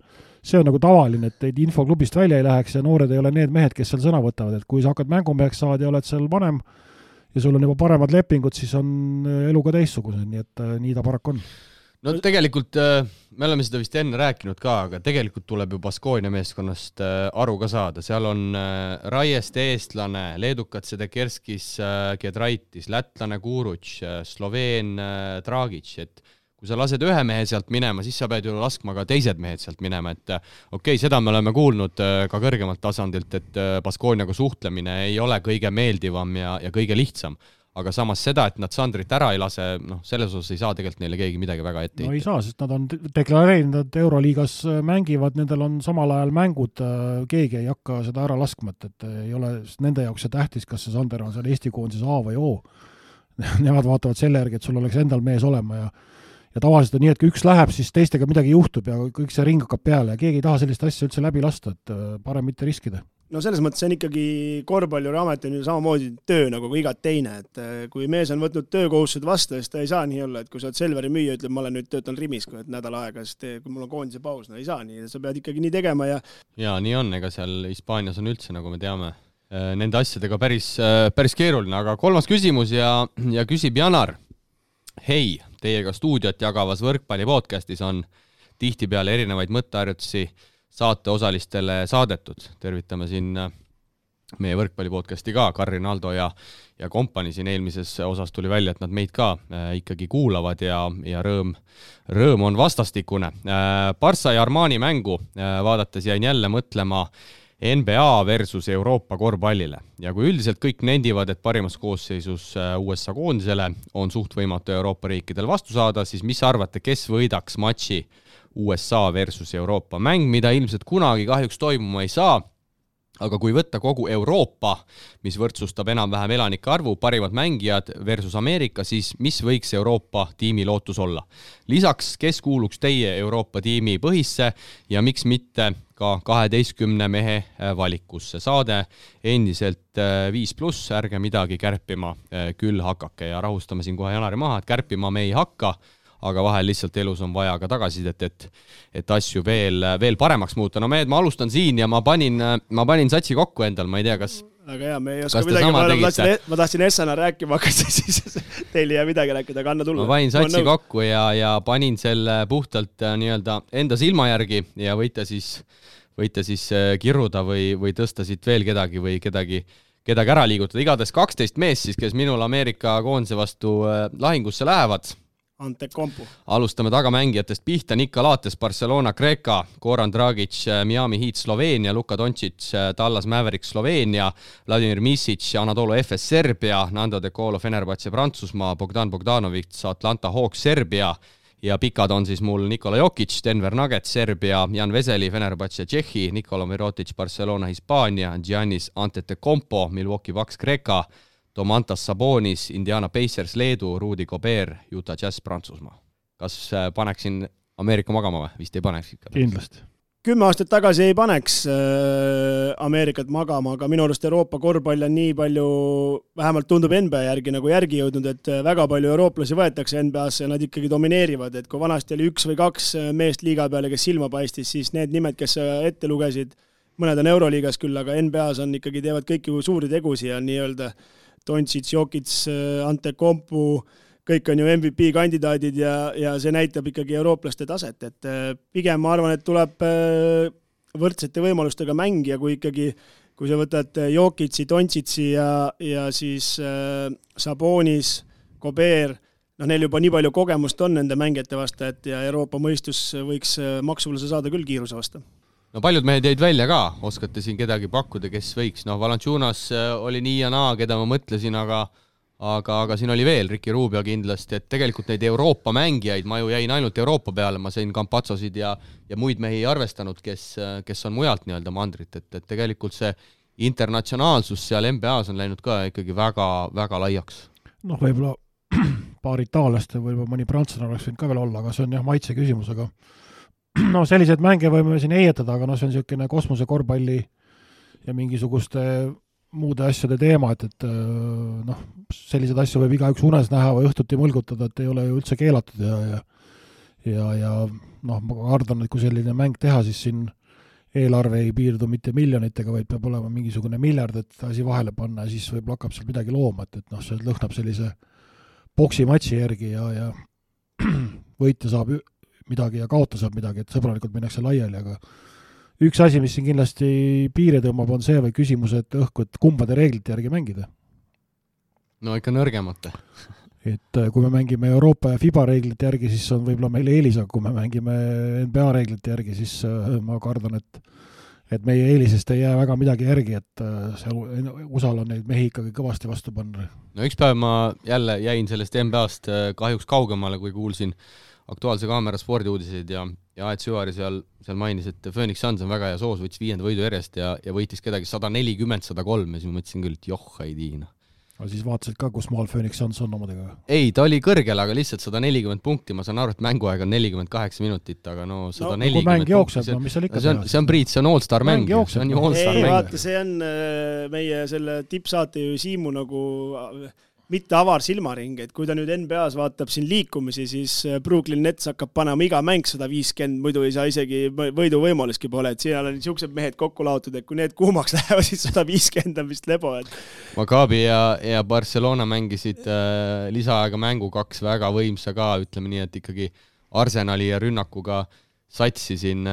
see on nagu tavaline, et teid info klubist välja ei läheks ja noored ei ole need mehed, kes seal sõna võtavad, et kui sa hakkad mängumeheks saad ja oled seal vanem ja sul on juba paremad lepingud, siis on elu ka teistsugused, nii et nii ta paraku on. No tegelikult me oleme seda vist enne rääkinud ka, aga tegelikult tuleb ju Baskonia meeskonnast aru ka saada. Seal on Raieste eestlane, leedukad Sedekerskis Gedraitis, lätlane Kuruč, Sloveen Dragic, et kui sa lased ühe mehe sealt minema, siis sa pead ju laskma ka teised mehed sealt minema, et okei, seda me oleme kuulnud ka kõrgemalt tasandilt, et Baskoniaga suhtlemine ei ole kõige meeldivam ja kõige lihtsam. Aga samas seda, et nad Sandrit ära ei lase, selles osas ei saa tegelikult neile keegi midagi väga ette. No ei saa, sest nad on deklareerinud, et Euroliigas mängivad, nendel on samal ajal mängud, keegi ei hakka seda ära laskma, et ei ole nende jaoks see tähtis, kas see Sander on seal Eesti koondises A või O. Nemad vaatavad selle järgi, et sul oleks endal mees olema ja tavaliselt on nii, et kui üks läheb, siis teistega midagi juhtub ja kõik see ring hakkab peale ja keegi ei taha sellist asja üldse läbi lasta, et parem mitte riskida. No selles mõttes see on ikkagi korvpalliamet on ju samamoodi töö nagu igat teine, et kui mees on võtnud töökohustused vastu, siis ta ei saa nii olla, et kui sa oled Selveri müüja, ütleb, ma olen nüüd töötan Rimis, kui nädal aega, sest kui mul on koondise paus, no ei saa nii, sa pead ikkagi nii tegema ja nii on, ega seal Hispaanias on üldse, nagu me teame, nende asjadega päris keeruline, aga kolmas küsimus ja küsib Janar. Hei, teiega stuudiot jagavas võrkpalli podcastis on tihtipeale erinevaid mõtteharjutusi saate osalistele saadetud. Tervitame siin meie võrkpallipodcasti ka, Karin Aldo ja kompani siin eelmises osas tuli välja, et nad meid ka ikkagi kuulavad ja rõõm on vastastikune. Barca ja Armani mängu vaadates jäin jälle mõtlema NBA versus Euroopa korvpallile. Ja kui üldiselt kõik nendivad, et parimas koosseisus USA koondisele on suht võimatu Euroopa riikidel vastu saada, siis mis arvate, kes võidaks matši USA versus Euroopa mäng, mida ilmselt kunagi kahjuks toimuma ei saa, aga kui võtta kogu Euroopa, mis võrdsustab enam-vähem elanike arvu, parimad mängijad versus Ameerika, siis mis võiks Euroopa tiimi lootus olla? Lisaks, kes kuuluks teie Euroopa tiimi põhisse ja miks mitte ka 12 mehe valikusse? Saade endiselt 5+, ärge midagi kärpima küll hakake ja rahustame siin kohe Janari maha, et kärpima me ei hakka, aga vahel lihtsalt elus on vaja ka tagasisidet, et asju veel paremaks muuta. No ma alustan siin ja ma panin satsi kokku endal, ma ei tea, kas... Aga hea, me ei oska midagi, ma tahtsin Essana rääkima hakata, siis teil ei jää midagi rääkida, aga anna tulla. Ma panin satsi kokku ja panin selle puhtalt nii-öelda enda silma järgi ja võite siis kirruda või tõsta siit veel kedagi või kedagi ära liigutada. Igades 12 mees siis, kes minul Ameerika koondise vastu lahingusse lähevad. Antekompu. Alustame tagamängijatest pihta. Nika Lates, Barcelona, Kreeka, Goran Dragic, Miami Heat, Sloveenia, Luka Doncic, Dallas Mavericks, Sloveenia, Vladimir Misic, Anadolu FS, Serbia, Nando De Colo, Fenerbahce, Prantsusmaa, Bogdan Bogdanovic, Atlanta Hawks, Serbia ja pikad on siis mul Nikola Jokic, Denver Nuggets, Serbia, Jan Veseli, Fenerbahce, Tšehhi, Nikola Mirotic, Barcelona, Hispaania, Giannis Antetokounmpo, Milwaukee Bucks, Kreeka, Domantas Sabonis, Indiana Pacers, Leedu, Rudy Gobert, Utah Jazz, Prantsusmaa. Kas paneksin Ameerika magama või? Vist ei paneks ikka. Kindlasti. 10 aastat tagasi ei paneks Ameerikat magama, aga minu arust Euroopa korvpall on nii palju, vähemalt tundub NBA järgi nagu järgi jõudnud, et väga palju eurooplasi võetakse NBA-sse ja nad ikkagi domineerivad, et kui vanasti oli 1 või 2 meest liiga peale, kes silma paistis, siis need nimed, kes ette lugesid, mõned on Euroliigas küll, aga NBA-s on ikkagi teevad kõiki suuri tegusi ja nii-öelda Doncic, Jokic, Antetokounmpo, kõik on ju MVP kandidaadid ja see näitab ikkagi eurooplaste taset, et pigem ma arvan, et tuleb võrdsete võimalustega mängija, kui sa võtad Jokici, Doncic'i ja siis Sabonis, Gobert, neil juba nii palju kogemust on nende mängijate vastu, et ja Euroopa mõistus võiks maksuvõluse saada küll kiiruse vastu. No paljud mehed jäid välja ka, oskate siin kedagi pakkuda, kes võiks. Valanciunas oli nii ja naa, keda ma mõtlesin, aga siin oli veel Ricky Rubio kindlasti, et tegelikult neid Euroopa mängijaid, ma ju jäin ainult Euroopa peale, ma sain Campazzosid ja muid mehi arvestanud, kes on mujalt nii-öelda mandrit, et tegelikult see internatsionaalsus seal NBA-s on läinud ka ikkagi väga, väga laiaks. Võib-olla paar itaallast ja võib-olla mõni prantslane oleks võinud ka veel olla, aga see on jah maitse küsimus, aga sellised mänge võime siin eietada, aga see on niisugune kosmose korvpalli ja mingisuguste muude asjade teema, et sellised asju võib igaüks unes näha või õhtuti mõlgutada, et ei ole ju üldse keelatud ja ma arvan, et kui selline mäng teha, siis siin eelarve ei piirdu mitte miljonitega, vaid peab olema mingisugune miljard, et asi vahele panna ja siis võib hakkab seal midagi looma, et see lõhnab sellise boksimatši järgi ja võitja saab midagi ja kaota saab midagi, et sõbralikult minnakse laiali, aga üks asi, mis siin kindlasti piire tõmbab, on see või küsimus, et et kumbade reeglite järgi mängida. No ikka nõrgemate. Et kui me mängime Euroopa ja FIBA reeglite järgi, siis on võib-olla meil eelis, aga kui me mängime NBA reeglite järgi, siis ma kardan, et meie eelisest ei jää väga midagi järgi, et USA-l on neid mehi ikkagi kõvasti vastu panna. No üks päev ma jälle jäin sellest NBA-st kahjuks kaugemale, kui kuulsin Aktuaalse Kaamera spordiuudiseid ja Aet Süvari seal mainis, et Phoenix Suns on väga hea soos, võttis 5. võidu järjest ja võitis kedagi 140-103 ja siis ma mõtlesin küll, et ei tiina. Aga siis vaatasid ka, kus maal Phoenix Suns on omadega? Ei, ta oli kõrgel, aga lihtsalt 140 punkti, ma saan aru, et mänguaeg on 48 minutit, aga 140 kui mäng jookseb, mis seal ikka see on Priit, see on all-star mäng. See on ju all-star mäng. Vaata, see on meie selle tippsaate ju Siimu nagu mitte avar silmaring, et kui ta nüüd NBA-s vaatab siin liikumisi, siis Brooklyn Nets hakkab panema iga mäng 150, muidu ei saa isegi võidu võimaluski pole, et siin on niisugused mehed kokku laotud, et kui need kuumaks lähevad, siis 150 on vist lebo. Maccabi ja Barcelona mängisid lisaaega mängu 2 väga võimsa ka, ütleme nii, et ikkagi Arsenali ja rünnakuga satsi siin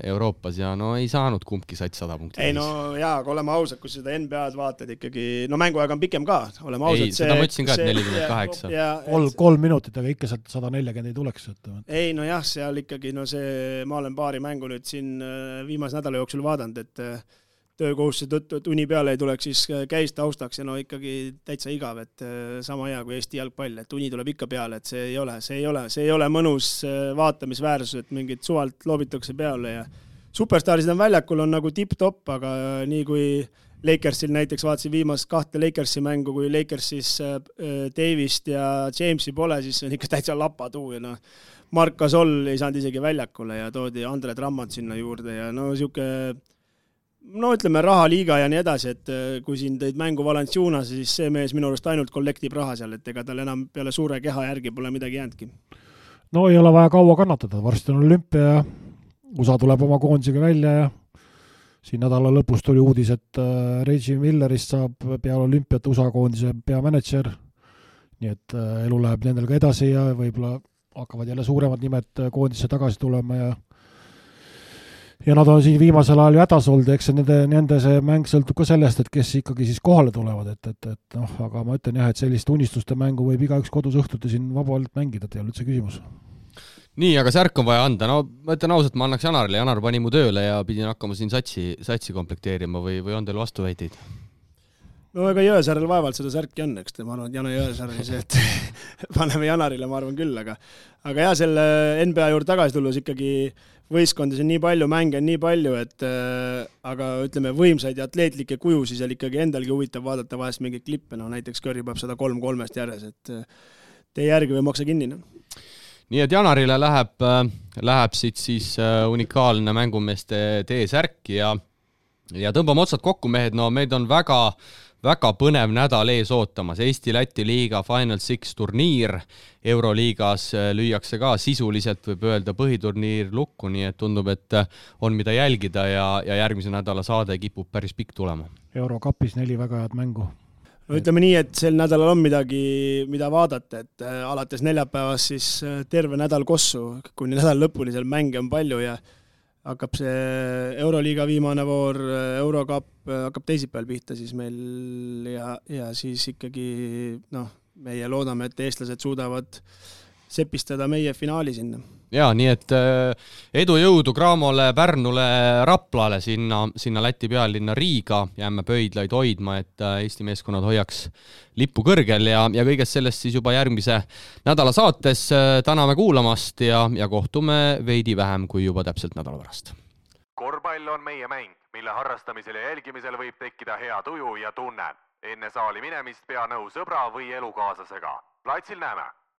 Euroopas ja no ei saanud kumbki sats 100 punkti. Ei no jaa, aga oleme ausad, kui seda NBA-d vaatad ikkagi, no mänguaeg on pikem ka, oleme ausad. Ei, seda ma ütlesin ka, et 48. 3 minutit, aga ikka sealt 140 ei tuleks. Ei no jah, seal ikkagi, no see, ma olen paari mängu nüüd siin viimase nädala jooksul vaadanud, et töökohustuse tõttu, et uni peale ei tuleks, siis käis taustaks ja no ikkagi täitsa igav, et sama hea kui Eesti jalgpall, et uni tuleb ikka peale, et see ei ole mõnus vaatamisväärsus, et mingid suvalt loobitakse peale ja superstaarid on väljakul, on nagu tipp-top, aga nii kui Lakersil näiteks vaatasin viimast 2 Lakersi mängu, kui Lakersis Davist ja Jamesi pole, siis on ikka täitsa lapatuu ja no Mark Gasol ei saanud isegi väljakule ja toodi Andre Drummond sinna juurde ja no siuke no ütleme rahaliiga ja nii edasi, et kui siin tõid mängu Valenciunas, siis see mees minu arust ainult kollektib raha seal, et ega tal enam peale suure keha järgi pole midagi jäänudki. No ei ole vaja kaua kannatada, varsti on olümpia ja USA tuleb oma koondisega välja ja siin nädala lõpus tuli uudis, et Reggie Millerist saab peale olümpiat USA koondise peamanager, nii et elu läheb nendel ka edasi ja võib-olla hakkavad jälle suuremad nimed koondisse tagasi tulema ja nad on siin viimasel ajal ju hädas olnud, eks nende see mäng sõltub ka sellest, et kes ikkagi siis kohale tulevad, et noh, aga ma ütlen jah, et sellist unistuste mängu võib igaüks kodus õhtuti siin vabalt mängida, et ei ole üldse küsimus. Nii, aga särk on vaja anda, no ma ütlen ausalt, ma annaks Janarile, Janar pani mu tööle ja pidin hakkama siin satsi komplekteerima või on teil vastuväiteid? No ega Jõesaarel vaevalt seda särki on, eks ma arvan, et Jana Jõesaar oli see, et paneme Janarile, ma arvan küll, aga jah, selle NBA juurde tagasi tulles ikkagi võistkondis on nii palju, mänge on nii palju, et aga ütleme võimsaid ja atleetlikke kujusi seal ikkagi endalgi huvitav vaadata vahest mingeid klippe, no näiteks Curry peab 103 järjes, et tee järgi või maksa kinni. Nii et Janarile läheb siit siis unikaalne mängumeeste T-särk ja tõmbame otsad kokku, mehed, no meid on väga põnev nädal ees ootamas. Eesti-Läti liiga Final Six turniir, Euroliigas lüüakse ka sisuliselt, võib öelda, põhiturniir lukku, nii et tundub, et on mida jälgida ja järgmise nädala saade kipub päris pikk tulema. Eurokapis 4 väga head mängu. No ütleme nii, et sel nädalal on midagi, mida vaadata, et alates neljapäevast siis terve nädal kossu, kuni nädal lõpuni seal mänge on palju ja hakkab see Euroliiga viimane voor, Eurocup hakkab teisipäeval pihta siis meil ja siis ikkagi meie loodame, et eestlased suudavad sepistada meie finaali sinna. Jaa, nii et edu jõudu Cramole, Pärnule, Raplale, sinna Läti pealinna Riiga, jääme pöidlaid hoidma, et Eesti meeskonnad hoiaks lippu kõrgel ja kõigest sellest siis juba järgmise nädala saates täname kuulamast ja kohtume veidi vähem kui juba täpselt nädala pärast. Korvpall on meie mäng, mille harrastamisel ja jälgimisel võib tekkida hea tuju ja tunne. Enne saali minemist pea nõu sõbra või elukaaslasega. Platsil näeme!